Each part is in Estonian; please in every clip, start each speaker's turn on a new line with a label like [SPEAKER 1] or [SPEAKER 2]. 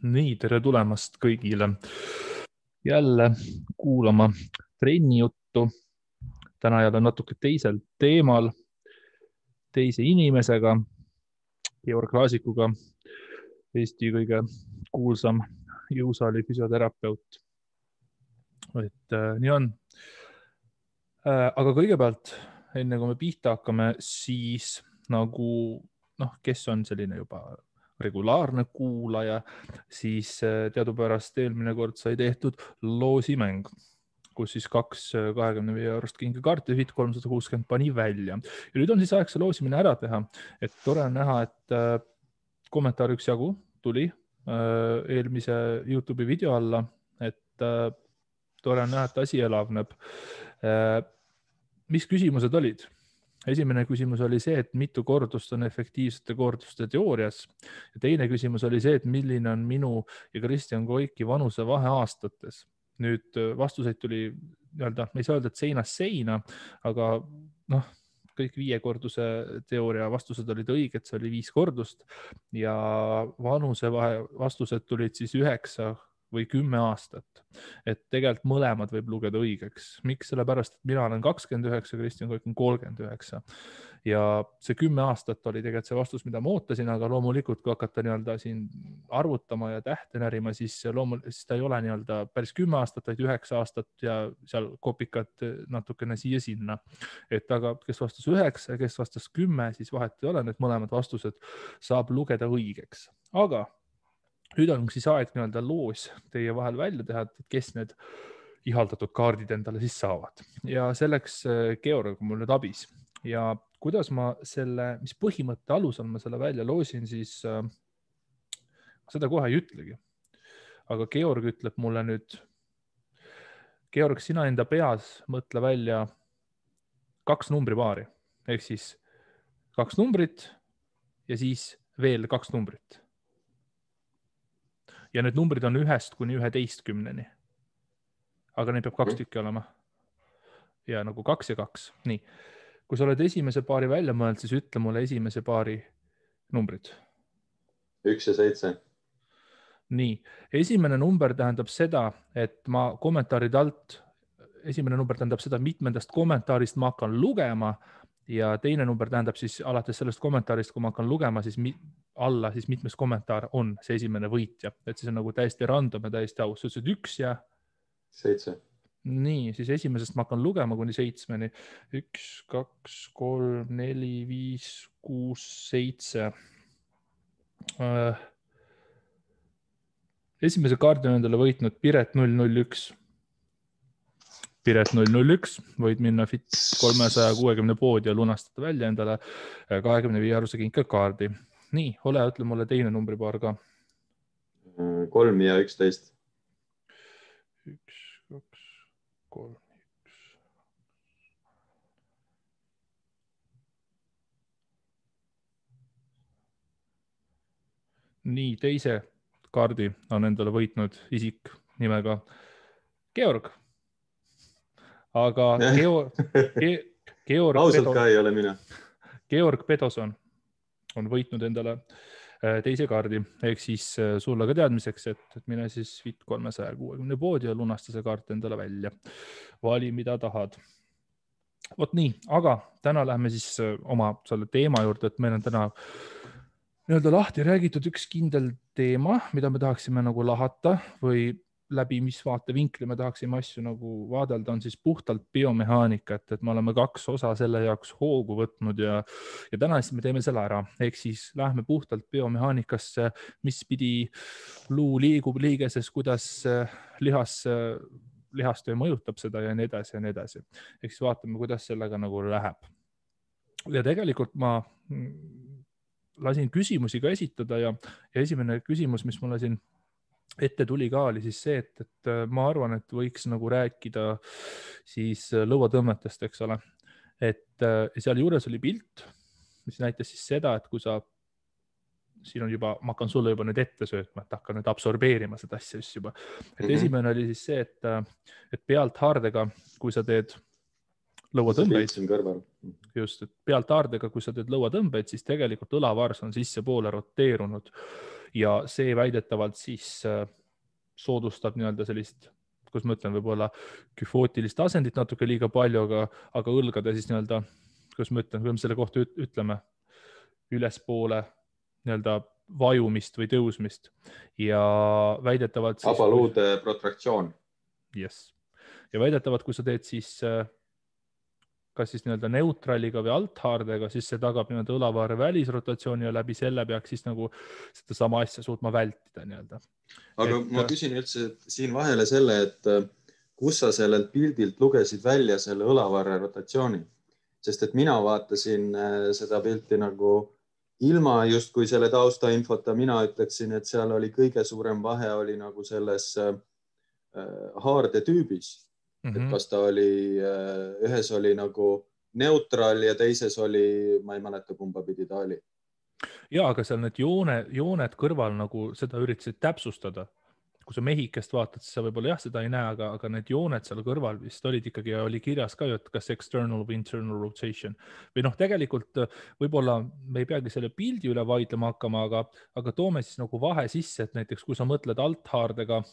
[SPEAKER 1] Nii, tere tulemast kõigile jälle kuulama trenni juttu. Täna jälle natuke teisel teemal, teise inimesega, Georg Laasikuga, Eesti kõige kuulsam jõusaali füsioterapeut. Nii on. Aga kõigepealt, enne kui me pihta hakkame, siis nagu, kes on selline juba regulaarne kuulaja, siis teadupärast eelmine kord sai tehtud loosimäng, kus siis 2 25 eurost kingakaarti Fit 360 pani välja. Ja nüüd on siis aeg see loosimine ära teha. Et tore on näha, et kommentaar üks jagu tuli eelmise YouTube'i video alla, et tore on näha, et asi elavneb. Mis küsimused olid? Esimene küsimus oli see, et mitu kordust on efektiivsete korduste teoorias. Ja teine küsimus oli see, et milline on minu ja Kristjan Koiki vanuse vahe aastates. Nüüd vastuseid tuli, me ei saa öelda, et seinast seina, aga kõik 5 korduse teooria vastused olid õiged, see oli 5 kordust ja vanuse vahe vastused tulid siis 9 või 10 aastat. Et tegelikult mõlemad võib lugeda õigeks. Miks? Sellepärast, et mina olen 29, Kristjan Koik on 39. Ja see 10 aastat oli tegelikult see vastus, mida ma ootasin, aga loomulikult, kui hakata siin arvutama ja tähte närima, siis ta ei ole päris 10 aastat, vaid 9 aastat ja seal kopikad natukene siia-sinna. Et aga kes vastas 9 ja kes vastas 10, siis vahet ei ole, need mõlemad vastused saab lugeda õigeks. Aga nüüd on siis aeg loos teie vahel välja teha, et kes need ihaldatud kaardid endale siis saavad. Ja selleks Georg on mul nüüd abis. Ja kuidas ma mis põhimõtte alusel ma selle välja loosin, siis seda kohe ei ütlegi. Aga Georg ütleb mulle nüüd, Georg, sina enda peas mõtle välja 2 numbripaari. Ehk siis 2 numbrit ja siis veel 2 numbrit. Ja need numbrid on 1 kuni 11. Aga neid peab 2 tükki olema. Ja nagu 2 ja 2. Nii. Kui sa oled esimese paari välja mõelnud, siis ütle mulle esimese paari numbrid.
[SPEAKER 2] 1 ja 7.
[SPEAKER 1] Nii. Esimene number tähendab seda, et ma kommentaarid alt, esimene number tähendab seda, mitmendast kommentaarist ma hakkan lugema ja teine number tähendab siis alates sellest kommentaarist, kui ma hakkan lugema, siis alla siis mitmes kommentaar on see esimene võitja. Et siis on nagu täiesti random ja täiesti aus. Sa ütlesid 1 ja
[SPEAKER 2] 7.
[SPEAKER 1] Nii, siis esimesest ma hakkan lugema kuni 7. 1, 2, 3, 4, 5, 6, 7. Esimese kaardi on endale võitnud Piret 001. Piret 001, võid minna Fit 360 poodi ja lunastada välja endale 25 eurose kinkakaardi. Nii, ole, ütle mulle teine numbripaar ka.
[SPEAKER 2] 3 ja 11.
[SPEAKER 1] 1, 2, 3, 1. Nii, teise kaardi on endale võitnud isik nimega Georg. Aga Georg
[SPEAKER 2] ausalt ka ei ole mina.
[SPEAKER 1] Georg Pedoson on võitnud endale teise kaardi, ehk siis sulle ka teadmiseks, et mine siis Fit 360 poodi ja lunasta see kaart endale välja. Vali, mida tahad. Vot nii, aga täna läheme siis oma selle teema juurde, et meil on täna lahti räägitud üks kindel teema, mida me tahaksime nagu lahata või läbi mis vaatevinkli me tahaksime asju nagu vaadelda, on siis puhtalt biomehaanika, et me oleme 2 osa selle jaoks hoogu võtnud ja täna siis me teeme selle ära. Ehk siis lähme puhtalt biomehaanikasse, mis pidi luu liigub liigeses, kuidas lihastöö mõjutab seda ja nii edasi ja nii edasi. Ehk siis vaatame, kuidas sellega nagu läheb. Ja tegelikult ma lasin küsimusi ka esitada ja esimene küsimus, mis mulle siin ette tuli ka, oli siis see, et ma arvan, et võiks nagu rääkida siis lõuatõmmetest, eks ole. Et seal juures oli pilt, mis näitas siis seda, et kui sa, siin on juba, ma hakkan sulle juba nüüd ette söötma, et hakkan nüüd absorbeerima seda asja just juba. Et esimene oli siis see, et pealt haardega, kui sa teed lõuatõmbeid, just, et pealt haardega, kui sa teed lõuatõmbeid, siis tegelikult õlavars on sissepoole roteerunud. ja see väidetavalt siis soodustab nii-öelda sellist, kus ma ütlen, võib-olla küfootilist asendit natuke liiga palju, aga õlgade siis nii-öelda, kus ma ütlen, kui me selle kohta ütleme, ülespoole nii-öelda vajumist või tõusmist ja väidetavalt siis
[SPEAKER 2] abaluude protraktsioon.
[SPEAKER 1] Yes. Ja väidetavalt, kui sa teed siis kas siis nii-öelda neutraliga või althaardega, siis see tagab nii-öelda õlavaare välisrotatsiooni ja läbi selle peaks siis nagu seda sama asja suutma vältida nii-öelda.
[SPEAKER 2] Aga ma küsin üldse siin vahele selle, et kus sa sellelt pildilt lugesid välja selle õlavaare rotatsiooni, sest et mina vaatasin seda pilti nagu ilma justkui selle taustainfota, mina ütleksin, et seal oli kõige suurem vahe oli nagu selles haarde tüübis. Et kas ta oli, ühes oli nagu neutral ja teises oli, ma ei mäleta, kumba pidi ta oli.
[SPEAKER 1] Ja, aga seal need jooned kõrval nagu seda üritasid täpsustada. Kui sa mehikest vaatad, siis sa võib-olla jah, seda ei näe, aga need jooned seal kõrval vist olid ikkagi, oli kirjas ka ju, et kas external või internal rotation. Või noh, tegelikult võib-olla me ei peagi selle pildi üle vaidlema hakkama, aga toome siis nagu vahe sisse, et näiteks kui sa mõtled althaardega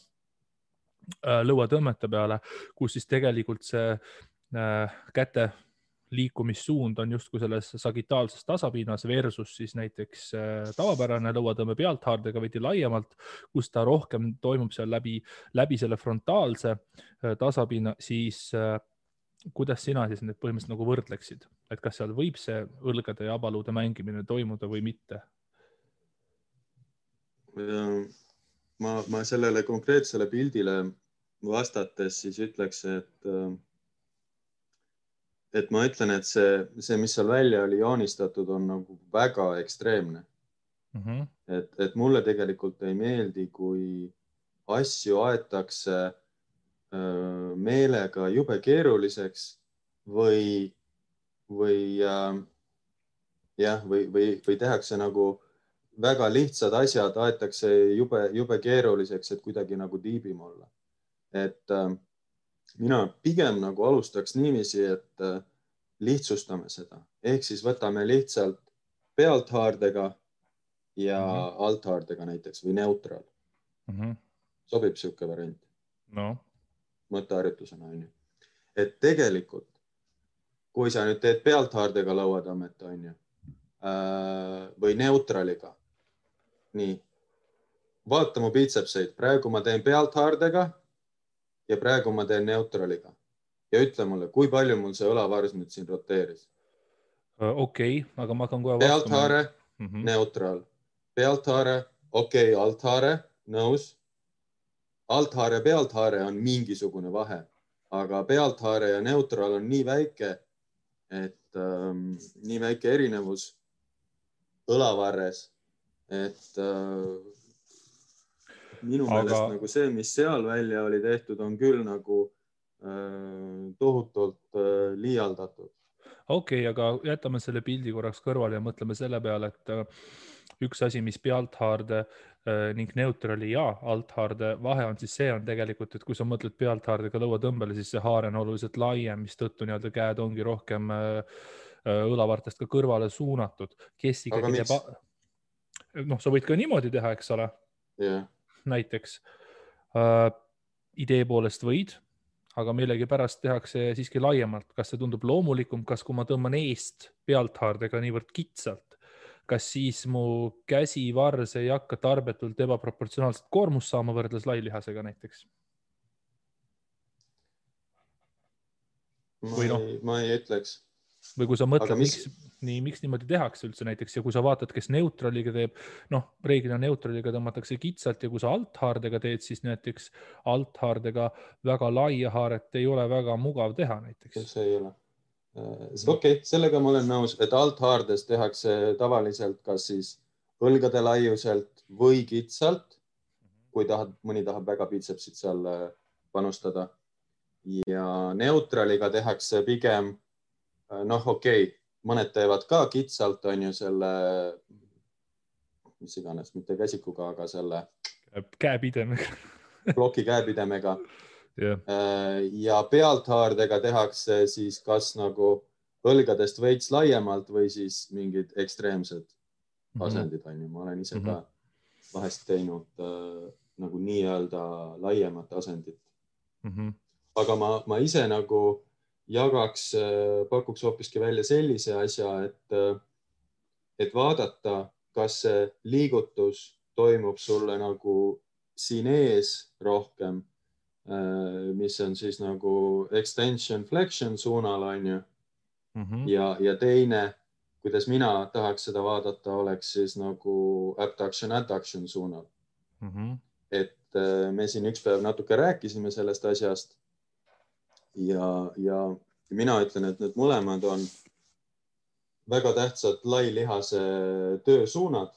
[SPEAKER 1] lõuatõmmete peale, kus siis tegelikult see käte liikumissuund on justkui selles sagitaalses tasapinnas versus siis näiteks tavapärane lõuatõmme pealthaardega veidi laiemalt, kus ta rohkem toimub seal läbi selle frontaalse tasapinna, siis kuidas sina siis need põhimõtteliselt nagu võrdleksid? Et kas seal võib see õlgade ja abaluude mängimine toimuda või mitte?
[SPEAKER 2] Ma sellele konkreetsele pildile vastates siis ütleks, et ma ütlen, et see, mis seal välja oli joonistatud, on nagu väga ekstreemne. Et mulle tegelikult ei meeldi, kui asju aetakse meelega jube keeruliseks või tehakse nagu väga lihtsad asjad, aetakse jube keeruliseks, et kuidagi nagu tiibim olla. Et mina pigem nagu alustaks niiviisi, et lihtsustame seda. Ehk siis võtame lihtsalt pealthaardega ja althaardega näiteks või neutral. Sobib siuke variant.
[SPEAKER 1] No.
[SPEAKER 2] Mõtteharjutusena on ju. Et tegelikult, kui sa nüüd teed pealthaardega lõuatõmmet, on ju, või neutraliga, nii, vaata mu biitsepseid. Praegu ma teen pealthaardega ja praegu ma teen neutraliga. Ja ütle mulle, kui palju mul see õlavars nüüd siin roteeris?
[SPEAKER 1] Okei, aga ma hakkan kohe
[SPEAKER 2] pealthaare, neutral. Pealthaare, okei, althaare, nõus. Althaare ja pealthaare on mingisugune vahe, aga pealthaare ja neutral on nii väike, et nii väike erinevus õlavarres, et minu meelest nagu see, mis seal välja oli tehtud, on küll nagu tohutult liialdatud.
[SPEAKER 1] Okei, aga jätame selle pildi korraks kõrvale ja mõtleme selle peale, et üks asi, mis pealthaarde ning neutrali ja althaarde vahe on, siis see on tegelikult, et kui sa mõtled pealthaardega lõuatõmbele, siis see haare on oluliselt laiem, mis tõttu nii-öelda käed ongi rohkem õlavartest ka kõrvale suunatud. Kes ikkagi teeb... Noh, sa võid ka niimoodi teha, eks ole?
[SPEAKER 2] Yeah.
[SPEAKER 1] Näiteks idee poolest võid, aga millegi pärast tehakse siiski laiemalt. Kas see tundub loomulikum, kas kui ma tõmban eest pealthaardega niivõrd kitsalt, kas siis mu käsivars ei hakka tarbetult ebaproportsionaalselt koormust saama võrdles lailihasega näiteks?
[SPEAKER 2] Ma ei ütleks.
[SPEAKER 1] Või kui sa mõtled, miks niimoodi tehakse üldse näiteks ja kui sa vaatad, kes neutraliga teeb, noh, reeglina neutraliga tõmmatakse kitsalt ja kui sa althaardega teed, siis näiteks althaardega väga laia haaret ei ole väga mugav teha näiteks.
[SPEAKER 2] See ei ole. Okei, sellega ma olen nõus, et althaardes tehakse tavaliselt kas siis õlgade laiuselt või kitsalt, kui mõni tahab väga biitsepsit seal panustada. Ja neutraliga tehakse pigem noh, okei, mõned teevad ka kitsalt, on ju selle, mis iganes, mitte käsikuga, aga selle
[SPEAKER 1] käepidemega.
[SPEAKER 2] Ploki käepidemega.
[SPEAKER 1] Yeah.
[SPEAKER 2] Ja pealthaardega tehakse siis kas nagu õlgadest veits laiemalt või siis mingid ekstreemsed asendid, on ju. Ma olen ise ka vahest teinud nagu nii-öelda laiemat asendit. Aga ma ise nagu pakuks hoopiski välja sellise asja, et vaadata, kas see liigutus toimub sulle nagu siin ees rohkem, mis on siis nagu extension flexion suunal, on ju. Ja teine, kuidas mina tahaks seda vaadata, oleks siis nagu abduction adduction suunal. Et me siin üks päev natuke rääkisime sellest asjast ja mina ütlen, et need mõlemad on väga tähtsad lailihase töösuunad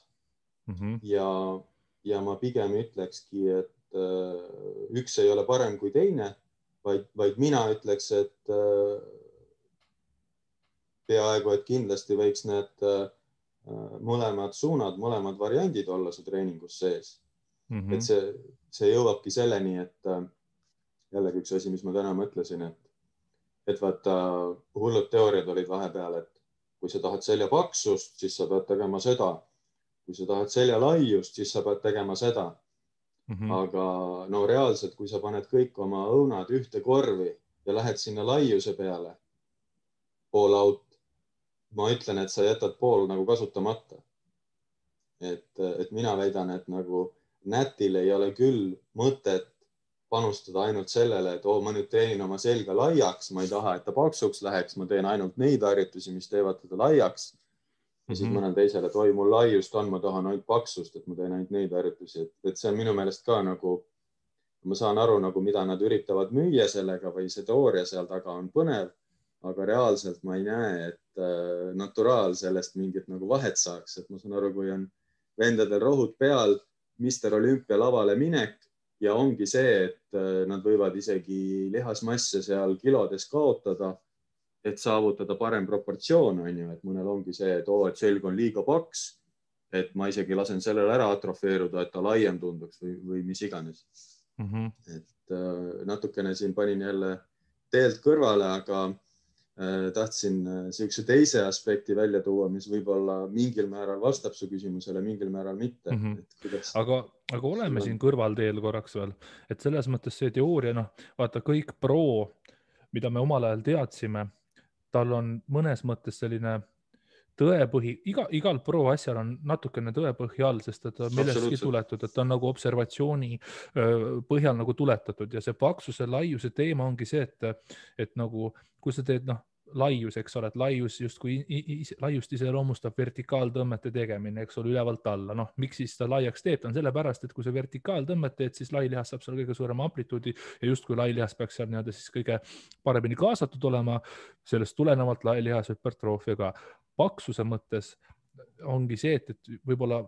[SPEAKER 2] ja ma pigem ütlekski, et üks ei ole parem kui teine, vaid mina ütleks, et peaaegu, et kindlasti võiks need mõlemad suunad, mõlemad variandid olla su treeningus sees. Et see jõuabki selleni, et jällegi üks asi, mis ma täna mõtlesin, et vaata, hullud teooriad olid vahepeal, et kui sa tahad selja paksust, siis sa pead tegema seda. Kui sa tahad selja laiust, siis sa pead tegema seda. Aga no reaalselt, kui sa paned kõik oma õunad ühte korvi ja lähed sinna laiuse peale, pool out, ma ütlen, et sa jätad pool nagu kasutamata. Et mina väidan, et nagu nätil ei ole küll mõtet panustada ainult sellele, et ma nüüd teenin oma selga laiaks, ma ei taha, et ta paksuks läheks, ma teen ainult neid harjutusi, mis teevad teda laiaks. Ja siis mõnel teisele, et mul laiust on, ma tahan ainult paksust, et ma teen ainult neid harjutusi. Et see on minu meelest ka nagu, ma saan aru, nagu, mida nad üritavad müüa sellega või see teooria seal taga on põnev, aga reaalselt ma ei näe, et naturaal sellest mingit nagu vahet saaks. Et ma saan aru, kui on vendadel rohud peal, Mr. Olympia lavale minek ja ongi see, et nad võivad isegi lihasmasse seal kilodes kaotada, et saavutada parem proportsioon, on ju, et mõnel ongi see, et selg on liiga paks, et ma isegi lasen sellele ära atrofeeruda, et ta laiem tunduks või mis iganes. Et natukene siin panin jälle teelt kõrvale, aga tahtsin siukse teise aspekti välja tuua, mis võib-olla mingil määral vastab su küsimusele, mingil määral mitte.
[SPEAKER 1] Aga oleme siin kõrvalteel korraks veel, et selles mõttes see teooria, vaata kõik pro, mida me omal ajal teadsime, tal on mõnes mõttes selline tõepõhi, igal pro asjal on natukene tõepõhi all, sest et millestki tuletud, et ta on nagu observatsiooni põhjal nagu tuletatud ja see paksuse laiuse teema ongi see, et nagu, kui sa teed laius, eks ole, et laius justkui laiust iseloomustab vertikaaltõmmete tegemine, eks ole, ülevalt alla. Miks siis ta laiaks teeb? Ta on sellepärast, et kui sa vertikaaltõmmet teed, siis lailihas saab seal kõige suurema amplituudi ja justkui lailihas peaks seal siis kõige paremini kaasatud olema. Sellest tulenevalt lailihas hüpertroofia ka. Paksuse mõttes ongi see, et võib-olla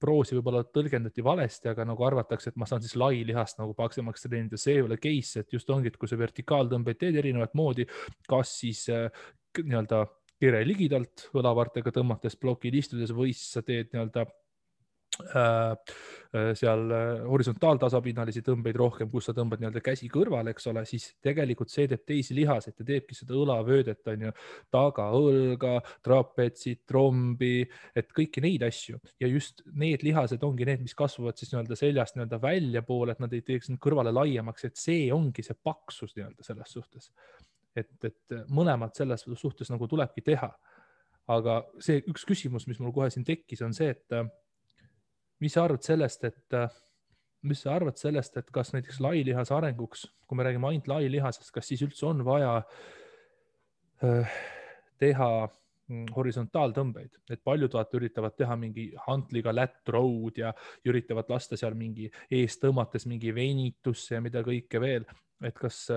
[SPEAKER 1] proosi võib-olla tõlgendati valesti, aga nagu arvatakse, et ma saan siis lailihast nagu paksemaks treenida. See ei ole case, et just ongi, et kui sa vertikaaltõmbeid teed erinevat moodi, kas siis nii-öelda kere ligidalt õlavartega tõmmates plokil istudes või siis sa teed nii-öelda seal horisontaaltasapinnalisi tõmbeid rohkem, kus sa tõmbad nii-öelda käsi kõrvale, eks ole, siis tegelikult see teeb teisi lihaseid ja teebki seda õlavöödet, on ju, taga õlga, trapetsit, trombi, et kõiki neid asju ja just need lihased ongi need, mis kasvavad siis nii-öelda seljast nii-öelda välja poole, et nad ei teeks kõrvale laiemaks, et see ongi see paksus nii-öelda selles suhtes, et mõlemad selles suhtes nagu tulebki teha. Aga see üks küsimus, mis mul kohe siin tekkis, on see, et mis sa arvad sellest, et kas näiteks lailihase arenguks, kui me räägime ainult lailihasest, kas siis üldse on vaja teha horisontaaltõmbeid, et paljud üritavad teha mingi hantliga lat row'd ja üritavad lasta seal mingi ees tõmmates mingi venitusse ja mida kõike veel, et kas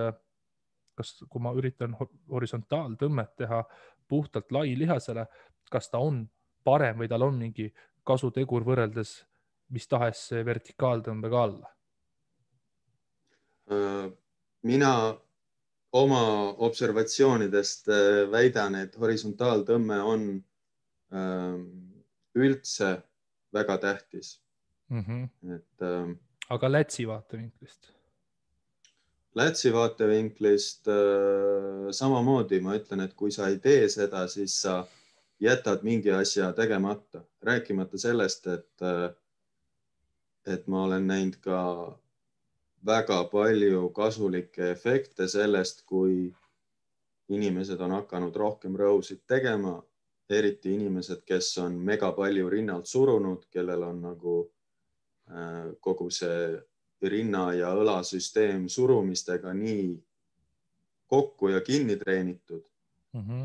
[SPEAKER 1] kui ma üritan horisontaaltõmmet teha puhtalt lailihasele, kas ta on parem või tal on mingi kasutegur võrreldes mis tahes vertikaaltõmbega alla?
[SPEAKER 2] Mina oma observatsioonidest väidan, et horisontaaltõmme on üldse väga tähtis.
[SPEAKER 1] Aga lätsi vaatevinklist?
[SPEAKER 2] Lätsi vaatevinklist samamoodi ma ütlen, et kui sa ei tee seda, siis sa jätad mingi asja tegemata. Rääkimata sellest, et et ma olen näinud ka väga palju kasulikke efekte sellest, kui inimesed on hakanud rohkem rõusid tegema, eriti inimesed, kes on mega palju rinnalt surunud, kellel on nagu kogu see rinna ja õlasüsteem surumistega nii kokku ja kinni treenitud,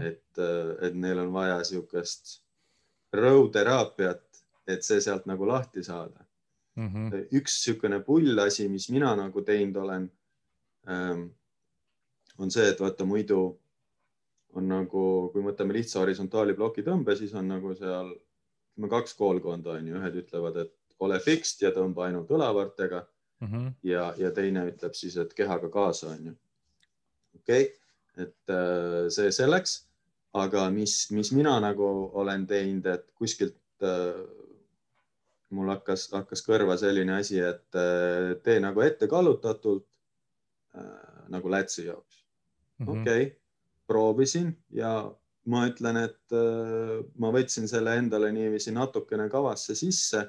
[SPEAKER 2] et neil on vaja niisugust rõuteraapiat, et see sealt nagu lahti saada. Üks niisugune pullasi, mis mina nagu teinud olen, on see, et vaata muidu on nagu, kui võtame lihtsa horisontaali ploki tõmbe, siis on nagu seal 2 koolkonda on ju. Ühed ütlevad, et ole fixed ja tõmba ainult õlavartega ja teine ütleb siis, et kehaga kaasa on ju. Okei, et see selleks, aga mis mina nagu olen teinud, et kuskilt mul hakkas kõrva selline asi, et tee nagu ette kallutatult nagu lätsi jaoks. Okei, proovisin ja ma ütlen, et ma võtsin selle endale niiviisi natukene kavasse sisse,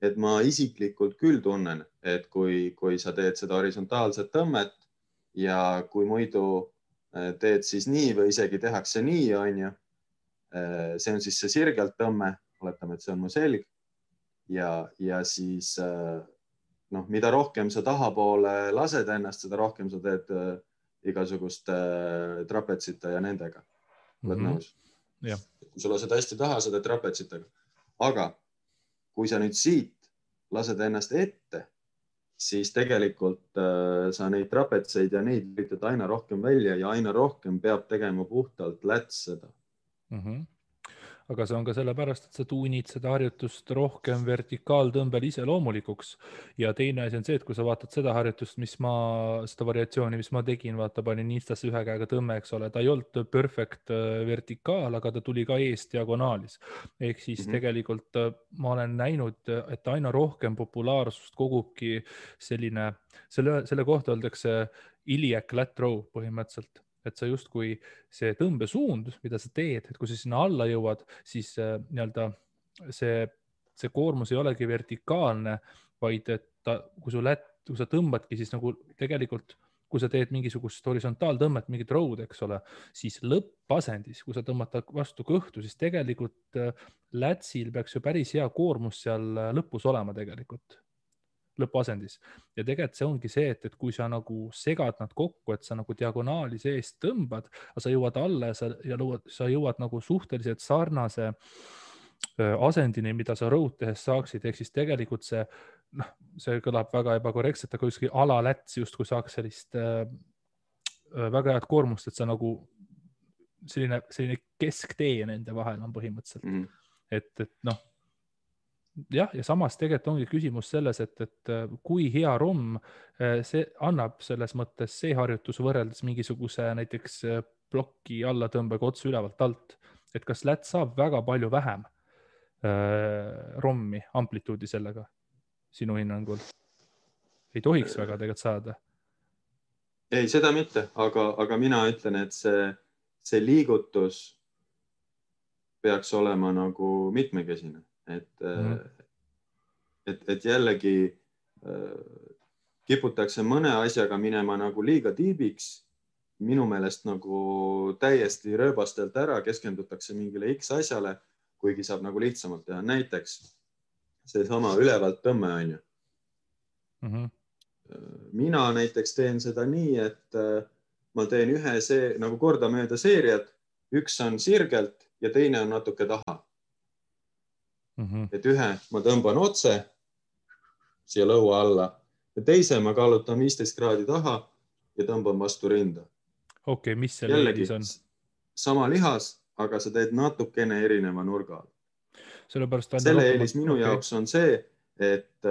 [SPEAKER 2] et ma isiklikult küll tunnen, et kui sa teed seda horisontaalset tõmmet ja kui muidu teed siis nii või isegi tehakse nii, on ju, see on siis see sirgelt tõmme, oletame, et see on mu selg ja siis mida rohkem sa tahapoole lased ennast, seda rohkem sa teed igasugust trapetsite ja nendega. Oled nõus?
[SPEAKER 1] Ja.
[SPEAKER 2] Kui sa lased hästi taha, sa teed trapetsitega. Aga kui sa nüüd siit lased ennast ette, siis tegelikult sa neid trapetseid ja neid üritad aina rohkem välja ja aina rohkem peab tegema puhtalt läts seda.
[SPEAKER 1] Aga see on ka sellepärast, et sa tuunid seda harjutust rohkem vertikaaltõmbel iseloomulikuks. Ja teine asi on see, et kui sa vaatad seda harjutust, seda variatsiooni, mis ma tegin, vaata, panin Instasse ühe käega tõmme, eks ole, ta ei olnud perfect vertikaal, aga ta tuli ka eest diagonaalis. Ehk siis tegelikult ma olen näinud, et aina rohkem populaarsust kogubki selline, selle kohta öeldakse iliac lat row põhimõtteliselt. Et sa justkui see tõmbesuund, mida sa teed, et kui sa sinna alla jõuad, siis see koormus ei olegi vertikaalne, vaid et kui sa tõmbadki, siis nagu tegelikult, kui sa teed mingisugust horisontaaltõmmet, mingit rõud, eks ole, siis lõppasendis, kui sa tõmbad vastu kõhtu, siis tegelikult lätsil peaks ju päris hea koormus seal lõpus olema tegelikult. Lõpuasendis. Ja tegelikult see ongi see, et kui sa nagu segad nad kokku, et sa nagu diagonaali seest tõmbad, aga sa jõuad alla ja sa jõuad nagu suhteliselt sarnase asendini, mida sa rõud tehes saaksid. Ehk siis tegelikult see kõlab väga ebakorrektselt, aga kuskil alaläts justkui saaks sellist väga head koormust, et sa nagu selline kesktee nende vahel on põhimõtteliselt. Et noh, jah, ja samas tegelikult ongi küsimus selles, et kui hea romm see annab selles mõttes see harjutus võrreldes mingisuguse näiteks ploki allatõmbega otse ülevalt alt, et kas läts saab väga palju vähem rommi amplituudi sellega sinu hinnangul? Ei tohiks väga tegelikult saada.
[SPEAKER 2] Ei, seda mitte, aga mina ütlen, et see liigutus peaks olema nagu mitmekesine. Et jällegi kiputakse mõne asjaga minema nagu liiga tiibiks, minu meelest nagu täiesti rööbastelt ära, keskendutakse mingile X asjale, kuigi saab nagu lihtsamalt teha. Näiteks see sama ülevalt tõmme on ju. Mina näiteks teen seda nii, et ma teen ühe nagu kordamööda seeriad, üks on sirgelt ja teine on natuke taha. Et ühe ma tõmban otse siia lõua alla ja teise ma kallutan 15 kraadi taha ja tõmban vastu rinda.
[SPEAKER 1] Okei, mis selle eelis on?
[SPEAKER 2] Sama lihas, aga sa teed natukene erineva nurga.
[SPEAKER 1] Selle
[SPEAKER 2] eelis minu jaoks on see, et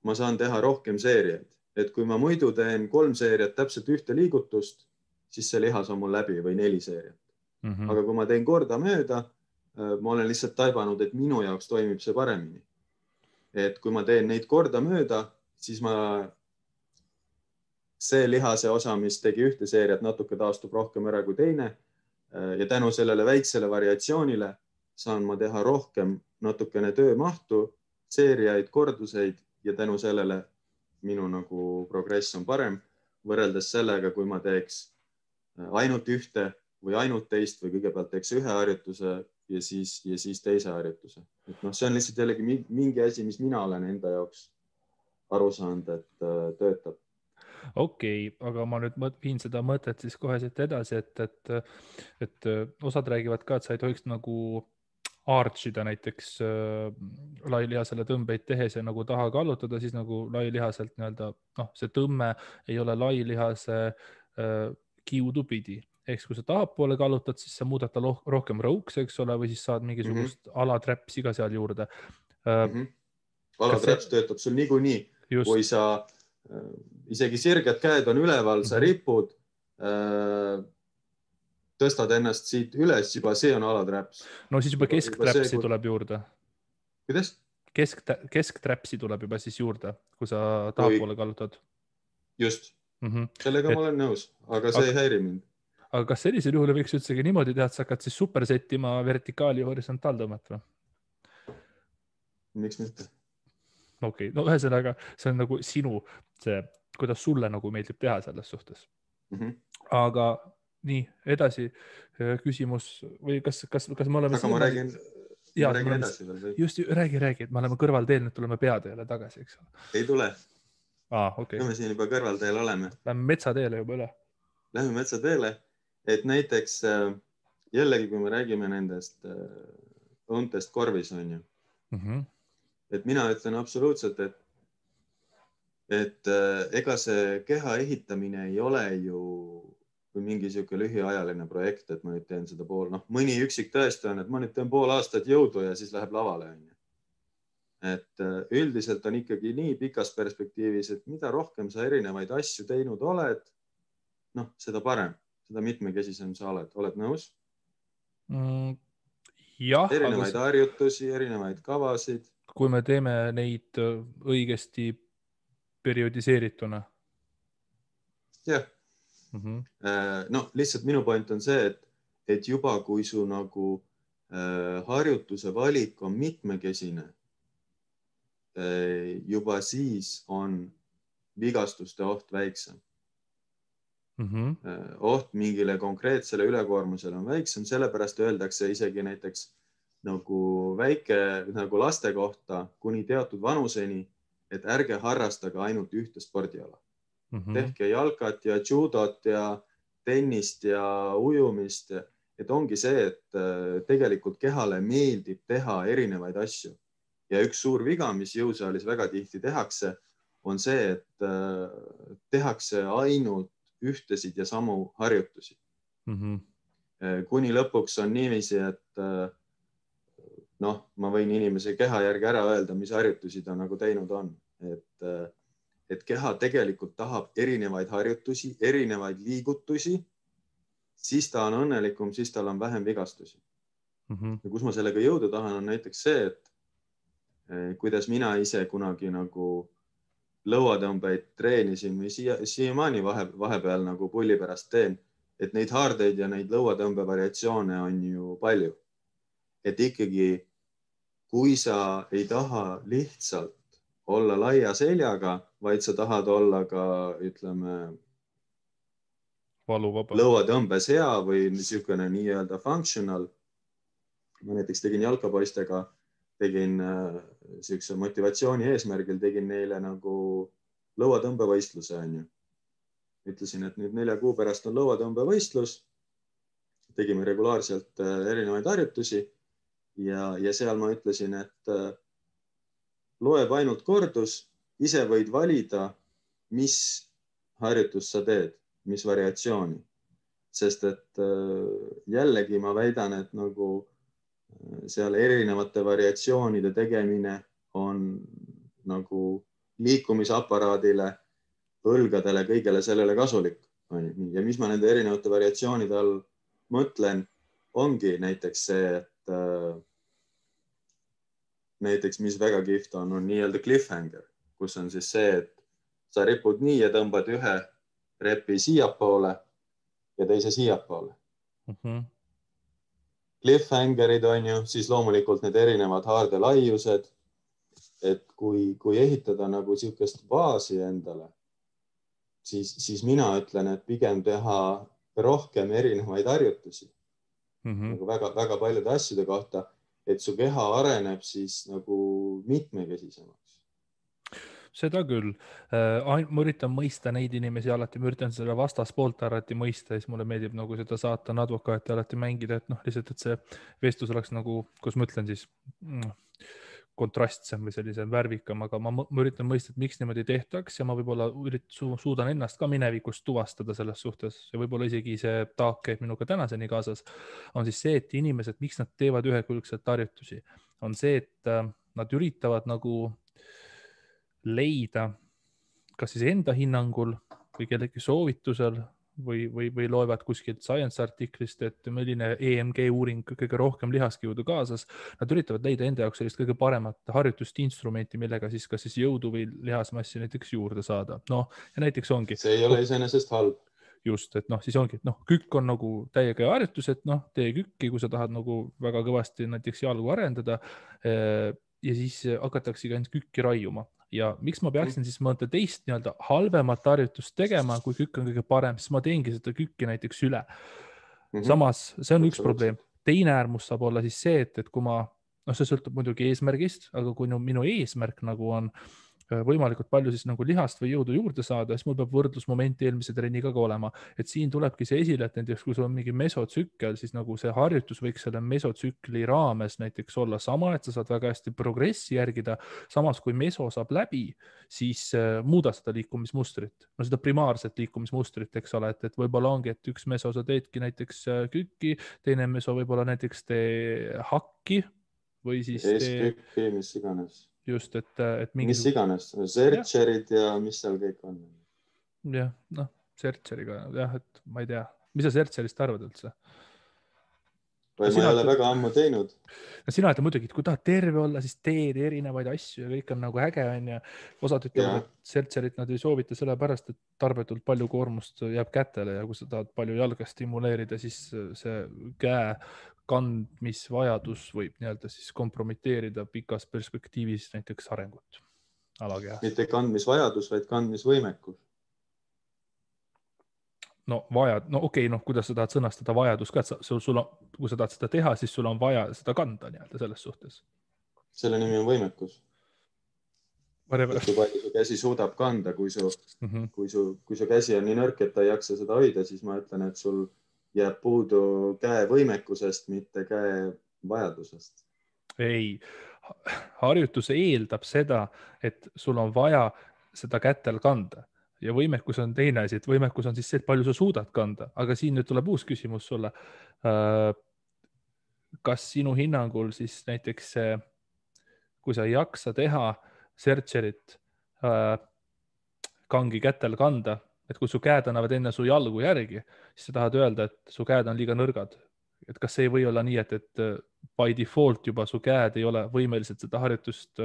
[SPEAKER 2] ma saan teha rohkem seeriaid. Et kui ma muidu teen 3 seeriat täpselt ühte liigutust, siis see lihas on mul läbi või 4 seeriat. Aga kui ma teen korda mööda, ma olen lihtsalt taibanud, et minu jaoks toimib see paremini. Et kui ma teen neid korda mööda, siis see lihase osa, mis tegi ühte seeriat, natuke taastub rohkem ära kui teine. Ja tänu sellele väiksele variatsioonile saan ma teha rohkem natukene töömahtu seeriaid, korduseid ja tänu sellele minu nagu progress on parem võrreldes sellega, kui ma teeks ainult ühte või ainult teist või kõigepealt teeks ühe harjutuse ja siis teise harjutuse. Et noh, see on lihtsalt jällegi mingi asi, mis mina olen enda jaoks aru saanud, et töötab.
[SPEAKER 1] Okei, aga ma nüüd viin seda mõtet siis kohe siit edasi, et osad räägivad ka, et sa ei tohiks nagu archida näiteks lailihasele tõmbeid tehes ja nagu taha kallutada, siis nagu lailihaselt nii-öelda, noh, see tõmme ei ole lailihase kiudu pidi. Ehk kui sa tahapoole kallutad, siis sa muudad ta rohkem rõuks, eks ole, või siis saad mingisugust alaträpsi ka seal juurde.
[SPEAKER 2] Alaträps töötab sul niikuinii, kui sa isegi sirged käed on üleval, sa ripud, tõstad ennast siit üles, juba see on alaträps.
[SPEAKER 1] No siis juba keskträpsi tuleb juurde.
[SPEAKER 2] Kuidas?
[SPEAKER 1] Keskträpsi tuleb juba siis juurde, kui sa tahapoole kallutad.
[SPEAKER 2] Just. Sellega ma olen nõus, aga see ei häiri mind.
[SPEAKER 1] Aga kas sellisel juhul võiks üldsegi niimoodi teha, et sa hakkad siis supersettima vertikaali ja horisontaaltõmmet või?
[SPEAKER 2] Miks mitte?
[SPEAKER 1] Okei, no ühesõnaga, see on nagu sinu see, kuidas sulle nagu meeldib teha selles suhtes. Aga nii, edasi küsimus või kas me oleme...
[SPEAKER 2] Aga ma räägin edasi veel.
[SPEAKER 1] Just, räägi, et me oleme kõrvalteel, nüüd tuleme peateele tagasi, eks ole?
[SPEAKER 2] Ei tule.
[SPEAKER 1] Okay.
[SPEAKER 2] Me siin juba kõrvalteel oleme.
[SPEAKER 1] Lähme metsateele juba üle.
[SPEAKER 2] Lähme metsateele, et näiteks jällegi, kui me räägime nendest õuntest korvis, on ju. Et mina ütlen absoluutselt, et ega see keha ehitamine ei ole ju mingi siuke lühiajaline projekt, et ma nüüd teen seda mõni üksik tõesti on, et ma nüüd teen pool aastat jõudu ja siis läheb lavale. Et üldiselt on ikkagi nii pikas perspektiivis, et mida rohkem sa erinevaid asju teinud oled, seda parem, seda mitmekesisem sa oled nõus?
[SPEAKER 1] Jah.
[SPEAKER 2] Erinevaid harjutusi, erinevaid kavasid.
[SPEAKER 1] Kui me teeme neid õigesti periodiseerituna.
[SPEAKER 2] Jah. Lihtsalt minu point on see, et juba kui su nagu harjutuse valik on mitmekesine, juba siis on vigastuste oht väiksem. Oht mingile konkreetsele ülekoormusele on väiksem, sellepärast öeldakse isegi näiteks nagu väike nagu laste kohta kuni teatud vanuseni, et ärge harrastage ainult ühte spordiala. Tehke jalkat ja judot ja tennist ja ujumist. Et ongi see, et tegelikult kehale meeldib teha erinevaid asju. Ja üks suur viga, mis jõusaalis väga tihti tehakse, on see, et tehakse ainult ühtesid ja samu harjutusi. Kuni lõpuks on niiviisi, et ma võin inimese keha järgi ära öelda, mis harjutusi ta nagu teinud on. Et keha tegelikult tahab erinevaid harjutusi, erinevaid liigutusi, siis ta on õnnelikum, siis tal on vähem vigastusi. Ja kus ma sellega jõuda tahan, on näiteks see, et kuidas mina ise kunagi nagu lõuatõmbeid treenisin või siiamaani vahepeal nagu pulli pärast teen, et neid haardeid ja neid lõuatõmbe variatsioone on ju palju. Et ikkagi, kui sa ei taha lihtsalt olla laia seljaga, vaid sa tahad olla ka, ütleme, lõuatõmbes hea või niisugune nii-öelda functional. Ma näiteks tegin jalkapoistega, tegin niisuguse motivatsiooni eesmärgil, tegin neile nagu lõuatõmbevõistluse. Ütlesin, et nüüd 4 kuu pärast on lõuatõmbevõistlus. Tegime regulaarselt erinevaid harjutusi ja seal ma ütlesin, et loeb ainult kordus, ise võid valida, mis harjutus sa teed, mis variatsiooni. Sest et jällegi ma väidan, et nagu seal erinevate variatsioonide tegemine on nagu liikumisaparaadile, õlgadele, kõigele sellele kasulik. Ja mis ma nende erinevate variatsioonide all mõtlen, ongi näiteks see, et näiteks, mis väga kihvt on nii-öelda cliffhanger, kus on siis see, et sa ripud nii ja tõmbad ühe repi siiapoole ja teise siiapoole. Cliffhangerid on ju, siis loomulikult need erinevad haarde laiused et kui ehitada nagu niisugust baasi endale, siis mina ütlen, et pigem teha rohkem erinevaid harjutusi nagu väga paljude asjade kohta, et su keha areneb siis nagu mitmekesisemaks.
[SPEAKER 1] Seda küll. Ma üritan mõista neid inimesi alati, ma üritan selle vastaspoolt alati mõista, siis mulle meeldib nagu seda saatan advokaati alati mängida, et noh, lihtsalt, et see vestlus oleks nagu, kus ma ütlen siis kontrastsem või sellise värvikam, aga ma üritan mõista, et miks niimoodi tehtaks ja ma võib-olla suudan ennast ka minevikust tuvastada selles suhtes ja võib-olla isegi see taak käib minuga tänaseni kaasas, on siis see, et inimesed, miks nad teevad ühekülgselt harjutusi, on see, et nad üritavad nagu leida kas siis enda hinnangul või kellegi soovitusel või loevad kuskilt science artiklist, et milline EMG uuring kõige rohkem lihaskiudu kaasas. Nad üritavad leida enda jaoks sellist kõige paremat harjutust instrumenti, millega siis kas siis jõudu või lihasmassi näiteks juurde saada. No ja näiteks ongi.
[SPEAKER 2] See ei ole iseenesest halb.
[SPEAKER 1] Just, et noh, siis ongi, et noh, kükk on nagu täiega harjutus, et noh, tee kükki, kui sa tahad nagu väga kõvasti näiteks jalgu arendada ja siis hakatakse ainult kükki raiuma. Ja miks ma peaksin siis mõnda teist nii-öelda halvemat harjutust tegema, kui kükk on kõige parem, siis ma teengi seda kükki näiteks üle. Samas, see on üks probleem. Teine äärmus saab olla siis see, et kui ma, noh, see sõltub muidugi eesmärgist, aga kui minu eesmärk nagu on võimalikult palju siis nagu lihast või jõudu juurde saada, siis mul peab võrdlusmoment eelmise trenniga ka olema. Et siin tulebki see esile, et näiteks kui sul on mingi mesotsükkel, siis nagu see harjutus võiks selle mesotsükli raames näiteks olla sama, et sa saad väga hästi progressi järgida. Samas, kui meso saab läbi, siis muuda seda liikumismustrit. No seda primaarset liikumismustrit, eks ole, et võib-olla ongi, et üks meso sa teedki näiteks kükki, teine meso võib-olla näiteks tee hakki või siis
[SPEAKER 2] eeskükki, mis iganes.
[SPEAKER 1] Just, et mingi...
[SPEAKER 2] Mis iganes, sertšerid ja mis seal kõik on.
[SPEAKER 1] Jah, noh, sertšeriga, jah, et ma ei tea. Mis sa sertšerist arvad üldse?
[SPEAKER 2] Või ma ei ole väga ammu teinud.
[SPEAKER 1] Sina ütled muidugi, et kui tahad terve olla, siis teed erinevaid asju ja kõik on nagu äge on ja osad ütlevad, et sertšerit nad ei soovita sellepärast, et tarbetult palju koormust jääb kätele ja kui sa tahad palju jalga stimuleerida, siis see käe kandmisvajadus võib nii-öelda siis kompromiteerida pikas perspektiivis näiteks arengut alakehas.
[SPEAKER 2] Mitte kandmisvajadus, vaid kandmisvõimekus.
[SPEAKER 1] No okei, kuidas sa tahad sõnastada vajadus ka, et kui sa tahad seda teha, siis sul on vaja seda kanda nii-öelda selles suhtes.
[SPEAKER 2] Selle nimi on võimekus. Kui palju su käsi suudab kanda, kui su käsi on nii nõrk, et ta ei jaksa seda hoida, siis ma ütlen, et sul jääb puudu käe võimekusest, mitte käe vajadusest.
[SPEAKER 1] Ei, harjutus eeldab seda, et sul on vaja seda kätel kanda ja võimekus on teine asi, et võimekus on siis see, et palju sa suudad kanda, aga siin nüüd tuleb uus küsimus sulle. Kas sinu hinnangul siis näiteks kui sa ei jaksa teha sertšerit kangi kätel kanda, et kui su käed annavad enne su jalgu järgi, siis sa tahad öelda, et su käed on liiga nõrgad. Et kas see ei või olla nii, et by default juba su käed ei ole võimelised seda harjutust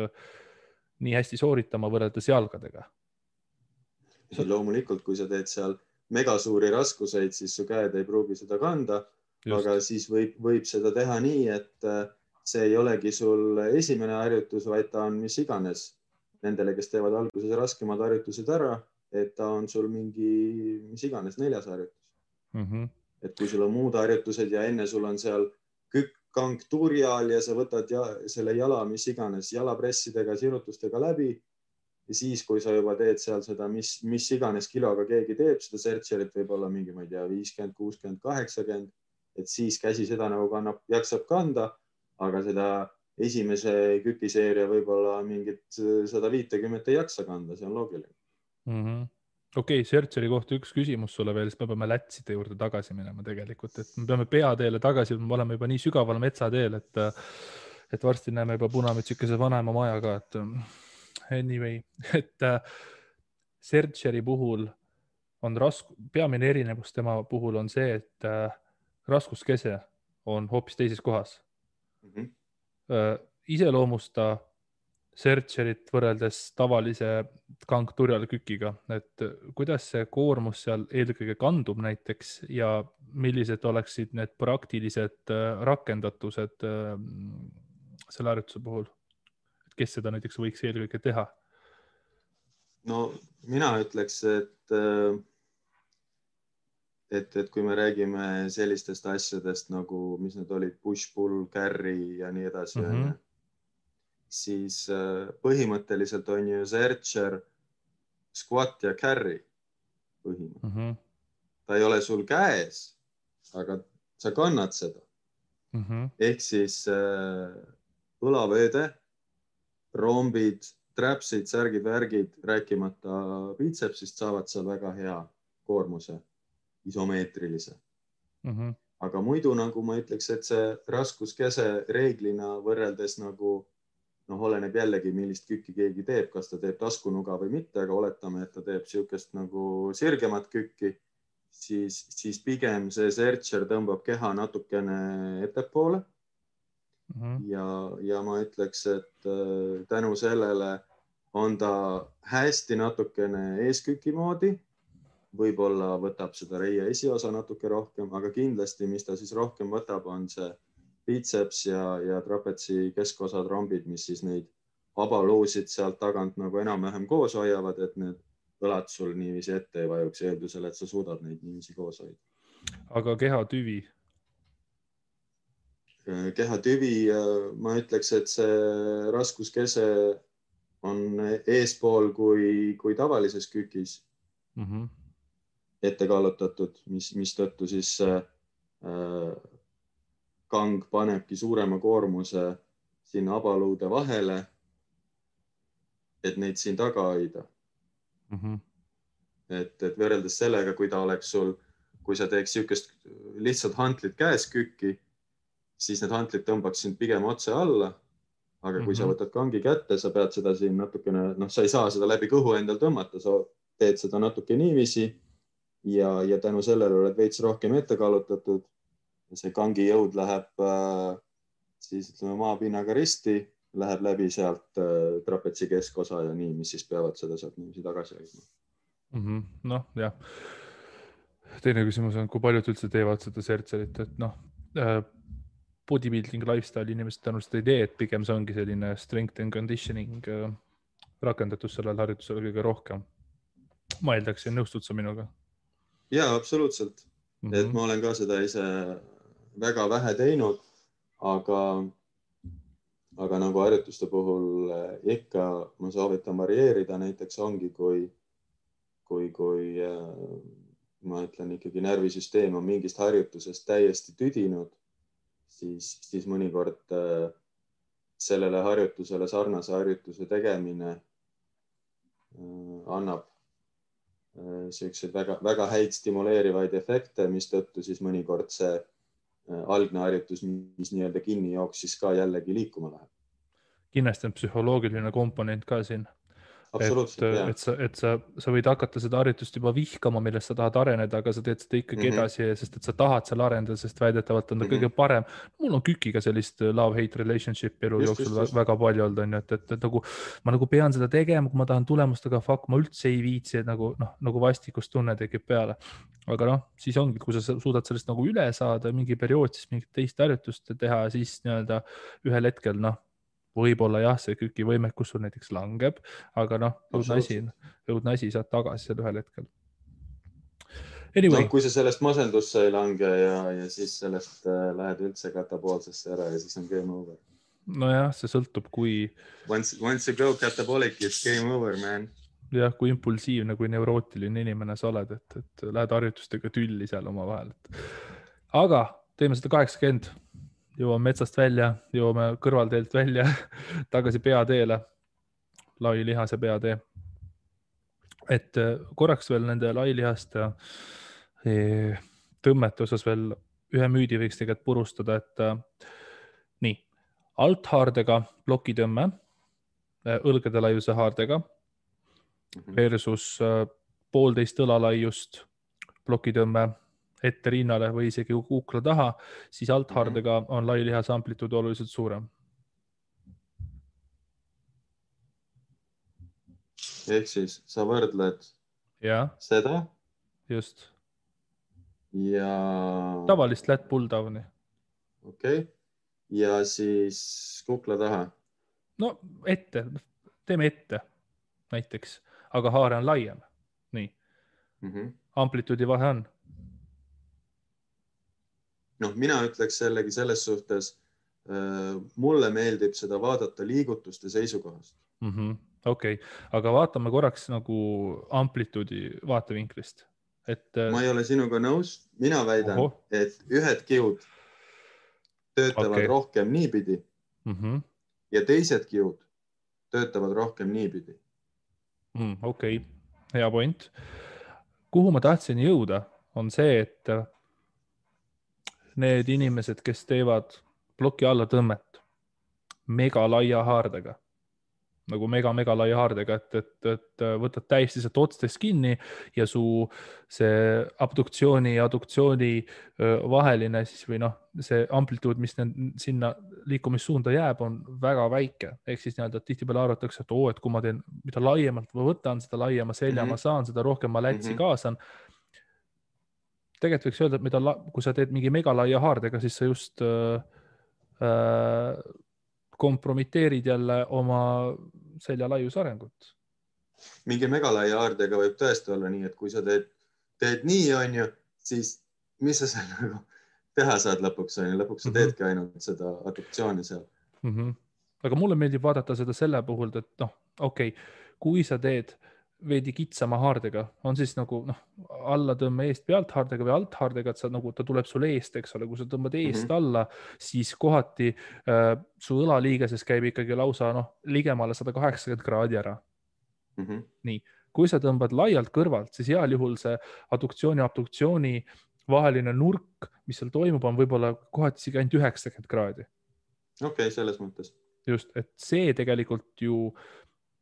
[SPEAKER 1] nii hästi sooritama võrreldes jalgadega?
[SPEAKER 2] Loomulikult, kui sa teed seal megasuuri raskuseid, siis su käed ei pruugi seda kanda, aga siis võib seda teha nii, et see ei olegi sul esimene harjutus, vaid ta on mis iganes nendele, kes teevad alguses raskemad harjutused ära, et ta on sul mingi mis iganes 4. harjutus. Et kui sul on muud harjutused ja enne sul on seal kang tuuri all ja sa võtad selle jala mis iganes jalapressidega, sirutustega läbi ja siis, kui sa juba teed seal seda, mis iganes kiloga keegi teeb, seda sertšerit võib olla mingi, ma ei tea, 50, 60, 80, et siis käsi seda nagu jaksab kanda, aga seda esimese kükiseeria võib-olla mingit 150 ei jaksa kanda, see on loogiline.
[SPEAKER 1] Okei, sertšeri kohta üks küsimus sulle veel, siis me peame lätside juurde tagasi minema tegelikult, et me peame peateele tagasi, me oleme juba nii sügaval metsateel, et varsti näeme juba punamütsikese vanaema maja ka, et anyway, et sertšeri puhul on peamine erinevus tema puhul on see, et raskuskese on hoopis teises kohas. Iseloomusta sertšerit võrreldes tavalise kangturjal kükiga, et kuidas see koormus seal eelkõige kandub näiteks ja millised oleksid need praktilised rakendatused selle harjutuse puhul? kes seda näiteks võiks eelkõige teha?
[SPEAKER 2] No mina ütleks, et kui me räägime sellistest asjadest nagu, mis need olid, push-pull, carry ja nii edasi, siis põhimõtteliselt on ju searcher squat ja carry põhimõtteliselt. Ta ei ole sul käes, aga sa kannad seda. Ehk siis õlavööde, rombid, trapsid, särgid, värgid, rääkimata biitsepsist saavad seal väga hea koormuse, isomeetrilise. Aga muidu nagu ma ütleks, et see raskuskese reeglina võrreldes nagu, oleneb jällegi, millist kükki keegi teeb, kas ta teeb taskunuga või mitte, aga oletame, et ta teeb siukest nagu sirgemat kükki, siis pigem see searcher tõmbab keha natukene ettepoole. Ja ma ütleks, et tänu sellele on ta hästi natukene eesküki moodi. Võib-olla võtab seda reie esiosa natuke rohkem, aga kindlasti, mis ta siis rohkem võtab, on see biceps ja trapetsi keskosad, rombid, mis siis neid abaluusid sealt tagant nagu enam-vähem koos hoiavad, et need õlad sul niiviisi ette ei vajuks eeldusel, et sa suudad neid niiviisi koos hoida.
[SPEAKER 1] Aga kehatüvi?
[SPEAKER 2] Kehatüvi, ma ütleks, et see raskuskese on eespool kui tavalises kükis ette kallutatud, mis tõttu siis kang panebki suurema koormuse sinna abaluude vahele, et neid siin taga hoida. Et võrreldes sellega, kui ta oleks sul, kui sa teeks siukest lihtsalt hantlit käes kükki, siis need hantlid tõmbaks sind pigem otse alla. Aga kui sa võtad kangi kätte, sa pead seda siin natukene, sa ei saa seda läbi kõhu endal tõmmata, sa teed seda natuke niiviisi ja tänu sellele oled veits rohkem ette kallutatud. See kangi jõud läheb siis ütleme maapinnaga risti, läheb läbi sealt trapetsi keskosa ja nii, mis siis peavad seda sealt niiviisi tagasi hoidma.
[SPEAKER 1] Noh, jah. Teine küsimus on, kui paljud üldse teevad seda searcherit, et bodybuilding lifestyle inimesed tõenäoliselt ei tee, et pigem see ongi selline strength and conditioning rakendatus sellel harjutusel kõige rohkem. Ma eeldaksin, nõustud sa minuga?
[SPEAKER 2] Jaa, absoluutselt. Et ma olen ka seda ise väga vähe teinud, aga nagu harjutuste puhul ikka ma soovitan varieerida, näiteks ongi, kui ma ütlen ikkagi närvisüsteem on mingist harjutusest täiesti tüdinud, siis mõnikord sellele harjutusele sarnase harjutuse tegemine annab selliseid väga häid stimuleerivaid efekte, mis tõttu siis mõnikord see algne harjutus, mis nii-öelda kinni jooksis ka jällegi liikuma läheb.
[SPEAKER 1] Kindlasti on psühholoogiline komponent ka siin.
[SPEAKER 2] Et
[SPEAKER 1] sa võid hakata seda harjutust juba vihkama, millest sa tahad areneda, aga sa teed seda ikkagi edasi, sest et sa tahad seal arendada, sest väidetavalt on ta kõige parem. Mul on kükiga sellist love-hate relationship elu jooksul väga palju olnud, on ju, et nagu ma nagu pean seda tegema, kui ma tahan tulemust, aga fuck, ma üldse ei viitsi, et nagu vastikust tunne tekib peale. Aga siis ongi, kui sa suudad sellest nagu üle saada mingi periood, siis mingit teist harjutust teha, siis nii-öelda ühel hetkel, võib-olla jah, see küki võimekus sul näiteks langeb, aga õudne asi saad tagasi seal ühel hetkel. Anyway.
[SPEAKER 2] Kui sa sellest masendusse ei lange ja siis sellest lähed üldse katapoolsesse ära ja siis on game over.
[SPEAKER 1] Nojah, see sõltub, kui...
[SPEAKER 2] Once you go catabolic, it's game over, man.
[SPEAKER 1] Jah, kui impulsiivne, kui neurootiline inimene sa oled, et lähed harjutustega tülli seal oma vahel. Aga teeme seda 80. Jõuame metsast välja, jõuame kõrvalteelt välja, tagasi peateele, lailihase peatee. Et korraks veel nende lailihaste tõmmete osas veel ühe müüdi võiks tegelikult purustada, et nii, althaardega plokitõmme, õlgade laiuse haardega versus 1,5 õlalaiust plokitõmme ette rinnale või isegi kukla taha, siis althaardega on lailihase amplituud oluliselt suurem.
[SPEAKER 2] Ehk siis sa võrdled seda?
[SPEAKER 1] Just.
[SPEAKER 2] Ja...
[SPEAKER 1] Tavalist lat pull downi.
[SPEAKER 2] Okei. Ja siis kukla taha?
[SPEAKER 1] no ette, teeme ette näiteks, aga haare on laiem. Nii. Amplituudi vahe on.
[SPEAKER 2] Noh, mina ütleks jällegi selles suhtes, mulle meeldib seda vaadata liigutuste seisukohast.
[SPEAKER 1] Okei, aga vaatame korraks nagu amplituudi vaatevinklist.
[SPEAKER 2] Ma ei ole sinuga nõus, mina väidan, et ühed kiud töötavad rohkem niipidi ja teised kiud töötavad rohkem niipidi.
[SPEAKER 1] Okei, hea point. Kuhu ma tahtsin jõuda, on see, et need inimesed, kes teevad ploki alla tõmmet mega laia haardega, nagu mega laia haardega, et võtad täiesti sealt otstest kinni ja su see abduktsiooni ja adduktsiooni vaheline siis või noh, see amplituud, mis sinna liikumissuunda jääb, on väga väike. Ehk siis nii-öelda tihtipeale arvatakse, et et kui ma teen, mida laiemalt ma võtan, seda laiema selja ma saan, seda rohkem ma lätsi kaasan. Tegelikult võiks öelda, et kui sa teed mingi megalaia haardega, siis sa just kompromiteerid jälle oma selja laius arengut.
[SPEAKER 2] Mingi megalaia haardega võib tõesti olla nii, et kui sa teed nii, on ju, siis mis sa seal nagu teha saad lõpuks, on ju, lõpuks sa teedki ainult seda adduktsiooni seal.
[SPEAKER 1] Aga mulle meeldib vaadata seda selle puhul, et kui sa teed veidi kitsama haardega, on siis nagu alla tõmme eest pealt haardega või alt haardega, et sa nagu, ta tuleb sul eest, eks ole, kui sa tõmbad eest alla, siis kohati su õlaliigeses käib ikkagi lausa ligemale 180 kraadi ära. Nii, kui sa tõmbad laialt kõrvalt, siis heal juhul see adduktsiooni ja abduktsiooni vaheline nurk, mis seal toimub, on võib-olla kohati isegi ainult 90 kraadi.
[SPEAKER 2] Okei, selles mõttes.
[SPEAKER 1] Just, et see tegelikult ju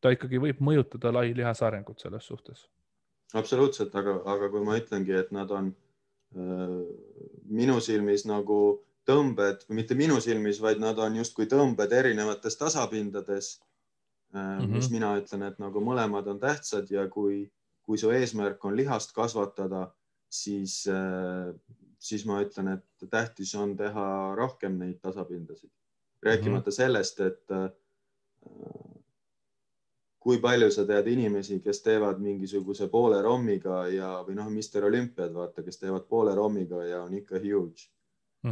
[SPEAKER 1] ta ikkagi võib mõjutada lai lihasarengut selles suhtes.
[SPEAKER 2] Absoluutselt, aga kui ma ütlengi, et nad on minu silmis nagu tõmbed, mitte minu silmis, vaid nad on justkui tõmbed erinevates tasapindades, mis mina ütlen, et nagu mõlemad on tähtsad ja kui su eesmärk on lihast kasvatada, siis ma ütlen, et tähtis on teha rohkem neid tasapindasid. Rääkimata sellest, et kui palju sa tead inimesi, kes teevad mingisuguse poole rommiga või Mr. Olümpiad, vaata, kes teevad poole rommiga ja on ikka huge.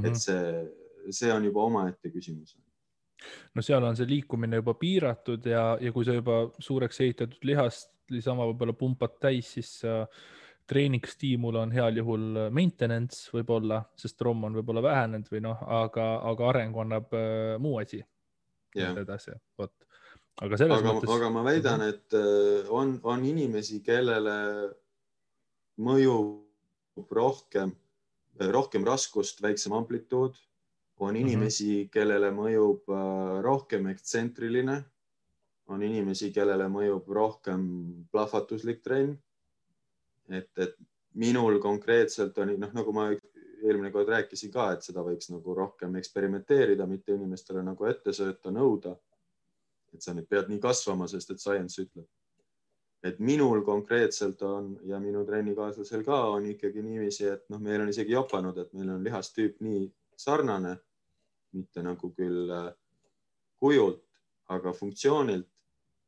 [SPEAKER 2] Et see on juba omaette küsimus.
[SPEAKER 1] No seal on see liikumine juba piiratud ja kui sa juba suureks ehitatud lihast lisama võib-olla pumpad täis, siis treeningstiimul on heal juhul maintenance võib-olla, sest romm on võib-olla vähenenud või aga areng annab muu asi. Edasi, vot.
[SPEAKER 2] Aga ma väidan, et on inimesi, kellele mõjub rohkem raskust, väiksem amplituud. On inimesi, kellele mõjub rohkem ekstsentriline. On inimesi, kellele mõjub rohkem plahvatuslik trenn. Et minul konkreetselt on, nagu ma eelmine kord rääkisin ka, et seda võiks nagu rohkem eksperimenteerida, mitte inimestele nagu ette sööta, nõuda. Et sa nüüd pead nii kasvama, sest et science ütleb. Et minul konkreetselt on ja minu trennikaaslasel ka on ikkagi niiviisi, et meil on isegi jopanud, et meil on lihastüüp nii sarnane, mitte nagu küll kujult, aga funktsioonilt,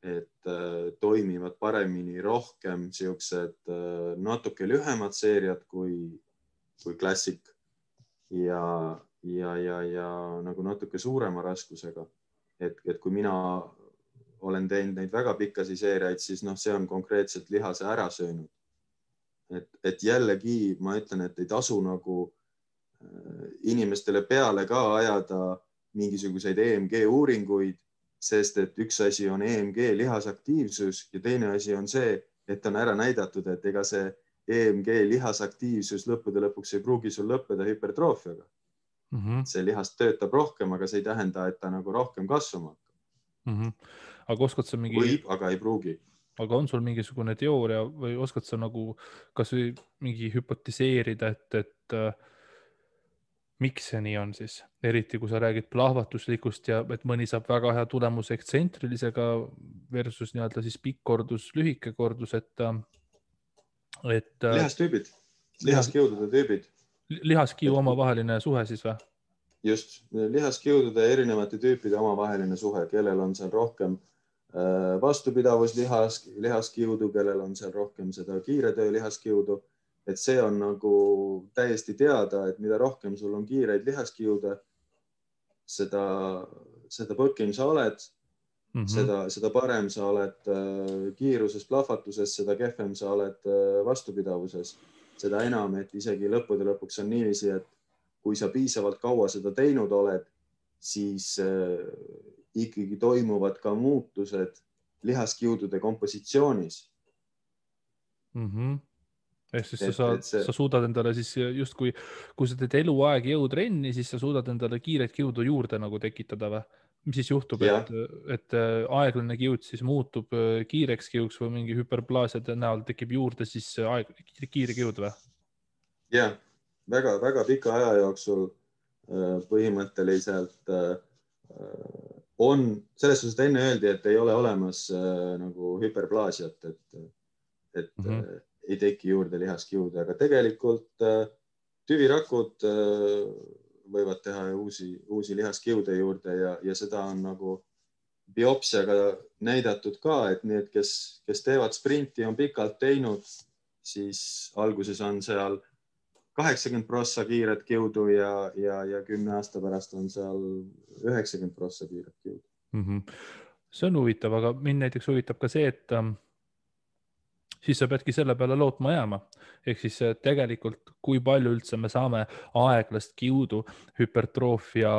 [SPEAKER 2] et toimivad paremini rohkem siuksed natuke lühemad seeriad kui klassik ja nagu natuke suurema raskusega. Et kui mina olen teinud neid väga pikkasi seeriaid, siis see on konkreetselt lihase ära söönud. Et jällegi ma ütlen, et ei tasu nagu inimestele peale ka ajada mingisuguseid EMG uuringuid, sest et üks asi on EMG lihasaktiivsus ja teine asi on see, et on ära näidatud, et ega see EMG lihasaktiivsus lõppude lõpuks ei pruugi sul lõppeda hüpertroofiaga. See lihast töötab rohkem, aga see ei tähenda, et ta nagu rohkem kasvama hakkab.
[SPEAKER 1] Aga oskad sa mingi...
[SPEAKER 2] Võib, aga ei pruugi.
[SPEAKER 1] Aga on sul mingisugune teooria või oskad sa nagu kas või mingi hüpotiseerida, et miks see nii on siis? Eriti kui sa räägid plahvatuslikust ja et mõni saab väga hea tulemuse ekstsentrilisega versus nii-öelda siis pikk kordus, lühike kordus, et
[SPEAKER 2] lihastüübid, lihaskiudude tüübid.
[SPEAKER 1] Lihaskiu omavaheline suhe siis või?
[SPEAKER 2] just lihaskiudude ja erinevate tüüpide omavaheline suhe, kellel on seal rohkem vastupidavus lihaskiudu, kellel on seal rohkem seda kiire töö lihaskiudu. Et see on nagu täiesti teada, et mida rohkem sul on kiireid lihaskiude, seda põkim sa oled, seda parem sa oled kiiruses, plahvatuses, seda kehvem sa oled vastupidavuses. Seda enam, et isegi lõppude lõpuks on niiviisi, et kui sa piisavalt kaua seda teinud oled, siis ikkagi toimuvad ka muutused lihaskiudude kompositsioonis.
[SPEAKER 1] Ehk siis sa suudad endale siis justkui, kui sa teed eluaeg jõutrenni, siis sa suudad endale kiiret kiudu juurde nagu tekitada või? Mis siis juhtub, et aeglane kiud siis muutub kiireks kiuks või mingi hüperplaasiade näol tekib juurde siis kiire kiud või?
[SPEAKER 2] Jah, väga pika aja jooksul põhimõtteliselt on, selles suhtes enne öeldi, et ei ole olemas nagu hüperplaasiat, et ei teki juurde lihaskiude, aga tegelikult tüvirakud võivad teha uusi lihaskiude juurde ja seda on nagu biopsiaga näidatud ka, et need, kes teevad sprinti, on pikalt teinud, siis alguses on seal 80% kiiret kiudu ja 10 aasta pärast on seal 90% kiiret kiudu.
[SPEAKER 1] See on huvitav, aga mind näiteks huvitab ka see, et siis sa peadki selle peale lootma jääma. Ehk siis tegelikult, kui palju üldse me saame aeglast kiudu hüpertroofia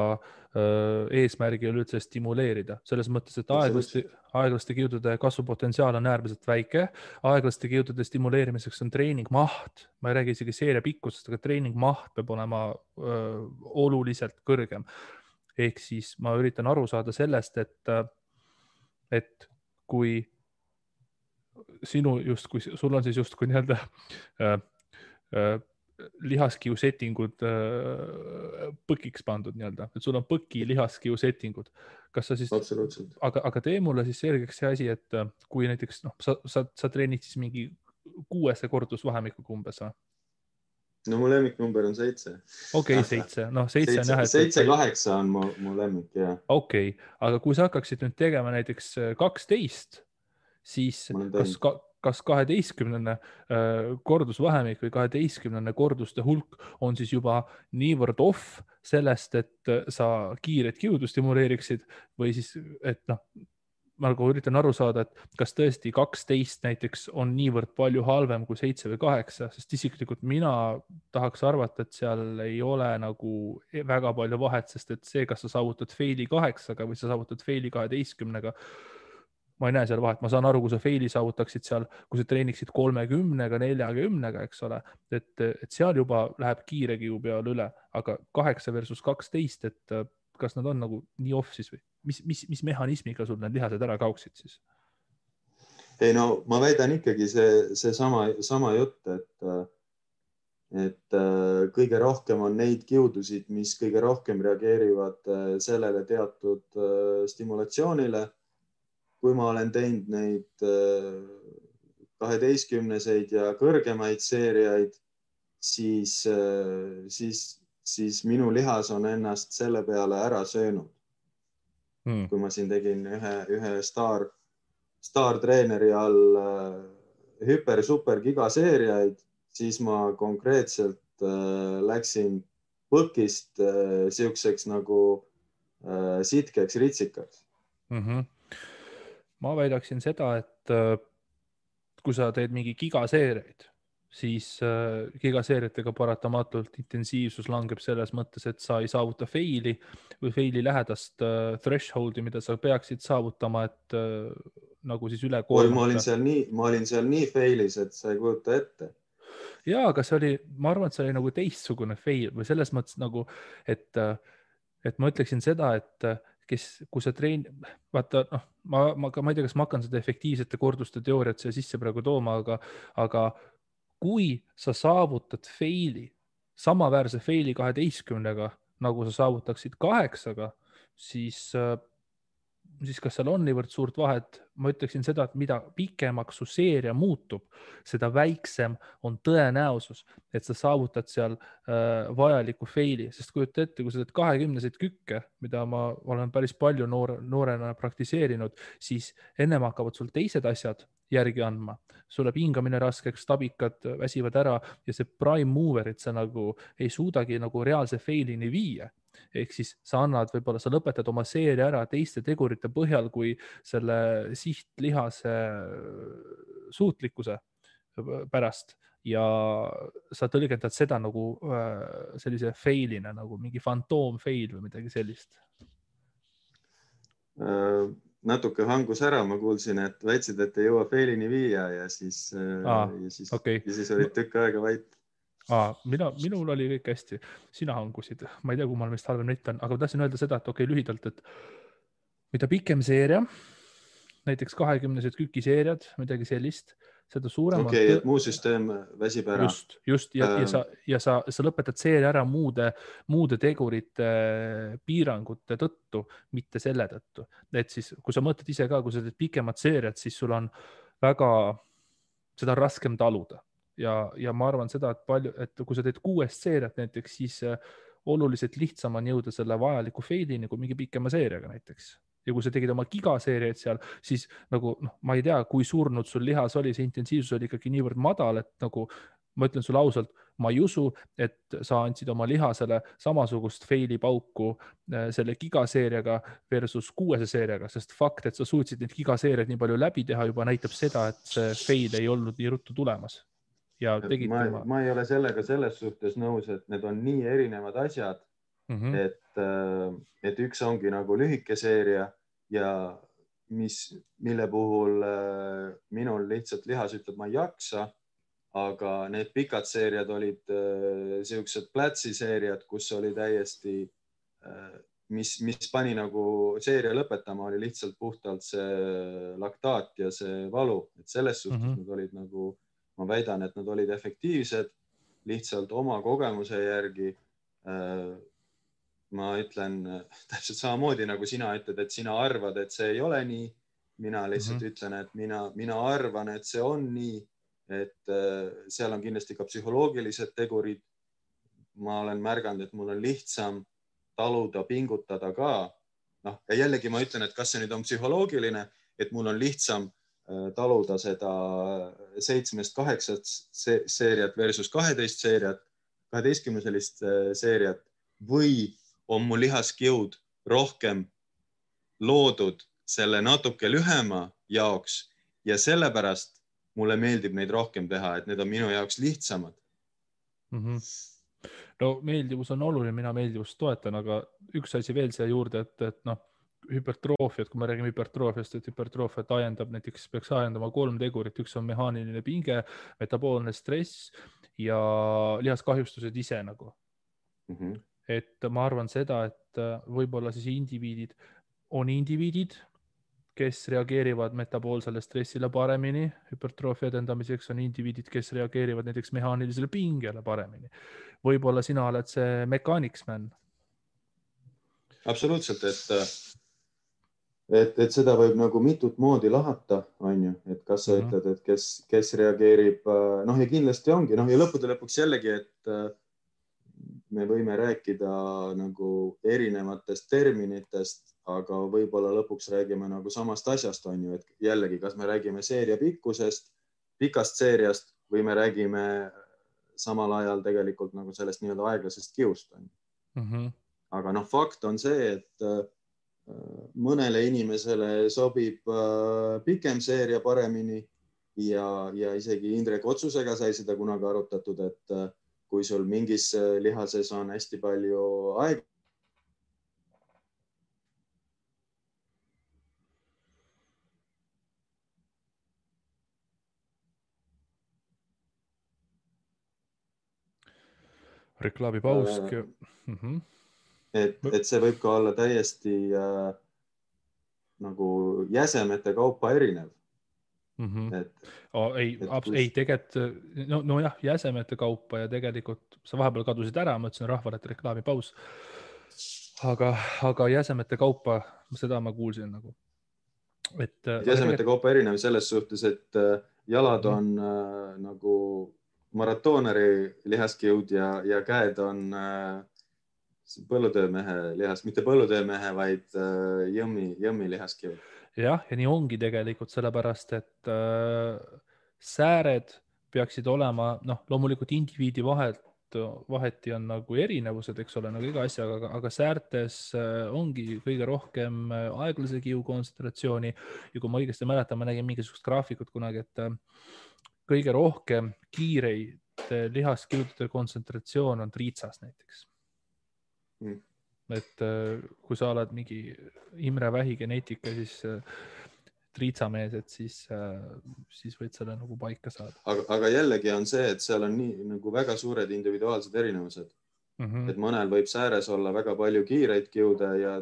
[SPEAKER 1] eesmärgil üldse stimuleerida. Selles mõttes, et aeglaste kiudude kasvupotentsiaal on äärmiselt väike. Aeglaste kiudude stimuleerimiseks on treeningmaht. Ma ei räägi isegi seeria pikkusest, aga treeningmaht peab olema oluliselt kõrgem. Ehk siis ma üritan aru saada sellest, et kui sul on siis justkui nii-öelda lihaskiu settingud põkiks pandud nii-öelda, et sul on põki lihaskiu settingud. Kas sa siis, aga tee mulle siis selgeks see asi, et kui näiteks sa treenid siis mingi 6 kordusvahemikuga umbes või?
[SPEAKER 2] No mu lemmiknumber on 7.
[SPEAKER 1] Okei, 7.
[SPEAKER 2] 7-8 on mu lemmik, jah.
[SPEAKER 1] Okei, aga kui sa hakkaksid nüüd tegema näiteks 12, siis kas 12 kordusvahemik või 12 korduste hulk on siis juba niivõrd off sellest, et sa kiiret kiudu stimuleeriksid või siis, et ma üritan aru saada, et kas tõesti 12 näiteks on niivõrd palju halvem kui 7 või 8, sest isiklikult mina tahaks arvata, et seal ei ole nagu väga palju vahet, sest et see, kas sa saavutad faili 8-ga või sa saavutad faili 12-ga, ma ei näe seal vahet. Ma saan aru, kui sa faili saavutaksid seal, kui sa treeniksid 30-ga, 40-ga, eks ole, et seal juba läheb kiire kiu peale üle, aga 8 versus 12, et kas nad on nagu nii off siis või? Mis mehhanismiga sul need lihased ära kauksid siis?
[SPEAKER 2] Ei no ma väidan ikkagi see sama jutt, et kõige rohkem on neid kiudusid, mis kõige rohkem reageerivad sellele teatud stimulatsioonile. Kui ma olen teinud neid 12-seid ja kõrgemaid seeriaid, siis minu lihas on ennast selle peale ära söönud. Kui ma siin tegin ühe staartreeneri all hüper-super gigaseeriaid, siis ma konkreetselt läksin põkist siukseks nagu sitkeks ritsikaks.
[SPEAKER 1] Ma väidaksin seda, et kui sa teed mingi gigaseeriaid, siis gigaseeriatega paratamatult intensiivsus langeb selles mõttes, et sa ei saavuta faili või faili lähedast thresholdi, mida sa peaksid saavutama, et nagu siis üle koormata.
[SPEAKER 2] Ma olin seal nii failis, et sa ei kujuta ette.
[SPEAKER 1] Jaa, aga ma arvan, et see oli nagu teistsugune fail või selles mõttes nagu, et ma ütleksin seda, et kui sa vaata, ma ei tea, kas ma hakkan seda efektiivsete korduste teooriat siia sisse praegu tooma, aga kui sa saavutad faili, samaväärse faili 12-ga, nagu sa saavutaksid 8-ga, siis siis kas seal on niivõrd suurt vahet? Ma ütleksin seda, et mida pikemaks su seeria muutub, seda väiksem on tõenäosus, et sa saavutad seal vajaliku faili, sest kujuta ette, kui sa teed 20-seid kükke, mida ma olen päris palju noorena praktiseerinud, siis ennem hakkavad sul teised asjad järgi andma. Sul läheb hingamine raskeks, stabikad väsivad ära ja see prime moverit sa nagu ei suudagi nagu reaalse failini viia. Ehk siis sa võib-olla sa lõpetad oma seeria ära teiste tegurite põhjal kui selle sihtlihase suutlikkuse pärast ja sa tõlgendad seda nagu sellise failina, nagu mingi fantoom fail või midagi sellist.
[SPEAKER 2] Natuke hangus ära, ma kuulsin, et väitsid, et ei jõua failini viia ja siis olid tükk aega vait.
[SPEAKER 1] Minul oli kõik hästi, sina hangusid, ma ei tea, kummal meist halvem nett on, aga ma tahtsin öelda seda, et lühidalt, et mida pikem seeria, näiteks 20-sed kükiseeriad, midagi sellist, seda suurem
[SPEAKER 2] on et muu süsteem väsib ära.
[SPEAKER 1] Just ja sa lõpetad seeria ära muude tegurite piirangute tõttu, mitte selle tõttu. Et siis, kui sa mõtled ise ka, kui sa teed pikemat seeriat, siis sul on seda raskem taluda. Ja ma arvan seda, et kui sa teed 6 seeriat näiteks, siis oluliselt lihtsam on jõuda selle vajaliku failini kui mingi pikema seeriaga näiteks. Ja kui sa tegid oma gigaseeriaid seal, siis nagu, ma ei tea, kui surnud sul lihas oli, see intensiivsus oli ikkagi niivõrd madal, et nagu ma ütlen sulle ausalt, ma ei usu, et sa andsid oma lihasele samasugust faili pauku selle gigaseeriaga versus 6 seeriaga, sest fakt, et sa suutsid neid gigaseeriaid nii palju läbi teha, juba näitab seda, et see fail ei olnud nii ruttu tulemas. Ja
[SPEAKER 2] ma ei ole sellega selles suhtes nõus, et need on nii erinevad asjad, et üks ongi nagu lühike seeria ja mille puhul minul lihtsalt lihas ütleb, ma ei jaksa, aga need pikad seeriad olid siuksed plätsiseeriad, kus oli täiesti, mis pani nagu seeria lõpetama, oli lihtsalt puhtalt see laktaat ja see valu, et selles suhtes nad olid nagu, ma väidan, et nad olid efektiivsed, lihtsalt oma kogemuse järgi. Ma ütlen täpselt samamoodi, nagu sina ütled, et sina arvad, et see ei ole nii. Mina lihtsalt ütlen, et mina arvan, et see on nii, et seal on kindlasti ka psühholoogilised tegurid. Ma olen märganud, et mul on lihtsam taluda, pingutada ka. Ja jällegi ma ütlen, et kas see nüüd on psühholoogiline, et mul on lihtsam taluda seda 7-8 seeriat versus 12-sellist seeriat või on mu lihaskjõud rohkem loodud selle natuke lühema jaoks ja sellepärast mulle meeldib neid rohkem teha, et need on minu jaoks lihtsamad.
[SPEAKER 1] No meeldivus on oluline, mina meeldivust toetan, aga üks asi veel siia juurde, et hüpertroofiat, kui me räägime hüpertroofiast, et hüpertroofiat näiteks peaks ajendama 3 tegurit, üks on mehaaniline pinge, metaboolne stress ja lihaskahjustused ise nagu. Et ma arvan seda, et võib-olla siis indiviidid, kes reageerivad metaboolsele stressile paremini, hüpertroofia edendamiseks on indiviidid, kes reageerivad näiteks mehaanilisele pingele paremini. Võib-olla sina oled see mechanics man.
[SPEAKER 2] Absoluutselt, et seda võib nagu mitut moodi lahata, on ju, et kas sa ütled, et kes reageerib, ja kindlasti ongi, ja lõppude lõpuks jällegi, et me võime rääkida nagu erinevatest terminitest, aga võib-olla lõpuks räägime nagu samast asjast, on ju, et jällegi, kas me räägime seeria pikkusest, pikast seeriast või me räägime samal ajal tegelikult nagu sellest nii-öelda aeglasest kiust, on ju. Aga fakt on see, et mõnele inimesele sobib pikem seeria paremini ja isegi Indrek Otsusega sai seda kunagi arutatud, et kui sul mingis lihases on hästi palju aega.
[SPEAKER 1] Reklaamipaus.
[SPEAKER 2] Et see võib ka olla täiesti nagu jäsemete kaupa erinev.
[SPEAKER 1] Ei, tegelikult, jah, jäsemete kaupa ja tegelikult sa vahepeal kadusid ära, ma ütlesin rahvale, et reklaamipaus. Aga jäsemete kaupa, seda ma kuulsin nagu.
[SPEAKER 2] esemete kaupa erinev selles suhtes, et jalad on nagu maratooneri lihaskiud ja käed on põllutöömehe lihas, mitte põllutöömehe, vaid jõmmi lihaskiud.
[SPEAKER 1] Jah, ja nii ongi tegelikult sellepärast, et sääred peaksid olema, loomulikult indiviidi vaheti on nagu erinevused, eks ole, nagu iga asjaga, aga säärtes ongi kõige rohkem aeglase kiu kontsentratsiooni ja kui ma õigesti mäletan, ma nägin mingisugust graafikut kunagi, et kõige rohkem kiireid lihaskiudude kontsentratsioon on triitsas näiteks. Et kui sa oled mingi Imre Vähi geneetika, siis triitsamees, et siis võid selle nagu paika saada.
[SPEAKER 2] Aga jällegi on see, et seal on nii nagu väga suured individuaalsed erinevused. Et mõnel võib sääres olla väga palju kiireid kiude ja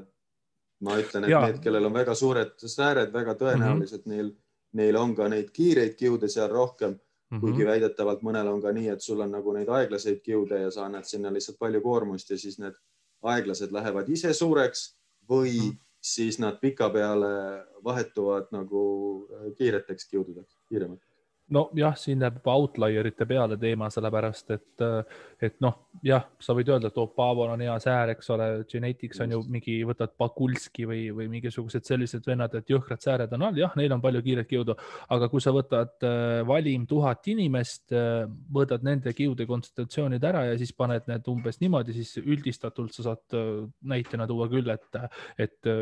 [SPEAKER 2] ma ütlen, et need, kellel on väga suured sääred, väga tõenäoliselt neil on ka neid kiireid kiude seal rohkem, kuigi väidetavalt mõnel on ka nii, et sul on nagu neid aeglaseid kiude ja sa annad sinna lihtsalt palju koormust ja siis need aeglased lähevad ise suureks või siis nad pikapeale vahetuvad nagu kiireteks kiududeks, kiiremalt.
[SPEAKER 1] No jah, siin läheb outlierite peale teema, sellepärast, et jah, sa võid öelda, et Paavol on hea säär, eks ole, Genetics on ju mingi, võtad Pakulski või mingisugused sellised vennad, et jõhkrad sääred on all, jah, neil on palju kiiret kiudu, aga kui sa võtad valim 1000 inimest, võtad nende kiude kontsentratsioonid ära ja siis paned need umbes niimoodi, siis üldistatult sa saad näitena tuua küll, et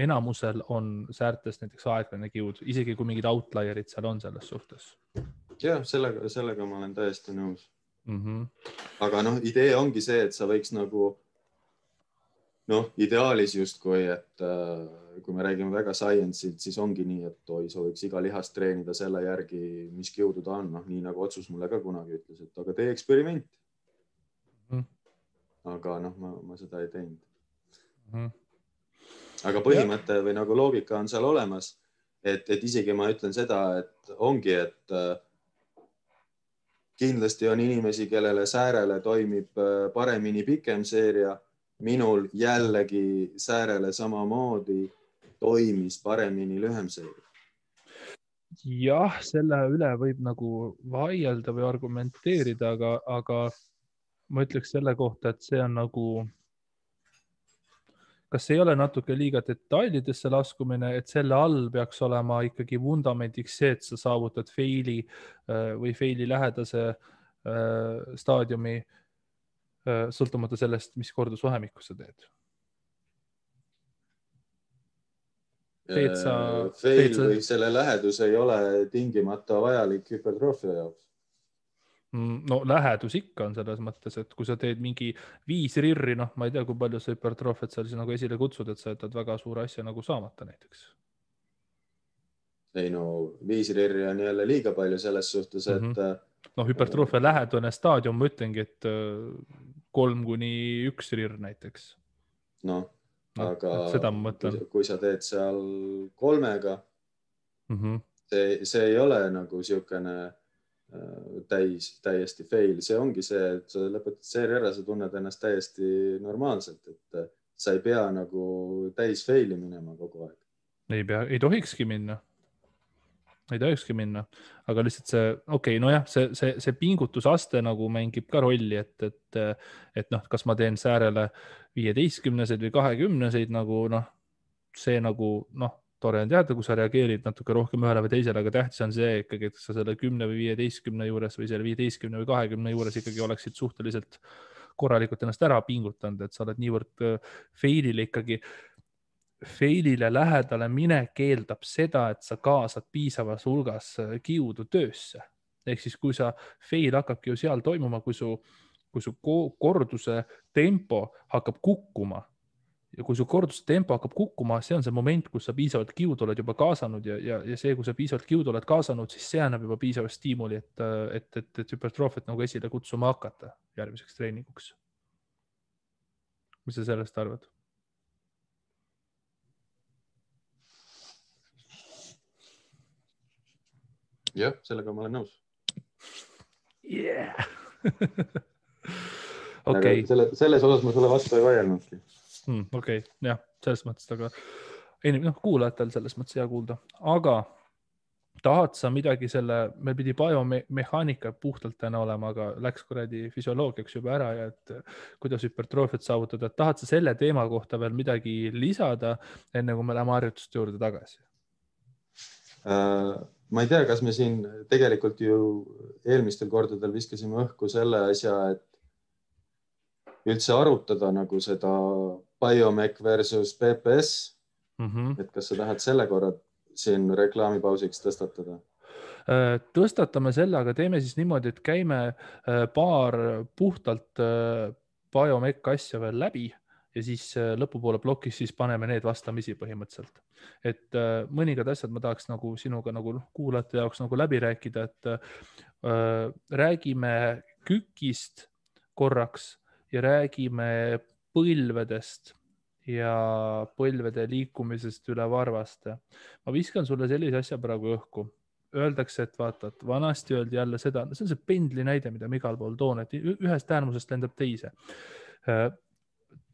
[SPEAKER 1] enamusel on säärtes näiteks aeglane kiud, isegi kui mingid outlierid seal on selles suhtes.
[SPEAKER 2] Jah, sellega ma olen täiesti nõus. Aga idee ongi see, et sa võiks nagu ideaalis justkui, et kui me räägime väga science'ilt, siis ongi nii, et sa võiks iga lihast treenida selle järgi, mis kiudu ta on. Nii nagu otsus mulle ka kunagi ütles, et aga tee eksperiment. Aga ma seda ei teinud. Aga põhimõte või nagu loogika on seal olemas. Et isegi ma ütlen seda, et ongi, et kindlasti on inimesi, kellele säärele toimib paremini pikem seeria. Minul jällegi säärele samamoodi toimis paremini lühem seeria.
[SPEAKER 1] Jah, selle üle võib nagu vaielda või argumenteerida, aga ma ütleks selle kohta, et see on nagu... Kas ei ole natuke liiga detailidesse laskumine, et selle all peaks olema ikkagi vundamendiks see, et sa saavutad faili või faili lähedase staadiumi sõltumata sellest, mis kordusvahemikku sa teed?
[SPEAKER 2] Fail või selle lähedus ei ole tingimata vajalik hüpertroofia jaoks.
[SPEAKER 1] No lähedus ikka on selles mõttes, et kui sa teed mingi 5 rirri, ma ei tea, kui palju sa hüpertroofiat seal nagu esile kutsud, et sa jätad väga suure asja nagu saamata näiteks.
[SPEAKER 2] Ei 5 rirri on jälle liiga palju selles suhtes, et...
[SPEAKER 1] hüpertroofia lähedune staadium, ma ütlengi, et 3-1 rirr näiteks.
[SPEAKER 2] Aga
[SPEAKER 1] seda ma mõtlen.
[SPEAKER 2] Kui sa teed seal 3-ga, see ei ole nagu siukene... täiesti fail. See ongi see, et sa lõpetad seeria ära, sa tunned ennast täiesti normaalselt, et sa ei pea nagu täis faili minema kogu aeg.
[SPEAKER 1] Ei tohikski minna. Aga lihtsalt see, see pingutusaste nagu mängib ka rolli, et kas ma teen säärele 15-seid või 20-seid nagu see nagu tore on teada, kui sa reageerid natuke rohkem ühele või teisele, aga tähtis on see ikkagi, et sa selle 10 või 15 juures või selle 15 või 20 juures ikkagi oleksid suhteliselt korralikult ennast ära pingutanud, et sa oled niivõrd failile lähedale minek keeldab seda, et sa kaasad piisavas hulgas kiudu töösse. Ehk siis, kui sa fail hakkabki ju seal toimuma, kui su korduse tempo hakkab kukkuma, ja kui su korduse tempo hakkab kukkuma, see on see moment, kus sa piisavalt kiudu oled juba kaasanud ja see, kui sa piisavalt kiudu oled kaasanud, siis see annab juba piisavalt stiimuli, et hüpertroofiat nagu esile kutsuma hakata järgmiseks treeninguks. Mis sa sellest arvad?
[SPEAKER 2] Jah, sellega ma olen nõus.
[SPEAKER 1] Yeah! Okay.
[SPEAKER 2] Selles osas ma sulle vastu ei vaielnudki.
[SPEAKER 1] Okei, jah, selles mõttes, kuulajatel selles mõttes hea kuulda, aga tahad sa midagi meil pidi biomehaanika puhtalt täna olema, aga läks kuradi füsioloogiaks juba ära ja et kuidas hüpertroofiat saavutada, et tahad sa selle teema kohta veel midagi lisada, enne kui me läheme harjutuste juurde tagasi?
[SPEAKER 2] Ma ei tea, kas me siin tegelikult ju eelmistel kordadel viskasime õhku selle asja, et üldse arutada nagu seda biomech versus PPS. Et kas sa tahad selle korra siin reklaamipausiks tõstatada?
[SPEAKER 1] Tõstatame selle, aga teeme siis niimoodi, et käime paar puhtalt biomech asja veel läbi ja siis lõpupoole plokis siis paneme need vastamisi põhimõtteliselt. Et mõningad asjad ma tahaks nagu sinuga nagu kuulajate jaoks nagu läbi rääkida, et räägime kükist korraks ja räägime põlvedest ja põlvede liikumisest üle varvaste. Ma viskan sulle sellise asja praegu õhku. Öeldakse, et vaata, et vanasti öeldi jälle seda, see on see pendli näide, mida ma igal pool toon, et ühest äärmusest lendab teise.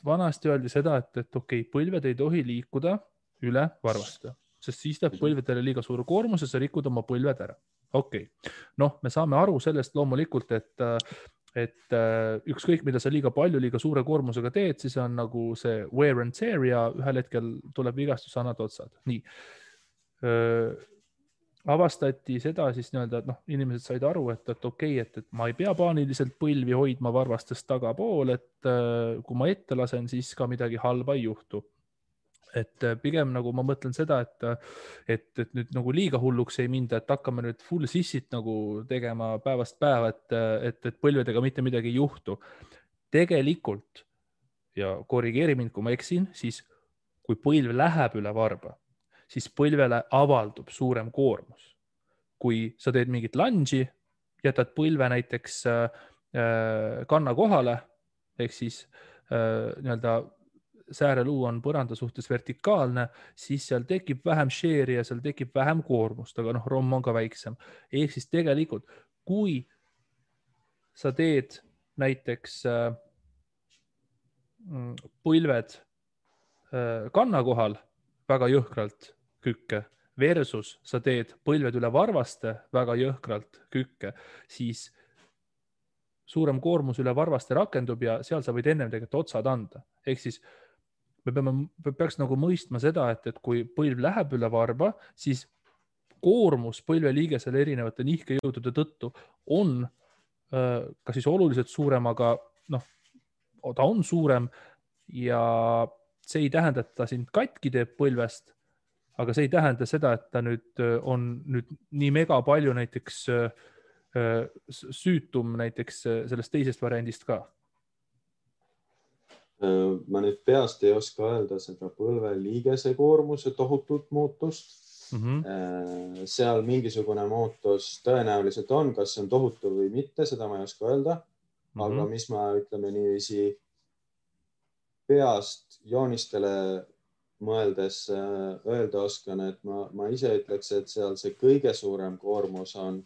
[SPEAKER 1] Vanasti öeldi seda, et okei, põlved ei tohi liikuda üle varvaste, sest siis teeb põlvedele liiga suure koormuse, sa rikud oma põlved ära. Okei. Me saame aru sellest loomulikult, et ükskõik, mida sa liiga palju, liiga suure koormusega teed, siis on nagu see wear and tear ja ühel hetkel tuleb vigastus, annad otsad. Nii. Avastati seda siis nii-öelda, et inimesed said aru, et okei, et ma ei pea paaniliselt põlvi hoidma varvastest tagapool, et kui ma ette lasen, siis ka midagi halba ei juhtu. Et pigem nagu ma mõtlen seda, et nüüd nagu liiga hulluks ei minda, et hakkame nüüd full sissit nagu tegema päevast päeva, et põlvedega mitte midagi ei juhtu. Tegelikult, ja korrigeeri mind, kui ma eksin, siis kui põlv läheb üle varba, siis põlvele avaldub suurem koormus. Kui sa teed mingit lunge'i, jätad põlve näiteks kanna kohale, ehk siis nii-öelda sääreluu on põranda suhtes vertikaalne, siis seal tekib vähem share'i ja seal tekib vähem koormust, aga romm on ka väiksem. Ehk siis tegelikult, kui sa teed näiteks põlved kanna kohal väga jõhkralt kükke versus sa teed põlved üle varvaste väga jõhkralt kükke, siis suurem koormus üle varvaste rakendub ja seal sa võid ennem tegelikult otsad anda. Ehk siis me peaks nagu mõistma seda, et kui põlv läheb üle varba, siis koormus põlveliigesele erinevate nihkejõudude tõttu on ka siis oluliselt suurem, aga ta on suurem ja see ei tähenda, et ta sind katki teeb põlvest, aga see ei tähenda seda, et ta nüüd on nüüd nii mega palju näiteks süütum näiteks sellest teisest variandist ka.
[SPEAKER 2] Ma nüüd peast ei oska öelda seda põlveliigese koormuse tohutut muutust. Seal mingisugune muutus tõenäoliselt on, kas see on tohutu või mitte, seda ma ei oska öelda. Aga mis ma ütleme niiviisi peast joonistele mõeldes öelda oskan, et ma ise ütleks, et seal see kõige suurem koormus on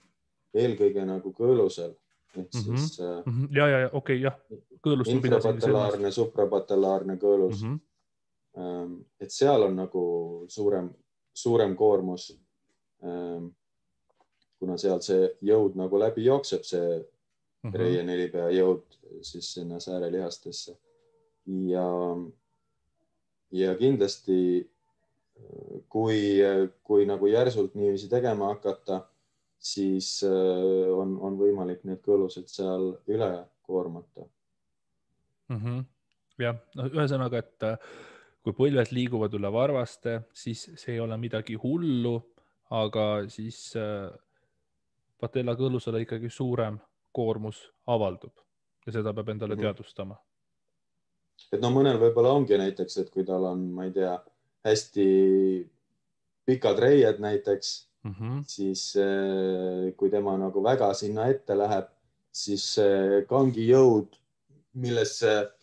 [SPEAKER 2] eelkõige nagu kõõlusel. Siis
[SPEAKER 1] okei, jah.
[SPEAKER 2] Infrapatellaarne, suprapatellaarne kõõlus. Et seal on nagu suurem koormus, kuna seal see jõud nagu läbi jookseb, see reienelipea jõud siis sinna säärelihastesse. Ja kindlasti, kui nagu järsult niiviisi tegema hakata, siis on võimalik need kõõlused seal üle koormata.
[SPEAKER 1] Jah, ühesõnaga, et kui põlved liiguvad üle varvaste, siis see ei ole midagi hullu, aga siis patella kõõlusele ikkagi suurem koormus avaldub ja seda peab endale teadvustama.
[SPEAKER 2] Et mõnel võib-olla ongi näiteks, et kui tal on, ma ei tea, hästi pikad reied näiteks, siis kui tema nagu väga sinna ette läheb, siis kangi jõud, millesse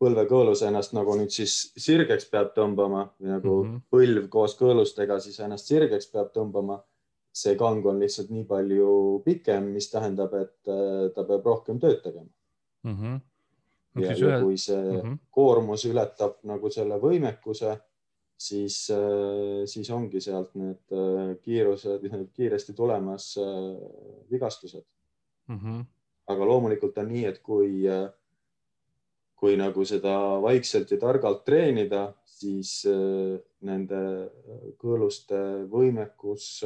[SPEAKER 2] põlvekõõlus ennast nagu nüüd siis sirgeks peab tõmbama või nagu põlv koos kõõlustega siis ennast sirgeks peab tõmbama. See kang on lihtsalt nii palju pikem, mis tähendab, et ta peab rohkem tööd tegema. Ja kui see koormus ületab nagu selle võimekuse, siis ongi sealt need kiirused, kiiresti tulemas vigastused. Aga loomulikult on nii, et kui nagu seda vaikselt ja targalt treenida, siis nende kõõluste võimekus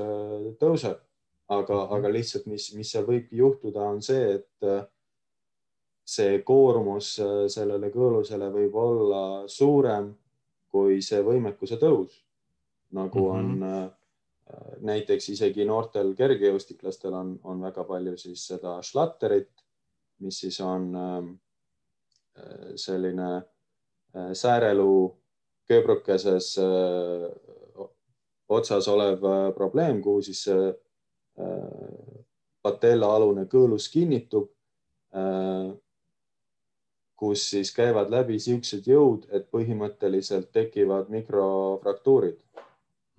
[SPEAKER 2] tõuseb. Aga lihtsalt, mis seal võibki juhtuda, on see, et see koormus sellele kõõlusele võib olla suurem kui see võimekuse tõus. Nagu on näiteks isegi noortel kergejõustiklastel on väga palju siis seda šlatterit, mis siis on selline sääreluu kööbrukeses otsas olev probleem, kuhu siis patellaalune kõõlus kinnitub, kus siis käivad läbi siuksed jõud, et põhimõtteliselt tekivad mikrofraktuurid.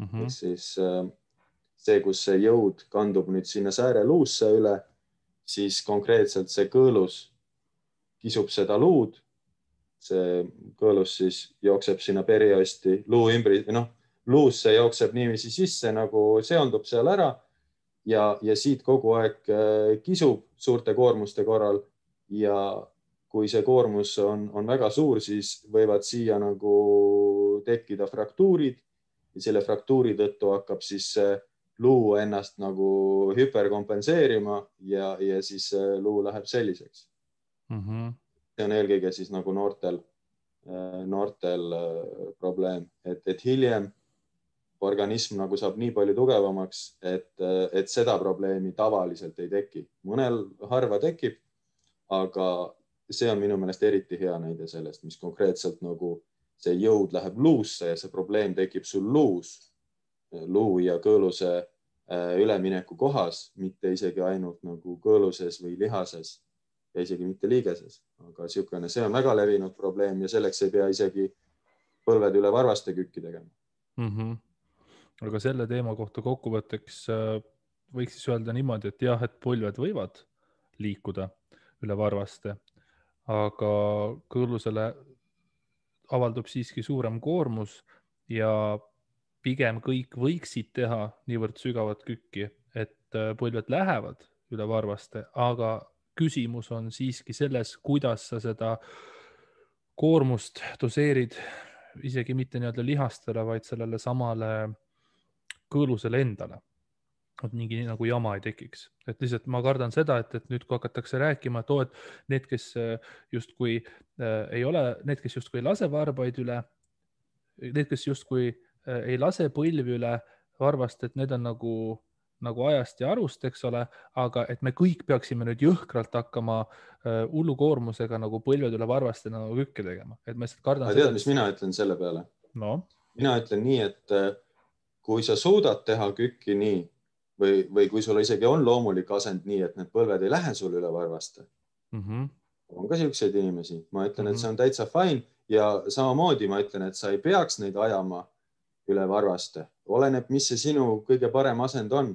[SPEAKER 2] Ehk siis see, kus see jõud kandub nüüd sinna sääreluusse üle, siis konkreetselt see kõõlus kisub seda luud. See kõõlus siis jookseb sinna periosti luu ümber, luusse jookseb niiviisi sisse, nagu seondub seal ära ja siit kogu aeg kisub suurte koormuste korral ja kui see koormus on väga suur, siis võivad siia nagu tekkida fraktuurid ja selle fraktuuri tõttu hakkab siis luu ennast nagu hüperkompenseerima ja siis luu läheb selliseks. See on eelkõige siis nagu noortel probleem, et hiljem organism nagu saab nii palju tugevamaks, et seda probleemi tavaliselt ei teki. Mõnel harva tekib, aga see on minu meelest eriti hea näide sellest, mis konkreetselt nagu see jõud läheb luusse ja see probleem tekib sul luu ja kõõluse ülemineku kohas, mitte isegi ainult nagu kõõluses või lihases ja isegi mitte liigeses. Aga see on väga levinud probleem ja selleks ei pea isegi põlved üle varvaste kükki tegema.
[SPEAKER 1] Aga selle teema kohta kokkuvõtteks võiks siis öelda niimoodi, et jah, et põlved võivad liikuda üle varvaste, aga kõõlusele avaldub siiski suurem koormus ja pigem kõik võiksid teha niivõrd sügavat kükki, et põlved lähevad üle varvaste, aga küsimus on siiski selles, kuidas sa seda koormust doseerid isegi mitte nii-öelda lihastele, vaid sellele samale kõõlusele endale. Et mingi nagu jama ei tekiks. Et lihtsalt ma kardan seda, et nüüd kui hakatakse rääkima, et need, kes justkui ei lase varbaid üle, need, kes justkui ei lase põlvi üle varvast, et need on nagu ajast ja arust, eks ole, aga et me kõik peaksime nüüd jõhkralt hakkama hullu koormusega nagu põlved üle varvaste nagu kükke tegema. Et ma lihtsalt kardan
[SPEAKER 2] seda. Mis mina ütlen selle peale?
[SPEAKER 1] No?
[SPEAKER 2] Mina ütlen nii, et kui sa suudad teha kükki nii, või kui sul isegi on loomulik asend nii, et need põlved ei lähe sul üle varvaste. On ka siukseid inimesi. Ma ütlen, et see on täitsa fine ja samamoodi ma ütlen, et sa ei peaks neid ajama üle varvaste. Oleneb, mis see sinu kõige parem asend on.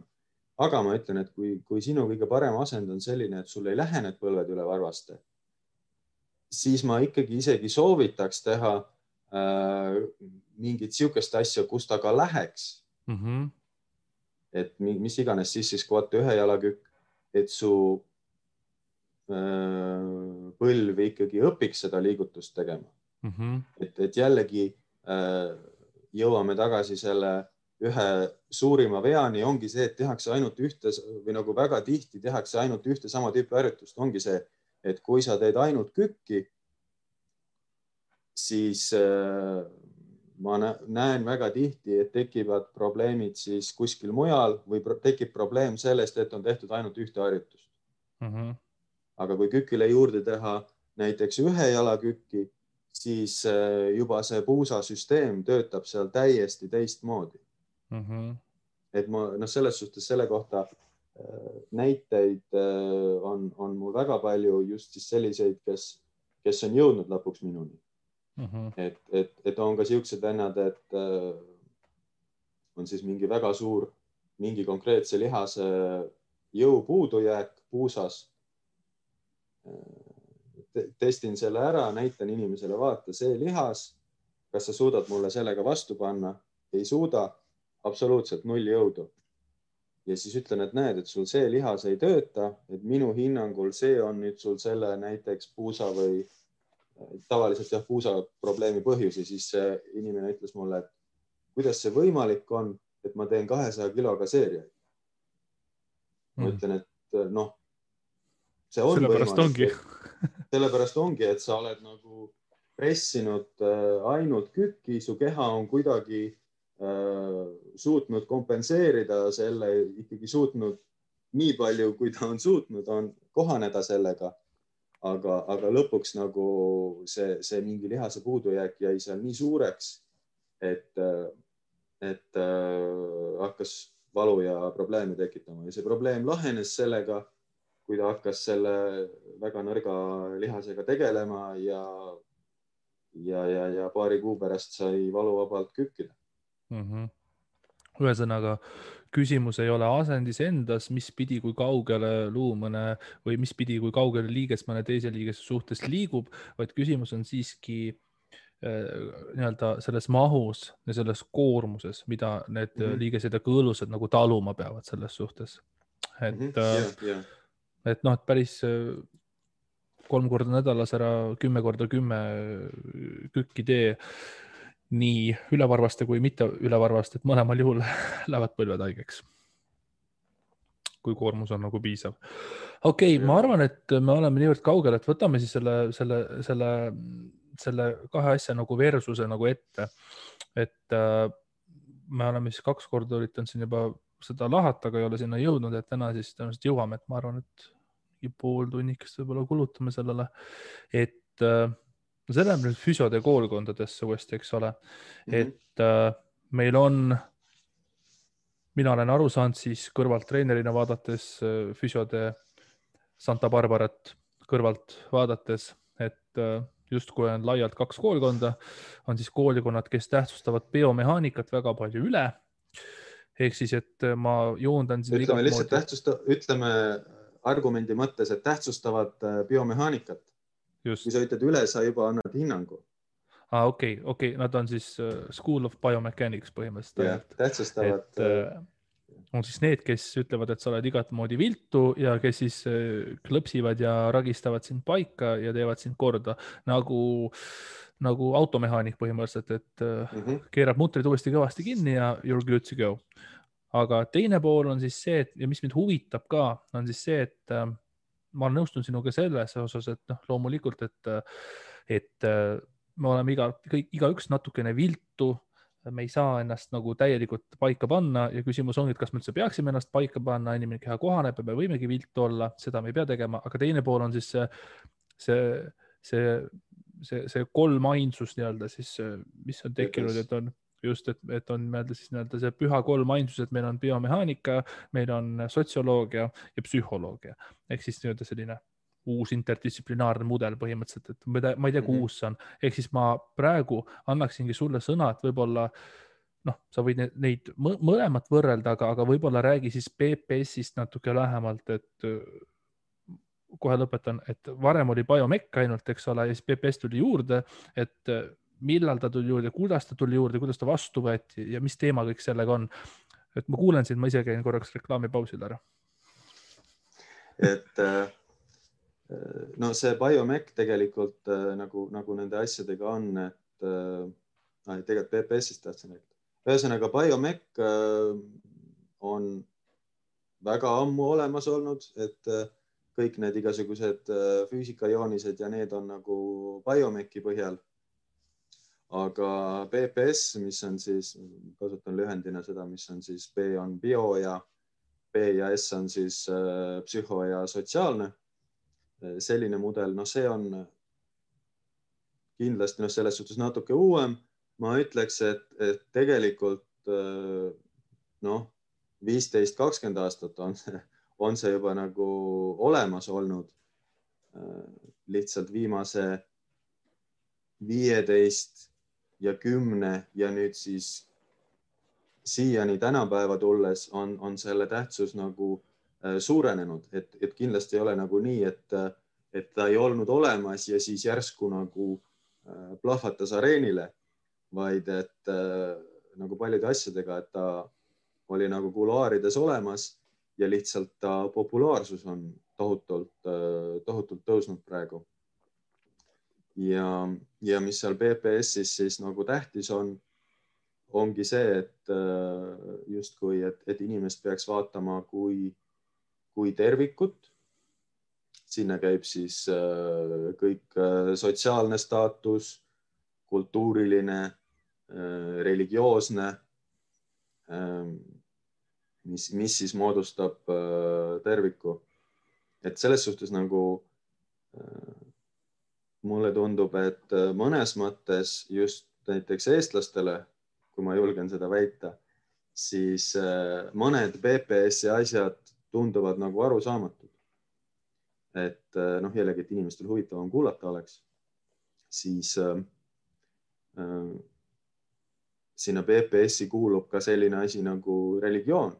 [SPEAKER 2] Aga ma ütlen, et kui sinu kõige parem asend on selline, et sul ei lähe need põlved üle varvaste, siis ma ikkagi isegi soovitaks teha mingit siukest asja, kus ta ka läheks. Et mis iganes siis squat ühe jalakükk, et su põlv ikkagi õpiks seda liigutust tegema. Et jällegi jõuame tagasi selle ühe suurima veani, ongi see, et tehakse ainult ühte või nagu väga tihti tehakse ainult ühte sama tüüpi harjutust. Ongi see, et kui sa teed ainult kükki, siis ma näen väga tihti, et tekivad probleemid siis kuskil mujal või tekib probleem sellest, et on tehtud ainult ühte harjutust. Aga kui kükile juurde teha näiteks ühe jalakükki, siis juba see puusasüsteem töötab seal täiesti teistmoodi. Et ma selles suhtes selle kohta näiteid on mul väga palju just siis selliseid, kes on jõudnud lõpuks minuni. Et on ka siuksed vennad, et on siis mingi väga suur, mingi konkreetse lihase jõu puudujääk puusas. Testin selle ära, näitan inimesele, vaata, see lihas kas sa suudad mulle sellega vastu panna? Ei suuda, absoluutselt 0 jõudu. Ja siis ütlen, et näed, et sul see lihas ei tööta, et minu hinnangul see on nüüd sul selle näiteks puusa või tavaliselt puusa probleemi põhjus. Ja siis see inimene ütles mulle, et kuidas see võimalik on, et ma teen 200 kiloga seeriaid. Ma ütlen, et noh, see on
[SPEAKER 1] sellepärast
[SPEAKER 2] võimalik. Sellepärast ongi, et sa oled nagu pressinud ainult kükki, su keha on kuidagi suutnud kompenseerida selle, ikkagi suutnud nii palju, kui ta on suutnud, on kohaneda sellega. Aga lõpuks nagu see mingi lihase puudujääk jäi seal nii suureks, et hakkas valu ja probleeme tekitama. Ja see probleem lahenes sellega, kui ta hakkas selle väga nõrga lihasega tegelema ja paari kuu pärast sai valuvabalt kükkida.
[SPEAKER 1] Ühesõnaga, küsimus ei ole asendis endas, mis pidi, kui kaugele luumõne või mis pidi, kui kaugele liiges mõne teise liigese suhtes liigub, vaid küsimus on siiski nii-öelda selles mahus ja selles koormuses, mida need liigesed ja kõõlused nagu taluma peavad selles suhtes. Et noh, et päris 3 korda nädalas ära 10 korda 10 kükki tee nii ülevarvaste kui mitte ülevarvaste, et mõlemal juhul lähevad põlved haigeks, kui koormus on nagu piisav. Okei, ma arvan, et me oleme niivõrd kaugel, et võtame siis selle kahe asja nagu versuse nagu ette. Et me oleme siis 2 korda üritanud siin juba seda lahata, aga ei ole sinna jõudnud, et täna siis tõenäoliselt jõuame, et ma arvan, et pool tunnikest võib-olla kulutame sellele, et see läheb nüüd füsiode koolkondadesse uuesti, eks ole, et meil on, mina olen aru saanud siis kõrvalt treenerina vaadates füsiode Santa Barbarat kõrvalt vaadates, et justkui on laialt 2 koolkonda, on siis koolikonnad, kes tähtsustavad biomehaanikat väga palju üle. Ehk siis, et ma joondan siin
[SPEAKER 2] ütleme argumendi mõttes, et tähtsustavad biomehaanikat.
[SPEAKER 1] Just.
[SPEAKER 2] Kui sa ütled üle, sa juba annad hinnangu.
[SPEAKER 1] Okei, nad on siis School of Biomechanics põhimõtteliselt.
[SPEAKER 2] Tähtsustavad.
[SPEAKER 1] On siis need, kes ütlevad, et sa oled igat moodi viltu ja kes siis klõpsivad ja ragistavad sind paika ja teevad sind korda nagu automehaanik põhimõtteliselt, et keerab mutrid uuesti kõvasti kinni ja you're good to go. Aga teine pool on siis see, ja mis mind huvitab ka, on siis see, et ma nõustun sinuga selles osas, et loomulikult, et me oleme igaüks natukene viltu, me ei saa ennast nagu täielikult paika panna ja küsimus ongi, et kas me üldse peaksime ennast paika panna, inimene keha kohaneb ja me võimegi viltu olla, seda me ei pea tegema, aga teine pool on siis see kolmainsus nii-öelda siis, mis on tekkinud, et on just, et on siis nii-öelda see püha kolmainsus, et meil on biomehaanika, meil on sotsioloogia ja psühholoogia. Ehk siis nii-öelda selline uus interdistsiplinaarne mudel põhimõtteliselt, et ma ei tea, kui uus see on. Ehk siis ma praegu annaksingi sulle sõna, et võib-olla sa võid neid mõlemat võrrelda, aga võib-olla räägi siis PPS-ist natuke lähemalt, et kohe lõpetan, et varem oli biomekk ainult, eks ole, ja siis PPS tuli juurde, et millal ta tuli juurde, kuidas ta tuli juurde, kuidas ta vastu võeti ja mis teema kõik sellega on. Et ma kuulen sind, ma ise käin korraks reklaamipausil ära.
[SPEAKER 2] Et no see biomekk tegelikult nagu nende asjadega on, et tegelikult PPS-ist tahtsin rääkida. Ühesõnaga, biomekk on väga ammu olemas olnud, et kõik need igasugused füüsikajoonised ja need on nagu biomekki põhjal. Aga PPS, mis on siis, kasutan lühendina seda, mis on siis B on bio ja B ja S on siis psühho ja sotsiaalne. Selline mudel, see on kindlasti selles suhtes natuke uuem. Ma ütleks, et tegelikult 15-20 aastat on see juba nagu olemas olnud. Lihtsalt viimase 15 ja 10 ja nüüd siis siiani tänapäeva tulles on selle tähtsus nagu suurenenud, et kindlasti ei ole nagu nii, et ta ei olnud olemas ja siis järsku nagu plahvatas areenile, vaid et nagu paljude asjadega, et ta oli nagu kuluaarides olemas ja lihtsalt ta populaarsus on tohutult tõusnud praegu. Ja mis seal PPS-is siis nagu tähtis ongi see, et justkui, et inimest peaks vaatama kui tervikut. Sinna käib siis kõik sotsiaalne staatus, kultuuriline, religioosne, mis siis moodustab terviku. Et selles suhtes nagu mulle tundub, et mõnes mõttes just näiteks eestlastele, kui ma julgen seda väita, siis mõned PPS-i asjad tunduvad nagu arusaamatud. Et jällegi, et inimestel huvitavam kuulata oleks, siis sinna PPS-i kuulub ka selline asi nagu religioon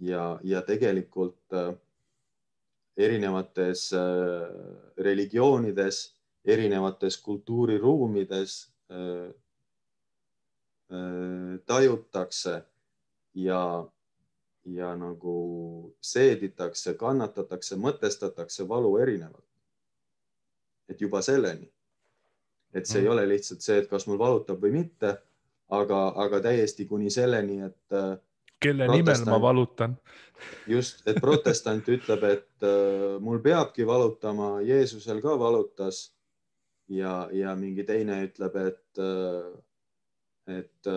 [SPEAKER 2] ja tegelikult erinevates religioonides, erinevates kultuuriruumides tajutakse ja nagu seeditakse, kannatatakse, mõtestatakse valu erinevalt. Et juba selleni. Et see ei ole lihtsalt see, et kas mul valutab või mitte, aga täiesti kuni selleni, et
[SPEAKER 1] kelle nimel ma valutan.
[SPEAKER 2] Just, et protestant ütleb, et mul peabki valutama, Jeesusel ka valutas ja mingi teine ütleb, et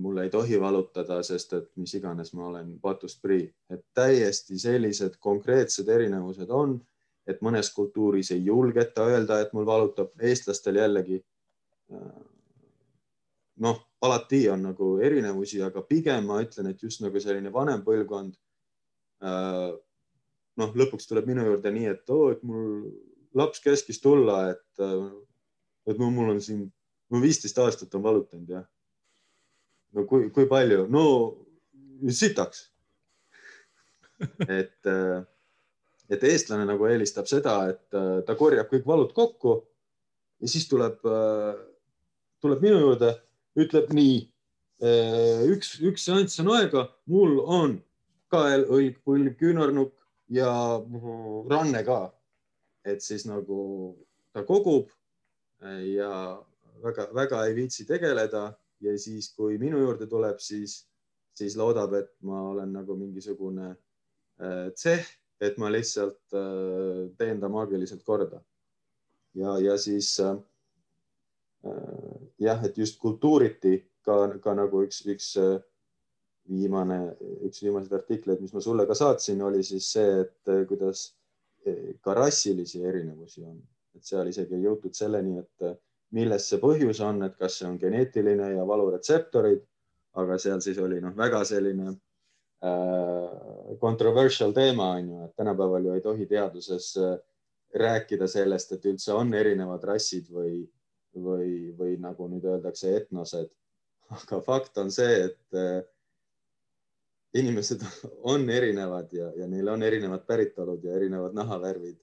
[SPEAKER 2] mul ei tohi valutada, sest et mis iganes ma olen patust prii. Et täiesti sellised konkreetsed erinevused on, et mõnes kultuuris ei julgeta öelda, et mul valutab. Eestlastel jällegi alati on nagu erinevusi, aga pigem ma ütlen, et just nagu selline vanem põlvkond lõpuks tuleb minu juurde nii, et mul laps käskis tulla, et mul on siin 15 aastat on valutanud ja no kui palju? No sitaks. Et eestlane nagu eelistab seda, et ta korjab kõik valud kokku ja siis tuleb minu juurde, ütleb nii, üks seanss on aega, mul on kael, õlg, põlv, küünarnukk ja ranne ka. Et siis nagu ta kogub ja väga ei viitsi tegeleda ja siis, kui minu juurde tuleb, siis loodab, et ma olen nagu mingisugune tseh, et ma lihtsalt teen ta maagiliselt korda. Ja siis et just kultuuriti ka nagu üks viimaseid artikleid, mis ma sulle ka saatsin, oli siis see, et kuidas ka rassilisi erinevusi on. Et seal isegi ei jõutud selleni, et milles see põhjus on, et kas see on geneetiline ja valuretseptorid, aga seal siis oli väga selline controversial teema on ju, et tänapäeval ju ei tohi teaduses rääkida sellest, et üldse on erinevad rassid või nagu nüüd öeldakse etnosed. Aga fakt on see, et inimesed on erinevad ja neil on erinevad päritolud ja erinevad nahavärvid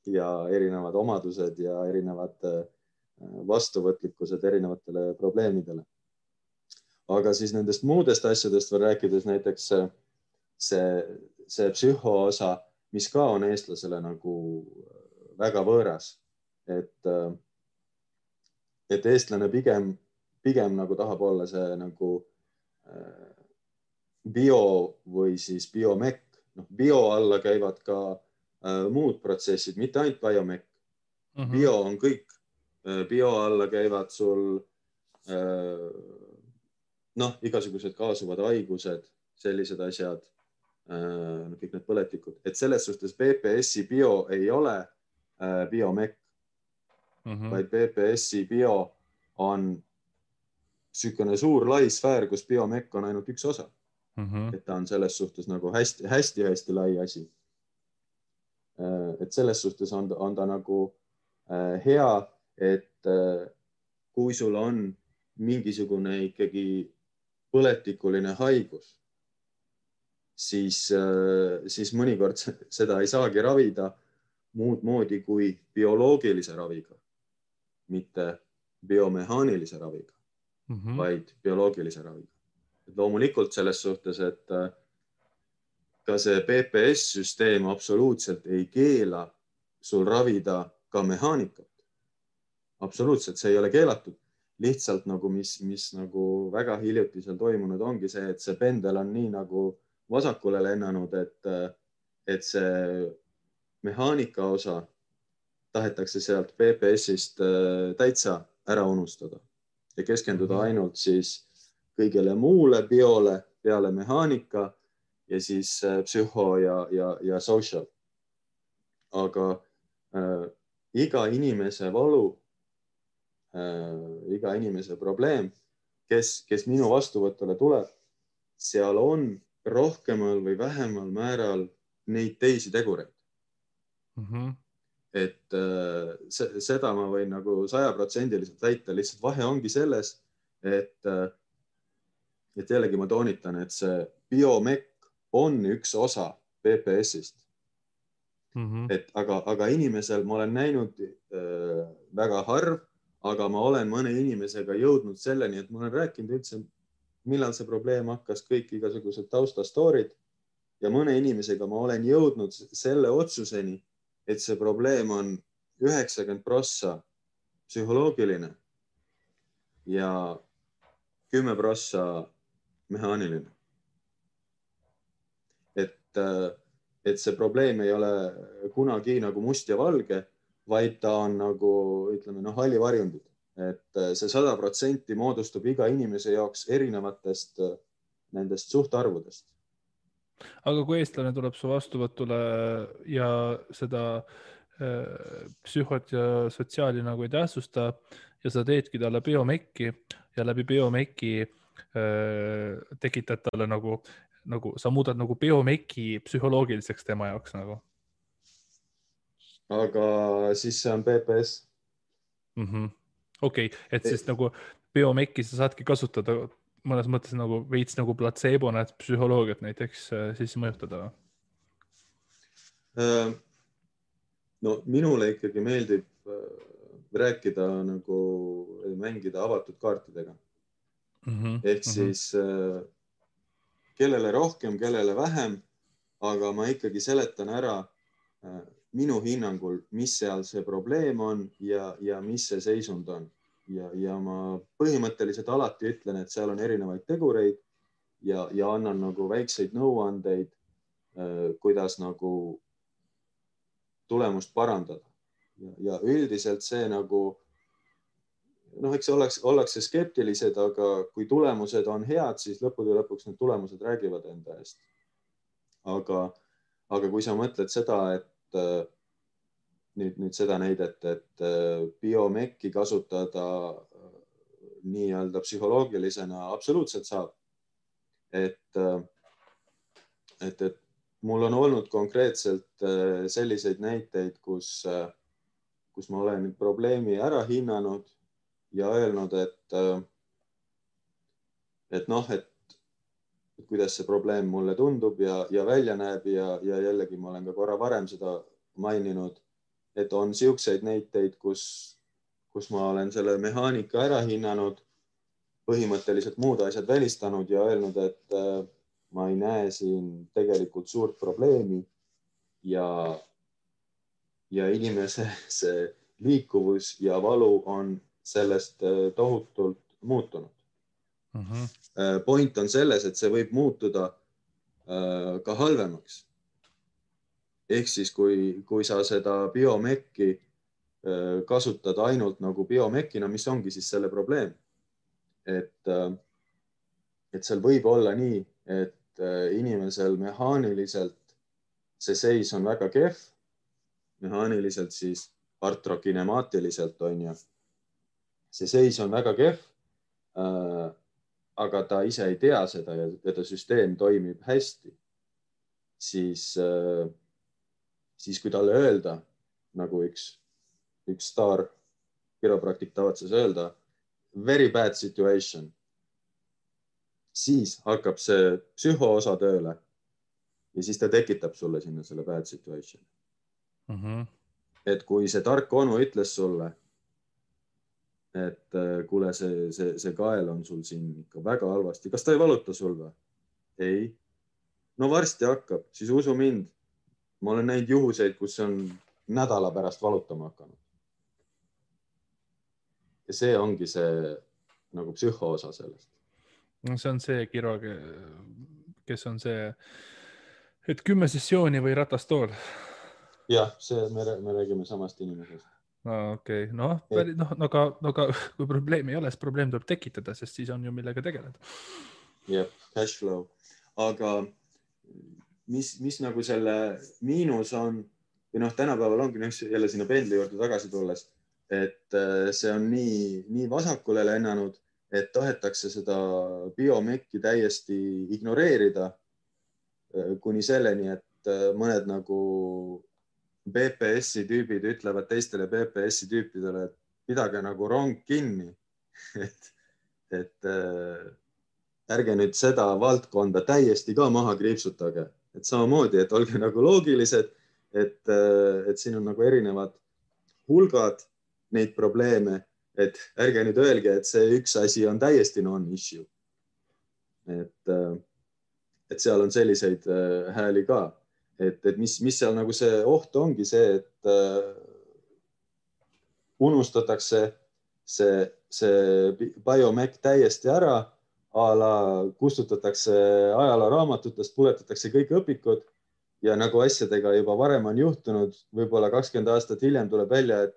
[SPEAKER 2] ja erinevad omadused ja erinevad vastuvõtlikkused erinevatele probleemidele. Aga siis nendest muudest asjadest veel rääkides näiteks see psühhoosa, mis ka on eestlasele nagu väga võõras, et eestlane pigem nagu tahab olla see nagu bio või siis biomekk. Bio alla käivad ka muud protsessid, mitte ainult biomekk. Bio on kõik. Bio alla käivad sul igasugused kaasuvad haigused, sellised asjad, kõik need põletikud. Et selles suhtes PPS-i bio ei ole biomekk, vaid PPS-i bio on sükene suur lai sfäär, kus biomekk on ainult üks osa. Et ta on selles suhtes nagu hästi lai asi. Et selles suhtes on ta nagu hea, et kui sul on mingisugune ikkagi põletikuline haigus, siis mõnikord seda ei saagi ravida muud moodi kui bioloogilise raviga, mitte biomehaanilise raviga. vaid bioloogilise raviga. Et loomulikult selles suhtes, et ka see PPS-süsteem absoluutselt ei keela sul ravida ka mehaanikat. Absoluutselt, see ei ole keelatud. Lihtsalt nagu mis nagu väga hiljuti seal toimunud ongi see, et see pendel on nii nagu vasakule lennanud, et see mehaanika osa tahetakse sealt PPS-ist täitsa ära unustada ja keskenduda ainult siis kõigele muule biole peale mehaanika ja siis psühho ja social. Aga iga inimese valu, iga inimese probleem, kes minu vastuvõtule tuleb, seal on rohkemal või vähemal määral neid teisi tegureid. Et seda ma võin nagu 100% väita, lihtsalt vahe ongi selles, et jällegi ma toonitan, et see biomekk on üks osa PPS-ist. Aga inimesel ma olen näinud väga harv, aga ma olen mõne inimesega jõudnud selleni, et ma olen rääkinud üldse, millal see probleem hakkas, kõik igasugused taustastoorid ja mõne inimesega ma olen jõudnud selle otsuseni, et see probleem on 90% psühholoogiline ja 10% mehaaniline. Et see probleem ei ole kunagi nagu must ja valge, vaid ta on nagu, ütleme, hallivarjundid. Et see 100% moodustub iga inimese jaoks erinevatest nendest suhtarvudest.
[SPEAKER 1] Aga kui eestlane tuleb su vastuvõtule ja seda psühhot ja sotsiaali nagu ei tähtsusta ja sa teedki talle biomekki ja läbi biomekki tekitad talle nagu sa muudad nagu biomekki psühholoogiliseks tema jaoks nagu.
[SPEAKER 2] Aga siis see on PPS.
[SPEAKER 1] Okei, et siis nagu biomekki sa saadki kasutada mõnes mõttes nagu veits nagu platseebona, et psühholoogiat näiteks siis mõjutada.
[SPEAKER 2] No minule ikkagi meeldib rääkida nagu mängida avatud kaartidega. Ehk siis kellele rohkem, kellele vähem, aga ma ikkagi seletan ära minu hinnangul, mis seal see probleem on ja mis see seisund on. Ja ma põhimõtteliselt alati ütlen, et seal on erinevaid tegureid ja annan nagu väikseid nõuandeid, kuidas nagu tulemust parandada. Ja üldiselt see nagu, eks ollakse skeptilised, aga kui tulemused on head, siis lõppude lõpuks need tulemused räägivad enda eest. Aga kui sa mõtled seda, et nüüd seda näidet, et biomekki kasutada nii-öelda psühholoogilisena absoluutselt saab. Et mul on olnud konkreetselt selliseid näiteid, kus ma olen probleemi ära hinnanud ja öelnud, et kuidas see probleem mulle tundub ja välja näeb ja jällegi ma olen ka korra varem seda maininud, et on siukseid näiteid, kus ma olen selle mehaanika ära hinnanud, põhimõtteliselt muud asjad välistanud ja öelnud, et ma ei näe siin tegelikult suurt probleemi ja inimese see liikuvus ja valu on sellest tohutult muutunud. Point on selles, et see võib muutuda ka halvemaks. Ehk siis, kui sa seda biomekki kasutad ainult nagu biomekina, mis ongi siis selle probleem. Et seal võib olla nii, et inimesel mehaaniliselt see seis on väga kehv, mehaaniliselt siis artrokinemaatiliselt on ju. See seis on väga kehv, aga ta ise ei tea seda ja ta süsteem toimib hästi, siis kui talle öelda, nagu üks staar kiropraktik tavatses öelda, very bad situation, siis hakkab see psühhoosa tööle ja siis ta tekitab sulle sinna selle bad situation. Et kui see tark onu ütles sulle, et kuule, see kael on sul siin ikka väga halvasti. Kas ta ei valuta sul või? Ei. No varsti hakkab, siis usu mind. Ma olen näinud juhuseid, kus on nädala pärast valutama hakanud. Ja see ongi see nagu psühhoosa sellest.
[SPEAKER 1] No see on see kirurg, kes on see, et 10 sessiooni või ratastool.
[SPEAKER 2] Jah, me räägime samast inimesest.
[SPEAKER 1] Okei, aga kui probleemi ei ole, siis probleem tuleb tekitada, sest siis on ju millega tegeleda.
[SPEAKER 2] Jah, cash flow. Aga mis nagu selle miinus on, või tänapäeval ongi jälle sinna pendli juurde tagasi tulles, et see on nii vasakule lennanud, et tahetakse seda biomekki täiesti ignoreerida kuni selleni, et mõned nagu BPS-i tüübid ütlevad teistele BPS-i tüüpidele, et pidage nagu rong kinni. et ärge nüüd seda valdkonda täiesti ka maha kriipsutage. Et samamoodi, et olge nagu loogilised, et siin on nagu erinevad hulgad neid probleeme, et ärge nüüd öelge, et see üks asi on täiesti non-issue. Et seal on selliseid hääli ka. Et mis seal nagu see oht ongi see, et unustatakse see biomec täiesti ära, kustutatakse ajalooraamatutest, puletatakse kõik õpikud ja nagu asjadega juba varem on juhtunud, võib-olla 20 aastat hiljem tuleb välja, et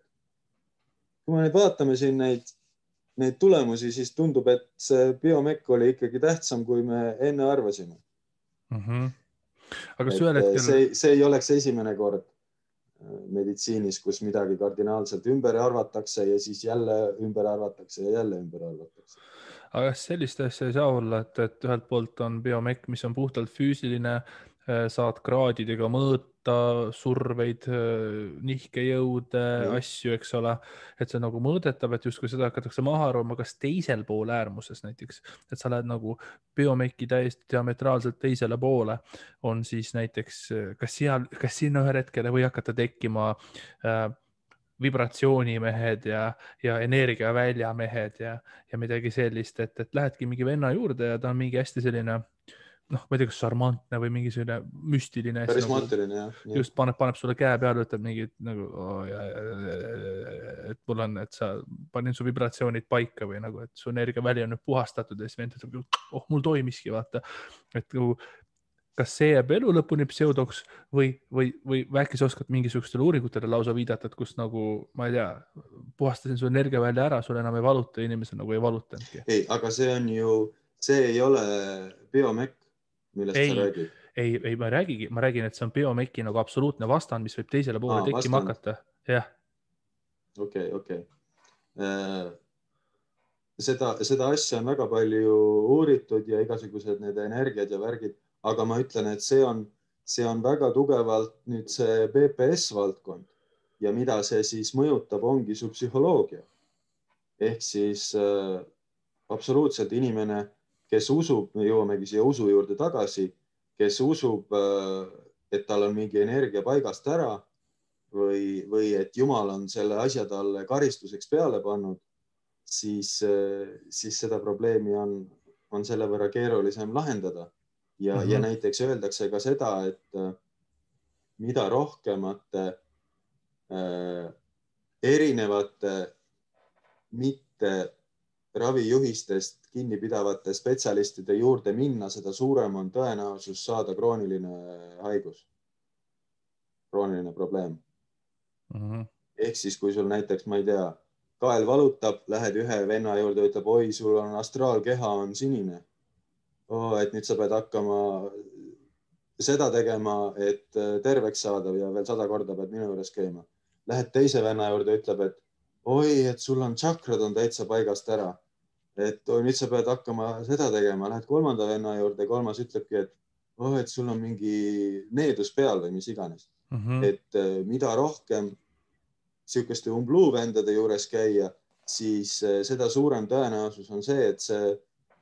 [SPEAKER 2] kui me nüüd vaatame siin neid tulemusi, siis tundub, et see biomec oli ikkagi tähtsam, kui me enne arvasime.
[SPEAKER 1] Aga
[SPEAKER 2] see ei oleks esimene kord meditsiinis, kus midagi kardinaalselt ümber arvatakse ja siis jälle ümber arvatakse ja jälle ümber arvatakse.
[SPEAKER 1] Aga sellist asja ei saa olla, et ühelt poolt on biomec, mis on puhtalt füüsiline, saad kraadidega mõõta surveid, nihkejõude, asju, eks ole, et see nagu mõõdetav, et justkui seda hakatakse maha arvama, kas teisel pool äärmuses näiteks, et sa lähed nagu biomeci täiesti diametraalselt teisele poole, on siis näiteks, kas sinna ühel hetkel või hakata tekkima vibratsioonimehed ja energiaväljamehed ja midagi sellist, et lähedki mingi venna juurde ja ta on mingi hästi selline, ma ei tea, kas šarmantne või mingi selline müstiline.
[SPEAKER 2] Karismaatiline, jah.
[SPEAKER 1] Just paneb sulle käe peale, ütleb mingi nagu, et mul on, et sa panin su vibratsioonid paika või nagu, et su energiaväli on nüüd puhastatud ja siis vend ütleb, mul toimiski, vaata. Et nagu, kas see jääb elu lõpuni pseudoks või äkki sa oskad mingisugustele uuringutele lausa viidata, et kus nagu, ma ei tea, puhastasin su energiavälja ära, sul enam ei valuta, inimesel nagu ei valutanudki.
[SPEAKER 2] Ei, aga see ei ole biomec, millest sa räägid.
[SPEAKER 1] Ei, ma räägin, et see on biomeci nagu absoluutne vastand, mis võib teisele poole tekkima hakata. Jah.
[SPEAKER 2] Okei. Seda asja on väga palju uuritud ja igasugused need energiad ja värgid, aga ma ütlen, et see on väga tugevalt nüüd see BPS valdkond ja mida see siis mõjutab, ongi su psühholoogia. Ehk siis absoluutselt inimene, kes usub, me jõuamegi siia usu juurde tagasi, kes usub, et tal on mingi energia paigast ära või et Jumal on selle asja talle karistuseks peale pannud, siis seda probleemi on selle võrra keerulisem lahendada. Ja näiteks öeldakse ka seda, et mida rohkemate erinevate mitte ravijuhistest kinni pidavate spetsialistide juurde minna, seda suurem on tõenäosus saada krooniline haigus, krooniline probleem. Ehk siis, kui sul näiteks, ma ei tea, kael valutab, lähed ühe venna juurde, ütleb, oi, sul on astraalkeha on sinine. Et nüüd sa pead hakkama seda tegema, et terveks saada ja veel 100 korda pead minu juures käima. Lähed teise venna juurde, ütleb, et oi, et sul on tšakrad on täitsa paigast ära. Et nüüd sa pead hakkama seda tegema. Lähed kolmanda venna juurde, kolmas ütlebki, et sul on mingi needus peal või mis iganes. Et mida rohkem sihukeste umbluuvendade juures käia, siis seda suurem tõenäosus on see, et see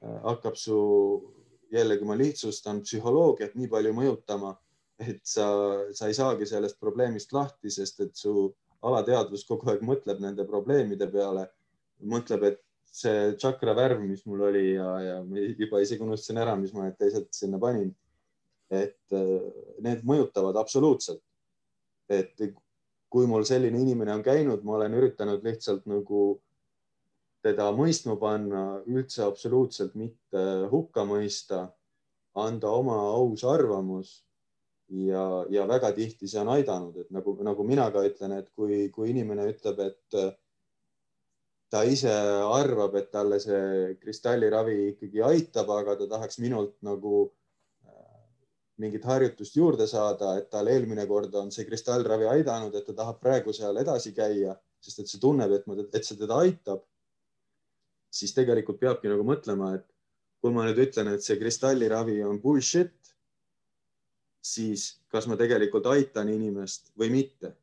[SPEAKER 2] hakkab su, jällegi ma lihtsustan, psühholoogiat nii palju mõjutama, et sa ei saagi sellest probleemist lahti, sest et su alateadvus kogu aeg mõtleb nende probleemide peale mõtleb, et see tšakra värv, mis mul oli ja juba isegi unustasin ära, mis ma need teised sinna panin, et need mõjutavad absoluutselt. Et kui mul selline inimene on käinud, ma olen üritanud lihtsalt nagu teda mõistma panna, üldse absoluutselt mitte hukka mõista, anda oma aus arvamus ja väga tihti see on aidanud, et nagu mina ka ütlen, et kui inimene ütleb, et ta ise arvab, et talle see kristalliravi ikkagi aitab, aga ta tahaks minult nagu mingit harjutust juurde saada, et tal eelmine kord on see kristallravi aidanud, et ta tahab praegu seal edasi käia, sest et see tunneb, et see teda aitab, siis tegelikult peabki nagu mõtlema, et kui ma nüüd ütlen, et see kristalliravi on bullshit, siis kas ma tegelikult aitan inimest või mitte?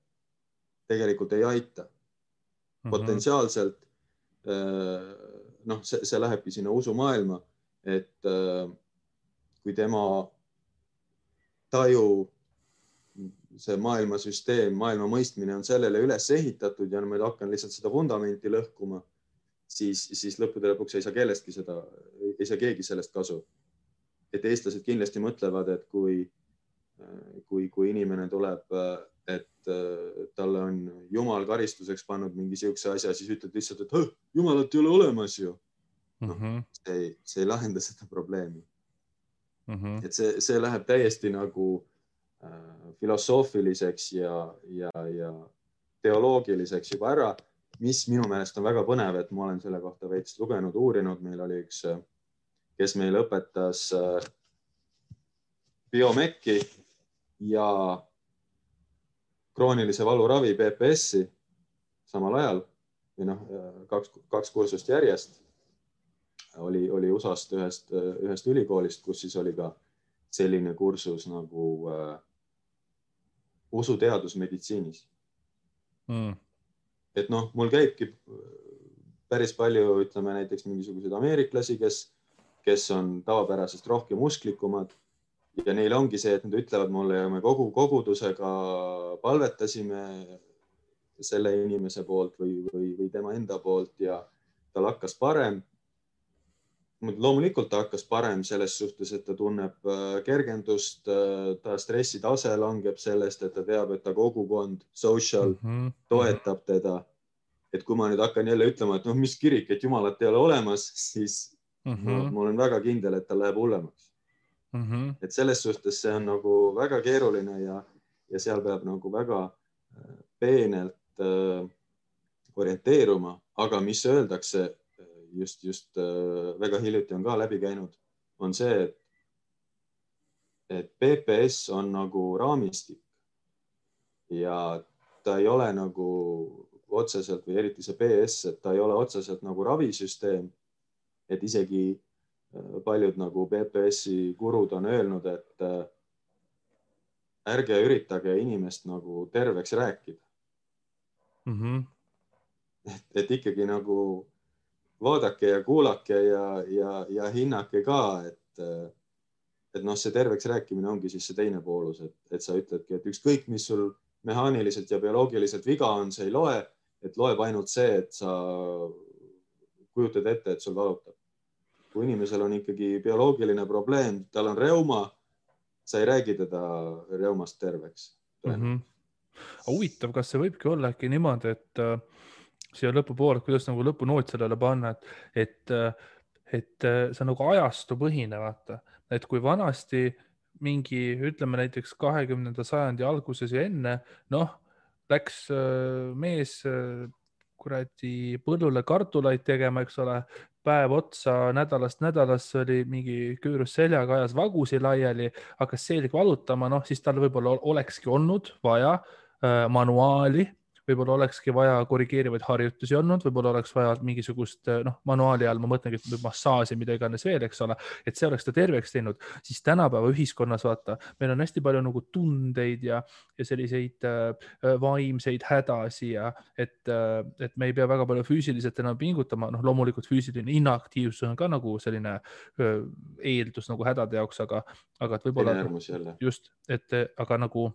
[SPEAKER 2] Tegelikult ei aita. Potentsiaalselt see lähebki sinna usumaailma, et kui tema taju, see maailmasüsteem, maailma mõistmine on sellele üles ehitatud ja ma hakkan lihtsalt seda vundamenti lõhkuma, siis lõppude lõpuks ei saa kellestki seda, ei saa keegi sellest kasu. Et eestlased kindlasti mõtlevad, et kui inimene tuleb, et talle on Jumal karistuseks pannud mingi siukse asja, siis ütled lihtsalt, et Jumalat ei ole olemas ju. See ei lahenda seda probleemi. Et see läheb täiesti nagu filosoofiliseks ja teoloogiliseks juba ära, mis minu meelest on väga põnev, et ma olen selle kohta veits lugenud, uurinud. Meil oli üks, kes meil õpetas biomekki ja kroonilise valuravi PPS-i samal ajal või kaks kursust järjest oli USA-st ühest ülikoolist, kus siis oli ka selline kursus nagu usuteadus meditsiinis. Et mul käibki päris palju, ütleme näiteks mingisuguseid ameeriklasi, kes on tavapärasest rohkem usklikumad ja neil ongi see, et nad ütlevad mulle ja me kogu kogudusega palvetasime selle inimese poolt või tema enda poolt ja tal hakkas parem. Loomulikult ta hakkas parem selles suhtes, et ta tunneb kergendust, ta stressitase langeb sellest, et ta teab, et ta kogukond, social toetab teda. Et kui ma nüüd hakkan jälle ütlema, et mis kirik, et Jumalat ei ole olemas, siis ma olen väga kindel, et ta läheb hullemaks. Et selles suhtes see on nagu väga keeruline ja seal peab nagu väga peenelt orienteeruma, aga mis öeldakse, just väga hiljuti on ka läbi käinud, on see, et PPS on nagu raamistik ja ta ei ole nagu otseselt või eriti see PS, et ta ei ole otseselt nagu ravisüsteem, et isegi paljud nagu PPS-i gurud on öelnud, et ärge üritage inimest nagu terveks rääkida. Et ikkagi nagu vaadake ja kuulake ja hinnake ka, et see terveks rääkimine ongi siis see teine poolus, et sa ütledki, et ükskõik, mis sul mehaaniliselt ja bioloogiliselt viga on, see ei loe, et loeb ainult see, et sa kujutad ette, et sul valutab. Kui inimesel on ikkagi bioloogiline probleem, tal on reuma, sa ei räägi teda reumast terveks.
[SPEAKER 1] Huvitav, kas see võibki olla äkki niimoodi, et siia lõpupoole, kuidas nagu lõpunoot sellele panna, et see nagu ajastu põhine, vaata. Et kui vanasti mingi, ütleme näiteks 20. sajandi alguses ja enne, läks mees kuradi põllule kartulaid tegema, eks ole, päev otsa nädalast nädalasse oli mingi küürus seljaga, ajas vagusi laiali, hakkas selg valutama, siis tal võib-olla olekski olnud vaja manuaali, võib-olla olekski vaja korrigeerivaid harjutusi olnud, võib-olla oleks vaja mingisugust, manuaali all ma mõtlengi, et massaaži, mida iganes veel, eks ole, et see oleks ta terveks teinud, siis tänapäeva ühiskonnas, vaata, meil on hästi palju nagu tundeid ja selliseid vaimseid hädasi ja et me ei pea väga palju füüsiliselt enam pingutama, loomulikult füüsiline inaktiivsus on ka nagu selline eeldus nagu hädade jaoks, aga et võib-olla
[SPEAKER 2] just,
[SPEAKER 1] aga nagu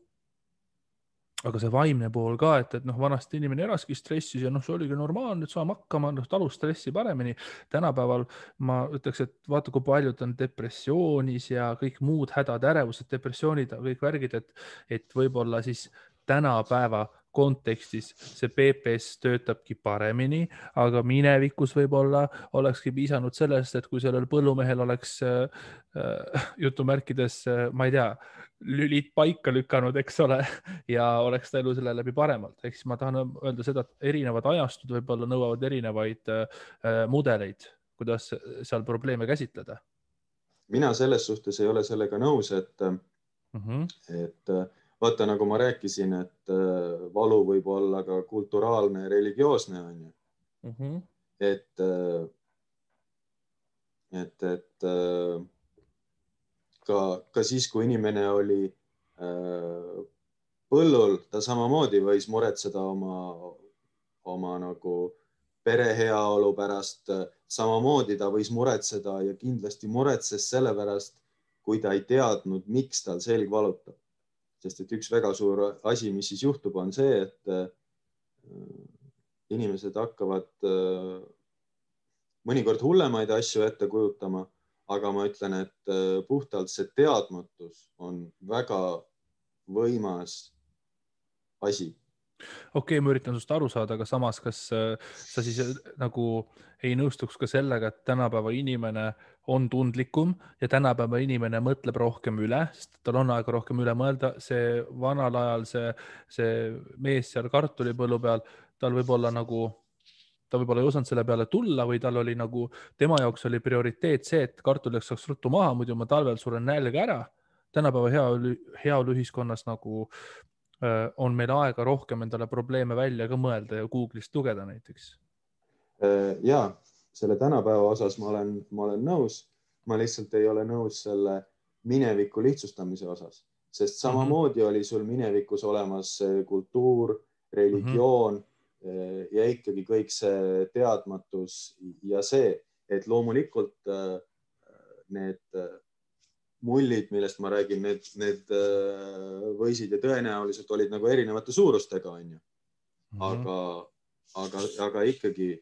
[SPEAKER 1] aga see vaimne pool ka, et noh, vanasti inimene elaski stressis ja noh, see oligi normaalne, et saame hakkama, noh, talus stressi paremini. Tänapäeval ma ütleks, et vaata, kui paljud on depressioonis ja kõik muud hädad, ärevused, depressioonid, kõik värgid, et võib-olla siis tänapäeva kontekstis see PPS töötabki paremini, aga minevikus võib-olla olekski piisanud sellest, et kui sellel põllumehel oleks jutumärkides, ma ei tea, lülid paika lükanud, eks ole, ja oleks ta elu selle läbi paremalt. Ehk siis ma tahan öelda seda, et erinevad ajastud võib-olla nõuavad erinevaid mudeleid, kuidas seal probleeme käsitleda.
[SPEAKER 2] Mina selles suhtes ei ole sellega nõus, et vaata, nagu ma rääkisin, et valu võib olla ka kulturaalne ja religioosne, on ju. Et ka siis, kui inimene oli põllul, ta samamoodi võis muretseda oma nagu pere heaolu pärast, samamoodi ta võis muretseda ja kindlasti muretses selle pärast, kui ta ei teadnud, miks tal selg valutab. Sest et üks väga suur asi, mis siis juhtub, on see, et inimesed hakkavad mõnikord hullemaid asju ette kujutama, aga ma ütlen, et puhtalt see teadmatus on väga võimas asi.
[SPEAKER 1] Okei, ma üritan sust aru saada, aga samas, kas sa siis nagu ei nõustuks ka sellega, et tänapäeva inimene on tundlikum ja tänapäeva inimene mõtleb rohkem üle, sest tal on aega rohkem üle mõelda. See vanal ajal see mees seal kartulipõllu peal, tal võib-olla nagu, ta võib-olla ei osanud selle peale tulla või tal oli nagu, tema jaoks oli prioriteet see, et kartuliks saaks ruttu maha, muidu ma talvel suren nälga ära. Tänapäeva heaolu ühiskonnas nagu on meil aega rohkem endale probleeme välja ka mõelda ja Google'ist lugeda näiteks.
[SPEAKER 2] Ja selle tänapäeva osas ma olen nõus. Ma lihtsalt ei ole nõus selle mineviku lihtsustamise osas, sest samamoodi oli sul minevikus olemas kultuur, religioon ja ikkagi kõik see teadmatus ja see, et loomulikult need mullid, millest ma räägin, need võisid ja tõenäoliselt olid nagu erinevate suurustega, on ju. Aga ikkagi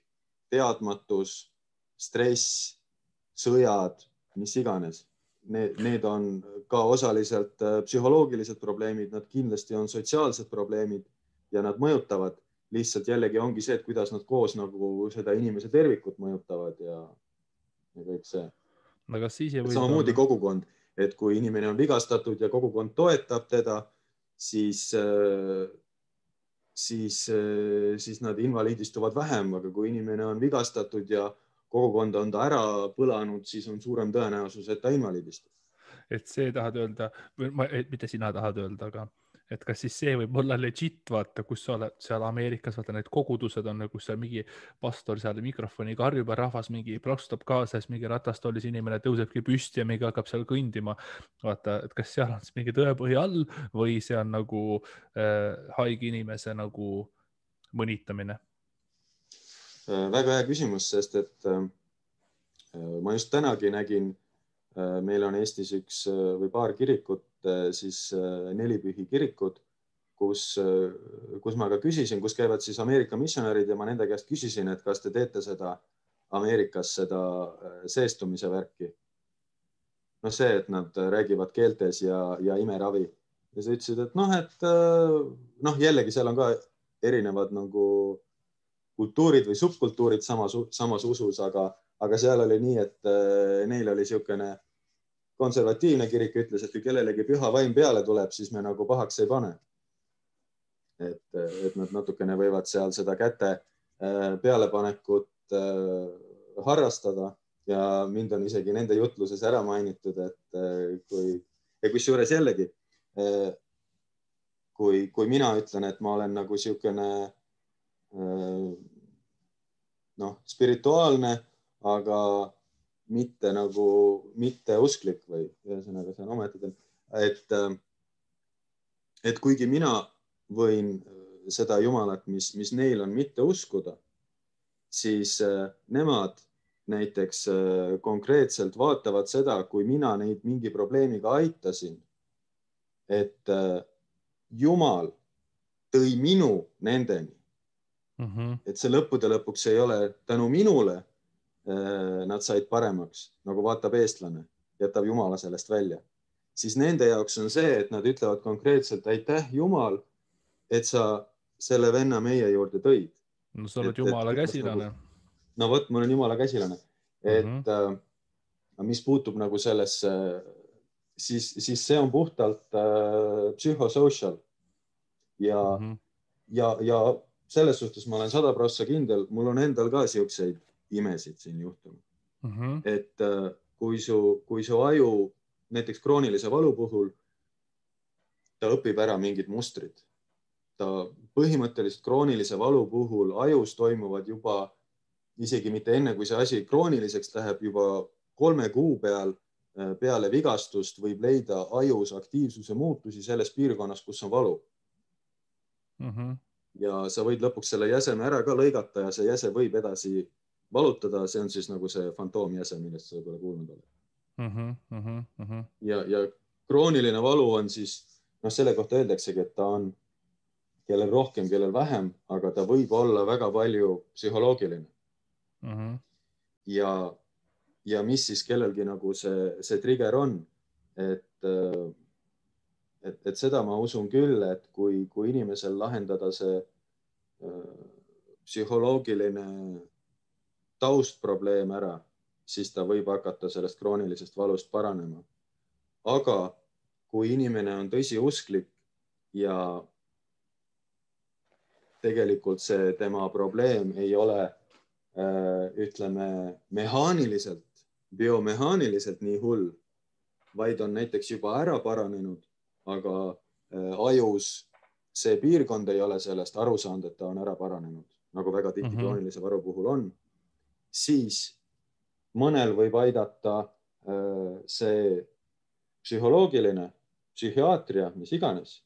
[SPEAKER 2] teadmatus, stress, sõjad, mis iganes, need on ka osaliselt psühholoogilised probleemid, nad kindlasti on sotsiaalsed probleemid ja nad mõjutavad. Lihtsalt jällegi ongi see, et kuidas nad koos nagu seda inimese tervikut mõjutavad ja kõik see. Samamoodi kogukond. Et kui inimene on vigastatud ja kogukond toetab teda, siis nad invaliidistuvad vähem, aga kui inimene on vigastatud ja kogukond on ta ära põlanud, siis on suurem tõenäosus, et ta invaliidistub.
[SPEAKER 1] Et see tahad öelda, mitte sina tahad öelda, aga et kas siis see võib olla legit, vaata, kus sa oled seal Ameerikas, vaata need kogudused on, kus seal mingi pastor seal mikrofoni karjub ja rahvas mingi plaksutab kaasa, siis mingi ratastoolis inimene tõusebki püsti ja mingi hakkab seal kõndima. Vaata, et kas seal on siis mingi tõepõhi all või see on nagu haige inimese nagu mõnitamine?
[SPEAKER 2] Väga hea küsimus, sest et ma just tänagi nägin, meil on Eestis üks või paar kirikut, siis nelipühi kirikud, kus ma ka küsisin, kus käivad siis Ameerika missionärid ja ma nende käest küsisin, et kas te teete seda Ameerikas seda seestumise värki. No see, et nad räägivad keeltes ja imeravi. Ja sa ütlesid, et jällegi seal on ka erinevad nagu kultuurid või subkultuurid samas usus, aga seal oli nii, et neil oli niisugune konservatiivne kirik, ütles, et kui kellelegi püha vaim peale tuleb, siis me nagu pahaks ei pane. Et nad natukene võivad seal seda käte pealepanekut harrastada ja mind on isegi nende jutluses ära mainitud, et kusjuures jällegi, kui mina ütlen, et ma olen nagu niisugune spirituaalne, aga mitte usklik või ühesõnaga see on ometigi, et kuigi mina võin seda Jumalat, mis neil on mitte uskuda, siis nemad näiteks konkreetselt vaatavad seda, kui mina neid mingi probleemiga aitasin, et Jumal tõi minu nendeni. Et see lõppude lõpuks ei ole tänu minule nad said paremaks, nagu vaatab eestlane, jätab Jumala sellest välja. Siis nende jaoks on see, et nad ütlevad konkreetselt aitäh Jumal, et sa selle venna meie juurde tõid.
[SPEAKER 1] No sa oled Jumala käsilane.
[SPEAKER 2] No vot, ma olen Jumala käsilane. Et mis puutub nagu sellesse, siis see on puhtalt psühhosocial. Ja selles suhtes ma olen 100% kindel, mul on endal ka siukseid imesid siin juhtunud. Et kui su aju näiteks kroonilise valu puhul, ta õpib ära mingid mustrid. Ta põhimõtteliselt kroonilise valu puhul ajus toimuvad juba isegi mitte enne, kui see asi krooniliseks läheb, juba 3 kuu peale vigastust võib leida ajus aktiivsuse muutusi selles piirkonnas, kus on valu. Ja sa võid lõpuks selle jäseme ära ka lõigata ja see jäse võib edasi valutada. See on siis nagu see fantoomjäse, millest sa võib-olla kuulnud oled. Ja krooniline valu on siis, selle kohta öeldaksegi, et ta on kellel rohkem, kellel vähem, aga ta võib olla väga palju psühholoogiline. Ja mis siis kellelgi nagu see trigger on, et seda ma usun küll, et kui inimesel lahendada see psühholoogiline taustprobleem ära, siis ta võib hakata sellest kroonilisest valust paranema. Aga kui inimene on tõsiusklik ja tegelikult see tema probleem ei ole, ütleme, mehaaniliselt, biomehaaniliselt nii hull, vaid on näiteks juba ära paranenud, aga ajus see piirkond ei ole sellest aru saanud, et ta on ära paranenud, nagu väga tihti kroonilise varu puhul on, siis mõnel võib aidata see psühholoogiline, psühhiaatria, mis iganes.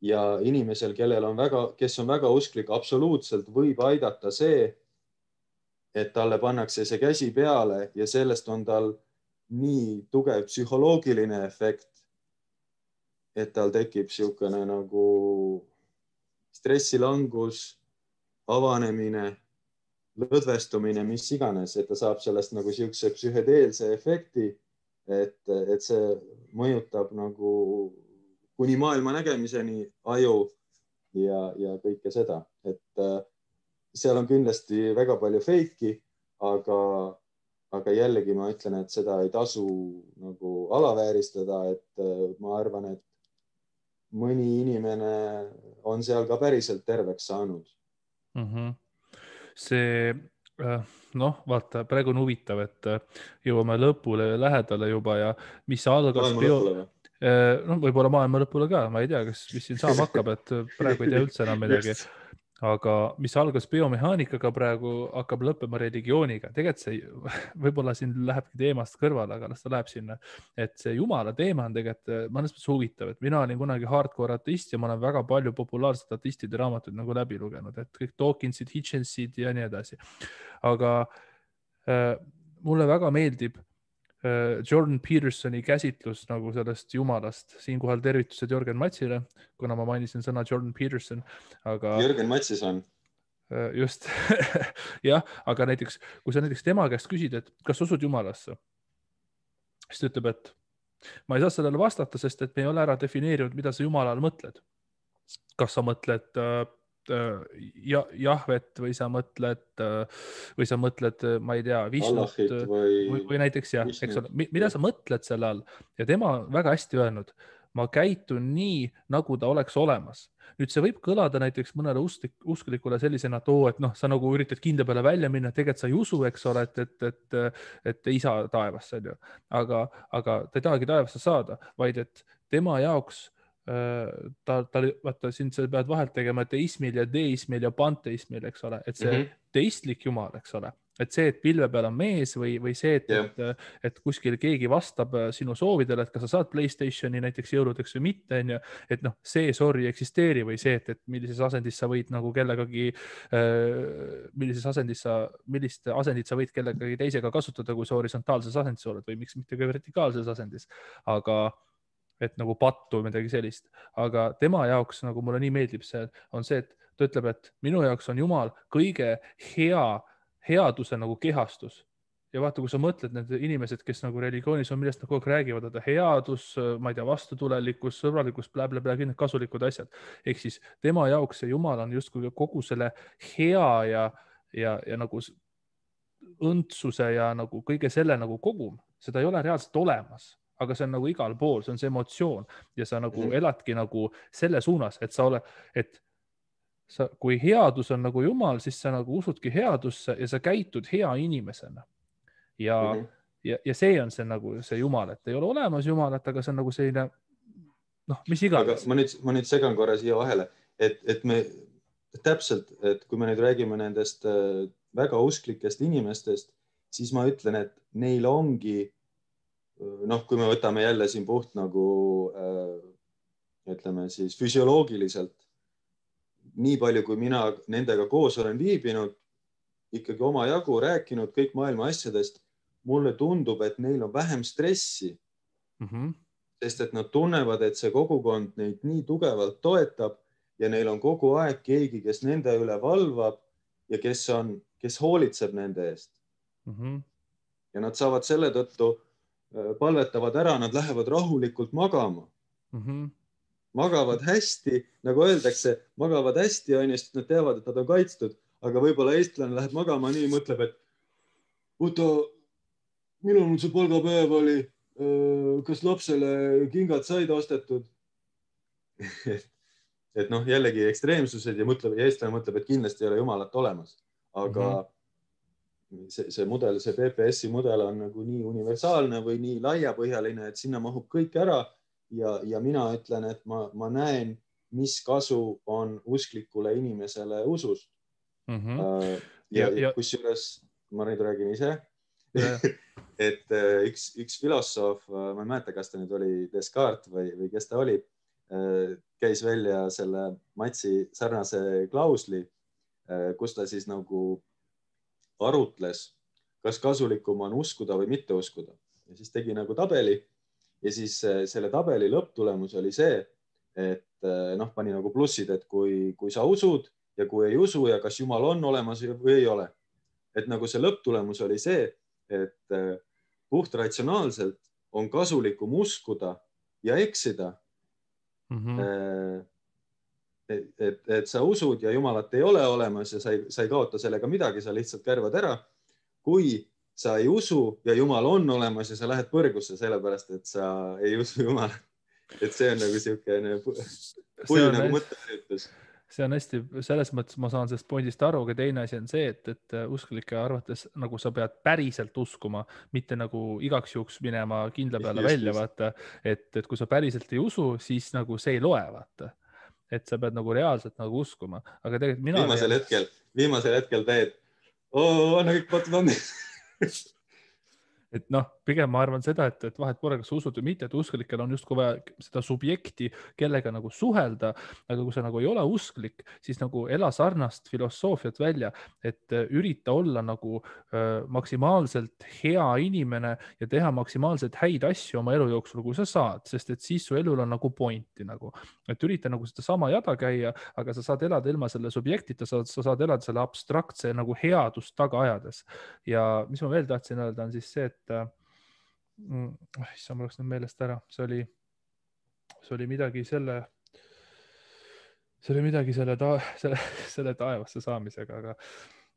[SPEAKER 2] Ja inimesel, kes on väga usklik, absoluutselt võib aidata see, et talle pannakse see käsi peale ja sellest on tal nii tugev psühholoogiline efekt, et tal tekib siukene nagu stressilangus, avanemine, lõdvestumine, mis iganes, et ta saab sellest nagu siukse psühhedeelse efekti, et see mõjutab nagu kuni maailma nägemiseni aju ja kõike seda. Et seal on kindlasti väga palju feiki, aga jällegi ma ütlen, et seda ei tasu nagu alavääristada, et ma arvan, et mõni inimene on seal ka päriselt terveks saanud.
[SPEAKER 1] See, vaata, praegu on huvitav, et jõuame lõpule lähedale juba ja mis algas võib-olla maailma lõpule ka, ma ei tea, mis siin saama hakkab, et praegu ei tea üldse enam midagi. Aga mis algas biomehaanikaga, praegu hakkab lõppema religiooniga. Tegelikult see võib-olla siin lähebki teemast kõrvale, aga las ta läheb sinna. Et see Jumala teema on tegelikult mõnes mõttes huvitav, et mina olin kunagi hardcore ateist ja ma olen väga palju populaarsed ateistide raamatuid nagu läbi lugenud, et kõik Dawkinsid, Hitchensid ja nii edasi. Aga mulle väga meeldib Jordan Petersoni käsitlus nagu sellest Jumalast. Siinkohal tervitused Jörgen Matsile, kuna ma mainisin sõna Jordan Peterson. Aga
[SPEAKER 2] Jörgen Matsis on.
[SPEAKER 1] Just. Jah, aga näiteks, kui sa näiteks tema käest küsid, et kas usud Jumalasse, siis ta ütleb, et ma ei saa sellele vastata, sest et me ei ole ära defineerinud, mida sa Jumala all mõtled. Kas sa mõtled Jahvet või sa mõtled, ma ei tea, Vishnut või näiteks jah, eks ole, mida sa mõtled selle all ja tema on väga hästi öelnud, ma käitun nii, nagu ta oleks olemas. Nüüd see võib kõlada näiteks mõnele usklikule sellisena, et sa nagu üritad kinda peale välja minna, tegelikult sa ei usu, eks ole, et isa taevas, aga ta ei tahagi taevasse saada, vaid et tema jaoks vaata, siin sa pead vahelt tegema teismil ja deismil ja panteismil, eks ole, et see teistlik Jumal, eks ole, et see, et pilve peal on mees või see, et kuskil keegi vastab sinu soovidele, et kas sa saad PlayStationi näiteks jõuludeks või mitte, et see sorry eksisteeri või see, et millises asendis sa võid nagu kellegagi, millist asendit sa võid kellegagi teisega kasutada, kui sa horisontaalses asendis oled või miks mitte ka vertikaalses asendis, aga et nagu pattu või midagi sellist, aga tema jaoks nagu mulle nii meeldib see, on see, et ta ütleb, et minu jaoks on Jumal kõige headuse nagu kehastus. Ja vaata, kui sa mõtled need inimesed, kes nagu religioonis on, millest nad kogu aeg räägivad, et headus, ma ei tea, vastutulelikkus, sõbralikkus, blä-blä-blä, kõik need kasulikud asjad. Ehk siis tema jaoks see Jumal on justkui kogu selle hea ja nagu õndsuse ja nagu kõige selle nagu kogum. Seda ei ole reaalselt olemas, aga see on nagu igal pool, see on see emotsioon ja sa nagu eladki nagu selle suunas, et sa oled, et kui headus on nagu Jumal, siis sa nagu usudki headusse ja sa käitud hea inimesena. Ja see on see nagu see Jumal, et ei ole olemas Jumalat, aga see on nagu selline, noh, mis iganes.
[SPEAKER 2] Aga ma nüüd segan korra siia vahele, et me täpselt, et kui me nüüd räägime nendest väga usklikest inimestest, siis ma ütlen, et neil ongi, noh, kui me võtame jälle siin puht nagu, ütleme siis füsioloogiliselt, nii palju, kui mina nendega koos olen viibinud, ikkagi omajagu rääkinud kõik maailma asjadest, mulle tundub, et neil on vähem stressi, sest et nad tunnevad, et see kogukond neid nii tugevalt toetab ja neil on kogu aeg keegi, kes nende üle valvab ja kes hoolitseb nende eest. Ja nad saavad selle tõttu, palvetavad ära, nad lähevad rahulikult magama. Magavad hästi, nagu öeldakse, magavad hästi, sest nad teavad, et nad on kaitstud, aga võib-olla eestlane läheb magama nii, mõtleb, et oota, millal see palgapäev oli, kas lapsele kingad said ostetud? Et noh, jällegi ekstreemsused ja eestlane mõtleb, et kindlasti ei ole Jumalat olemas. Aga see mudel, see PPS-i mudel on nagu nii universaalne või nii laiapõhjaline, et sinna mahub kõik ära ja mina ütlen, et ma näen, mis kasu on usklikule inimesele usust. Ja kusjuures, ma nüüd räägin ise, et üks filosoof, ma ei mäleta, kas ta nüüd oli Descartes või kes ta oli, käis välja selle Matsi sarnase klausli, kus ta siis nagu arutles, kas kasulikum on uskuda või mitte uskuda. Ja siis tegi nagu tabeli ja siis selle tabeli lõpptulemus oli see, et noh, pani nagu plussid, et kui sa usud ja kui ei usu ja kas Jumal on olemas või ei ole. Et nagu see lõpptulemus oli see, et puht ratsionaalselt on kasulikum uskuda ja eksida. Et sa usud ja Jumalat ei ole olemas ja sa ei kaota sellega midagi, sa lihtsalt kärvad ära. Kui sa ei usu ja Jumal on olemas ja sa lähed põrgusse sellepärast, et sa ei usu Jumalat. Et see on nagu siukene pull nagu mõtteüritus.
[SPEAKER 1] See on hästi, selles mõttes ma saan sellest pointist aru, aga teine asi on see, et usklike arvates nagu sa pead päriselt uskuma, mitte nagu igaks juhuks minema kindla peale välja, vaata, et kui sa päriselt ei usu, siis nagu see ei loe, vaata. Et sa pead nagu reaalselt nagu uskuma, aga tegelikult mina...
[SPEAKER 2] Viimasel hetkel teed, anna kõik patud on.
[SPEAKER 1] Et noh, pigem ma arvan seda, et vahet pole, kas usud või mitte, et usklikel on justkui vaja seda subjekti, kellega nagu suhelda, aga kui sa nagu ei ole usklik, siis nagu ela sarnast filosoofiat välja, et ürita olla nagu maksimaalselt hea inimene ja teha maksimaalselt häid asju oma elu jooksul, kui sa saad, sest et siis su elul on nagu pointi nagu, et ürita nagu seda sama jada käia, aga sa saad elada ilma selle subjektita, sa saad elada selle abstraktse nagu headust taga ajades. Ja mis ma veel tahtsin öelda, on siis see, et issand, ma oleks nüüd meelest ära, see oli midagi selle taevasse saamisega,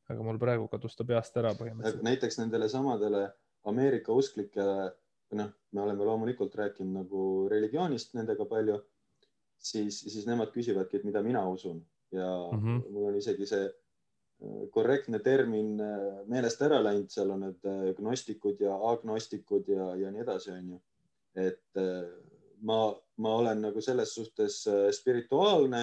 [SPEAKER 1] aga mul praegu kadus ta peast ära põhimõtteliselt.
[SPEAKER 2] Näiteks nendele samadele Ameerika usklikele, noh, me oleme loomulikult rääkinud nagu religioonist nendega palju, siis nemad küsivadki, et mida mina usun ja mul on isegi see korrektne termin meelest ära läinud, seal on need gnostikud ja agnostikud ja nii edasi, on ju. Et ma olen nagu selles suhtes spirituaalne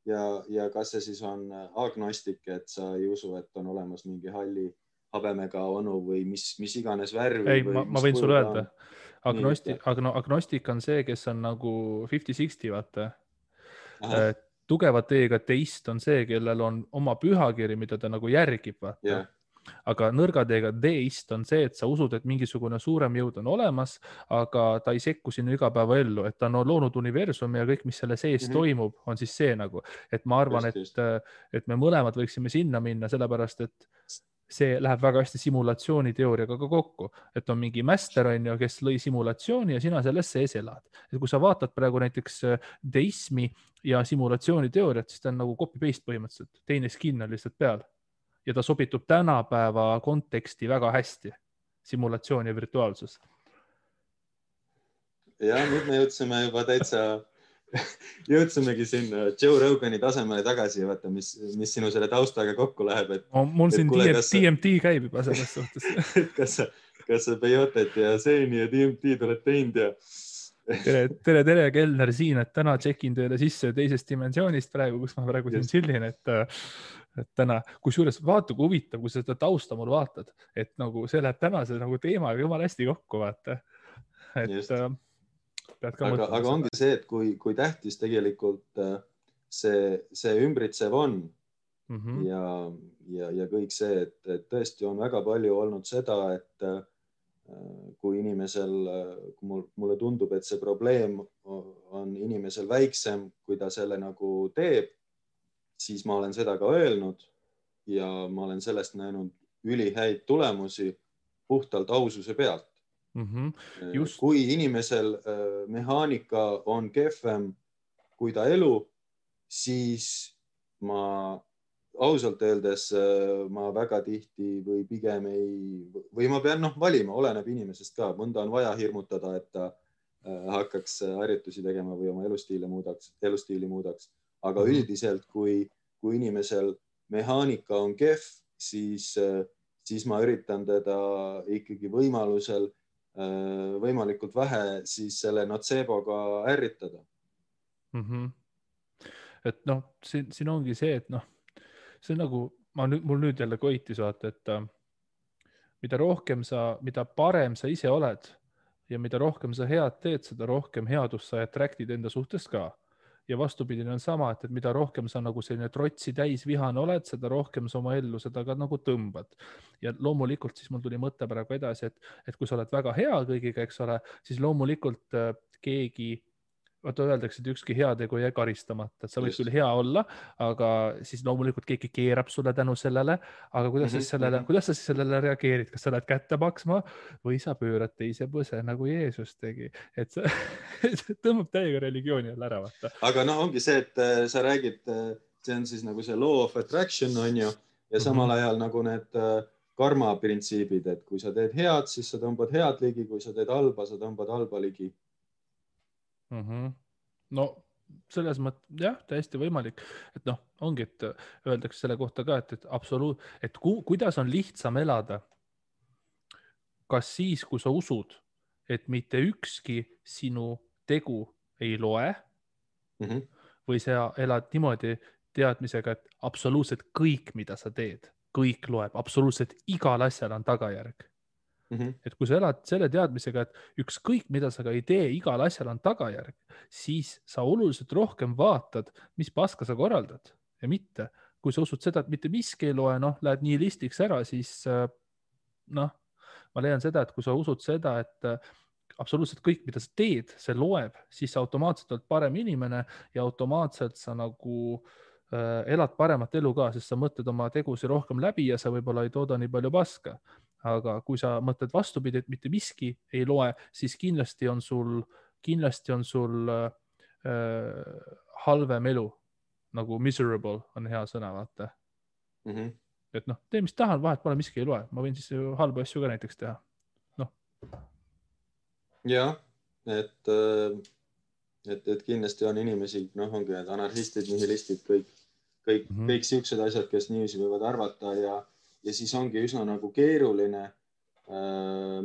[SPEAKER 2] ja kas see siis on agnostik, et sa ei usu, et on olemas mingi halli habemega onu või mis iganes värvi.
[SPEAKER 1] Ei, ma võin sulle öelda. Agnostik on see, kes on nagu 50-60, vaata. Tugeva teega teist on see, kellel on oma pühakiri, mida ta nagu järgib, vaata. aga nõrgadeega deist on see, et sa usud, et mingisugune suurem jõud on olemas, aga ta ei sekku sinu igapäevaellu, et ta on loonud universumi ja kõik, mis selle sees toimub, on siis see nagu, et ma arvan, et me mõlemad võiksime sinna minna, sellepärast et see läheb väga hästi simulatsiooniteooriaga ka kokku, et on mingi mäster, on ju, kes lõi simulatsiooni ja sina selles sees elad. Et kui sa vaatad praegu näiteks deismi ja simulatsiooniteooriat, siis ta on nagu copy-paste põhimõtteliselt, teine skin on lihtsalt peal. Ja ta sobitub tänapäeva konteksti väga hästi, simulatsioon ja virtuaalsus.
[SPEAKER 2] Ja nüüd me jõudsime juba täitsa, jõudsimegi sinna Joe Rogani tasemele tagasi, vaata, mis sinu selle taustaga kokku läheb.
[SPEAKER 1] Mul siin DMT käib juba selles suhtes.
[SPEAKER 2] kas sa Peyotet ja Seeni ja DMT oled teinud ja...
[SPEAKER 1] Tere, Kellner siin, et täna tšekin teile sisse teisest dimensioonist praegu, kus ma praegu siin chillin, et täna, kusjuures vaata, kui huvitav, kui sa seda tausta mul vaatad, et nagu see läheb tänase nagu teemaga jumala hästi kokku, vaata.
[SPEAKER 2] Aga ongi see, et kui tähtis tegelikult see ümbritsev on ja kõik see, et tõesti on väga palju olnud seda, et kui inimesel, mulle tundub, et see probleem on inimesel väiksem, kui ta selle nagu teeb, siis ma olen seda ka öelnud ja ma olen sellest näinud ülihäid tulemusi puhtalt aususe pealt. Kui inimesel mehaanika on kehvem kui ta elu, siis ma ausalt öeldes ma väga tihti või pigem või ma pean valima, oleneb inimesest ka. Mõnda on vaja hirmutada, et ta hakkaks harjutusi tegema või oma elustiili muudaks. Aga üldiselt, kui inimesel mehaanika on kehv, siis ma üritan teda ikkagi võimalikult vähe siis selle noceboga ärritada.
[SPEAKER 1] Et siin ongi see, et see on nagu, mul nüüd jälle koitis vaata, et mida parem sa ise oled ja mida rohkem sa head teed, seda rohkem headust sa attractid enda suhtes ka. Ja vastupidine on sama, et mida rohkem sa nagu selline trotsi täis vihane oled, seda rohkem sa oma ellu seda ka nagu tõmbad. Ja loomulikult siis mul tuli mõte praegu edasi, et kui sa oled väga hea kõigiga, eks ole, siis loomulikult keegi, vaata öeldakse, et ükski heategu ei jää karistamata, et sa võid küll hea olla, aga siis loomulikult keegi keerab sulle tänu sellele, aga kuidas sa siis sellele reageerid, kas sa lähed kätte maksma või sa pöörad teise põse nagu Jeesus tegi, et sa tõmbab täiega religiooni jälle ära, vaata.
[SPEAKER 2] Aga ongi see, et sa räägid, see on siis nagu see law of attraction on ju, ja samal ajal nagu need karma printsiibid, et kui sa teed head, siis sa tõmbad head ligi, kui sa teed halba, sa tõmbad halba ligi.
[SPEAKER 1] No selles mõttes, jah, täiesti võimalik, et ongi, et öeldakse selle kohta ka, et kuidas on lihtsam elada, kas siis, kui sa usud, et mitte ükski sinu tegu ei loe või sa elad niimoodi teadmisega, et absoluutselt kõik, mida sa teed, kõik loeb, absoluutselt igal asjal on tagajärg. Et kui sa elad selle teadmisega, et ükskõik, mida sa ka ei tee, igal asjal on tagajärg, siis sa oluliselt rohkem vaatad, mis paska sa korraldad ja mitte. Kui sa usud seda, et mitte miski ei loe, lähed nii listiks ära, siis ma leian seda, et kui sa usud seda, et absoluutselt kõik, mida sa teed, see loeb, siis sa automaatselt oled parem inimene ja automaatselt sa nagu elad paremat elu ka, sest sa mõtled oma tegusi rohkem läbi ja sa võib-olla ei tooda nii palju paska. Aga kui sa mõtled vastupidi, et mitte miski ei loe, siis kindlasti on sul halvem elu, nagu miserable on hea sõna, vaata. Et tee, mis tahan, vahet pole, miski ei loe. Ma võin siis halba asju ka näiteks teha.
[SPEAKER 2] Jah, et kindlasti on inimesi, ongi need anarhistid, nihilistid, kõik siuksed asjad, kes niiviisi võivad arvata ja siis ongi üsna nagu keeruline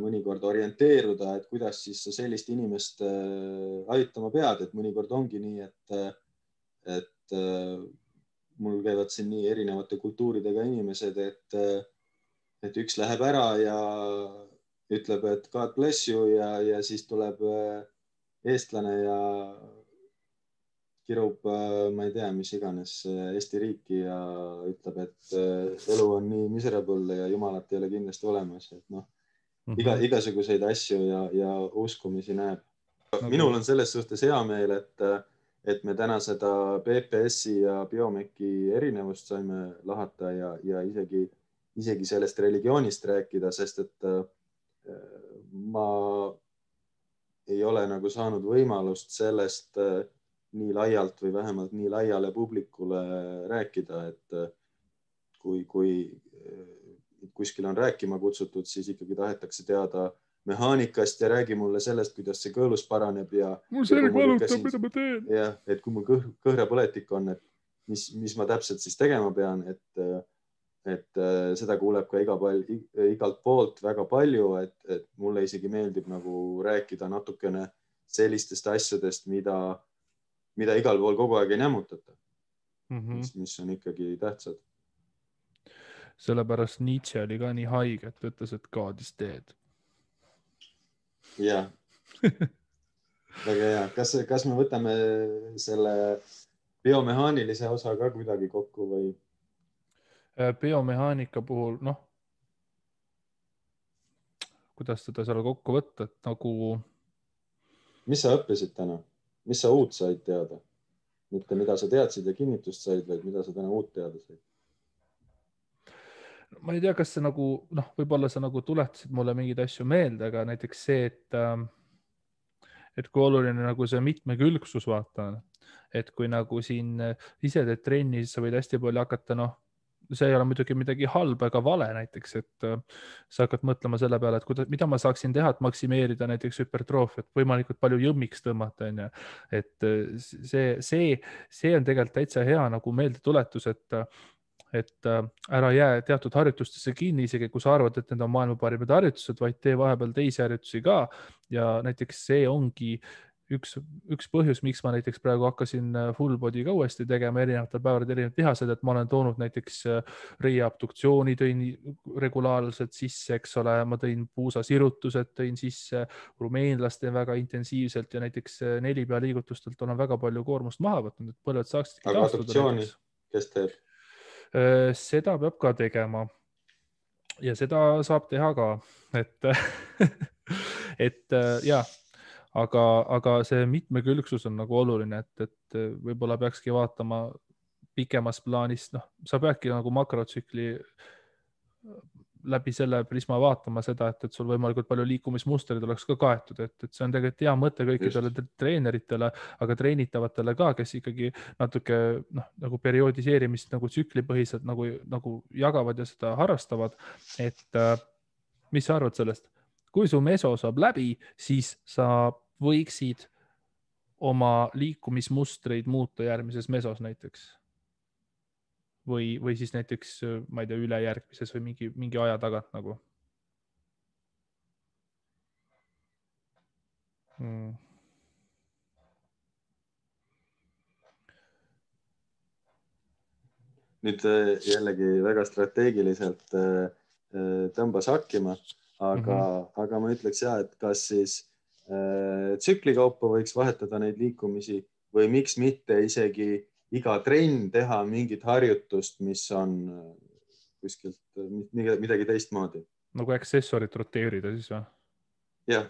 [SPEAKER 2] mõnikord orienteeruda, et kuidas siis sa sellist inimest aitama pead, et mõnikord ongi nii, et mul käivad siin nii erinevate kultuuridega inimesed, et üks läheb ära ja ütleb, et God bless you ja siis tuleb eestlane ja kirub, ma ei tea, mis iganes Eesti riiki ja ütleb, et elu on nii miserable ja jumalat ei ole kindlasti olemas, et noh, igasuguseid asju ja uskumisi näeb. Minul on selles suhtes hea meel, et me täna seda PPS-i ja Biomeki erinevust saime lahata ja isegi sellest religioonist rääkida, sest et ma ei ole nagu saanud võimalust sellest nii laialt või vähemalt nii laiale publikule rääkida, et kui kuskil on rääkima kutsutud, siis ikkagi tahetakse teada mehaanikast ja räägi mulle sellest, kuidas see kõõlus paraneb ja
[SPEAKER 1] mul selg valutab, mida ma teen.
[SPEAKER 2] Ja, et kui mul kõhrapõletik on, et mis ma täpselt siis tegema pean, et seda kuuleb ka igalt poolt väga palju, et mulle isegi meeldib nagu rääkida natukene sellistest asjadest, mida igal pool kogu aeg ei nämmutata, mis on ikkagi tähtsad.
[SPEAKER 1] Sellepärast Nietzsche oli ka nii haige, et ütles, et God is dead.
[SPEAKER 2] Jah, väga hea. Kas me võtame selle biomehaanilise osa ka kuidagi kokku või?
[SPEAKER 1] Biomehaanika puhul, noh, kuidas seda seal kokku võtta, et nagu...
[SPEAKER 2] Mis sa õppisid täna? Mis sa uut said teada? Mitte mida sa teadsid ja kinnitust said, vaid mida sa täna uut teada said?
[SPEAKER 1] Ma ei tea, kas see nagu, noh, võib-olla sa nagu tuletasid mulle mingeid asju meelde, aga näiteks see, et kui oluline nagu see mitmekülgsus vaata, et kui nagu siin ise teed trenni, siis sa võid hästi palju hakata, noh, see ei ole muidugi midagi halba ega vale näiteks, et sa hakkad mõtlema selle peale, et mida ma saaksin teha, et maksimeerida näiteks hüpertroofiat, võimalikult palju jõmmiks tõmmata, on ju. Et see on tegelikult täitsa hea nagu meeldetuletus, et ära jää teatud harjutustesse kinni, isegi kui sa arvad, et need on maailma parimad harjutused, vaid tee vahepeal teisi harjutusi ka. Ja näiteks see ongi üks põhjus, miks ma näiteks praegu hakkasin full body ka uuesti tegema erinevatel päevadel erinevad lihased, et ma olen toonud näiteks reiaabduktsiooni tõin regulaarselt sisse, eks ole, ma tõin puusasirutused tõin sisse, rumeenlast teen väga intensiivselt ja näiteks 4 pea liigutustelt olen väga palju koormust maha võtnud, et põlved saaksid
[SPEAKER 2] taastuda. Aga abduktsiooni, kes teeb?
[SPEAKER 1] Seda peab ka tegema ja seda saab teha ka, et ja, aga see mitmekülgsus on nagu oluline, et võib-olla peakski vaatama pikemas plaanis, noh, sa peadki nagu makrotsükli läbi selle prisma vaatama seda, et sul võimalikult palju liikumismustrid oleks ka kaetud, et see on tegelikult hea mõte kõikidele treeneritele, aga treenitavatele ka, kes ikkagi natuke nagu perioodiseerimist nagu tsüklipõhiselt nagu jagavad ja seda harrastavad, et mis sa arvad sellest? Kui su meso saab läbi, siis sa võiksid oma liikumismustreid muuta järgmises mesos näiteks. Või siis näiteks, ma ei tea, ülejärgmises või mingi aja tagant nagu.
[SPEAKER 2] Nüüd jällegi väga strateegiliselt tõmbas hakkima, aga ma ütleks ja, et kas siis tsükli kaupa võiks vahetada neid liikumisi või miks mitte isegi iga trenn teha mingit harjutust, mis on kuskilt midagi teistmoodi.
[SPEAKER 1] Nagu aksessorit roteerida siis või?
[SPEAKER 2] Jah.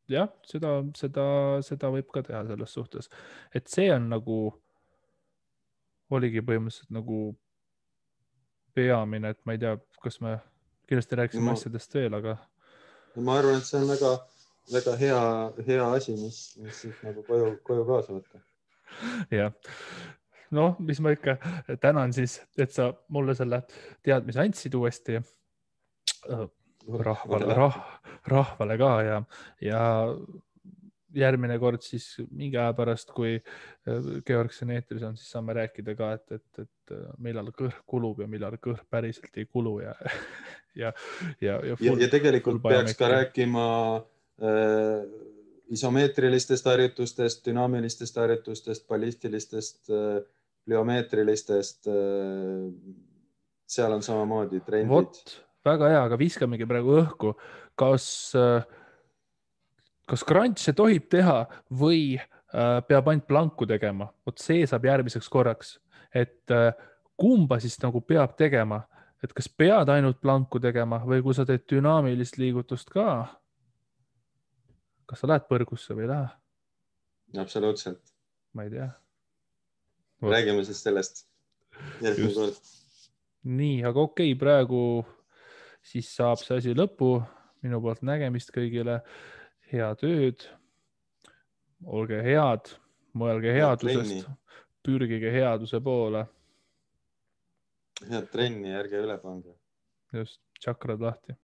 [SPEAKER 1] Jah, seda võib ka teha selles suhtes. Et see on nagu, oligi põhimõtteliselt nagu peamine, et ma ei tea, kas me kindlasti rääkisime asjadest veel, aga...
[SPEAKER 2] Ma arvan, et see on väga, väga hea asi, mis siis nagu koju kaasa võtta.
[SPEAKER 1] Jah, noh, mis ma ikka tänan siis, et sa mulle selle teadmise andsid uuesti rahvale ka ja järgmine kord siis mingi aja pärast, kui Georg siin eetris on, siis saame rääkida ka, et millal kõhr kulub ja millal kõhr päriselt ei kulu ja
[SPEAKER 2] tegelikult peaks ka rääkima isomeetrilistest harjutustest, dünaamilistest harjutustest, ballistilistest, pliomeetrilistest. Seal on samamoodi trendid.
[SPEAKER 1] Vot, väga hea, aga viskamegi praegu õhku. Kas crunch'e tohib teha või peab ainult planku tegema. Vot see saab järgmiseks korraks, et kumba siis nagu peab tegema, et kas pead ainult planku tegema või kui sa teed dünaamilist liigutust ka, kas sa lähed põrgusse või ei lähe?
[SPEAKER 2] Absoluutselt.
[SPEAKER 1] Ma ei tea.
[SPEAKER 2] Räägime siis sellest järgmine kord.
[SPEAKER 1] Nii, aga okei, praegu siis saab see asi lõpu. Minu poolt nägemist kõigile. Head ööd. Olge head. Mõelge headusest. Pürgige headuse poole.
[SPEAKER 2] Head trenni, ärge üle pange.
[SPEAKER 1] Just, tšakrad lahti.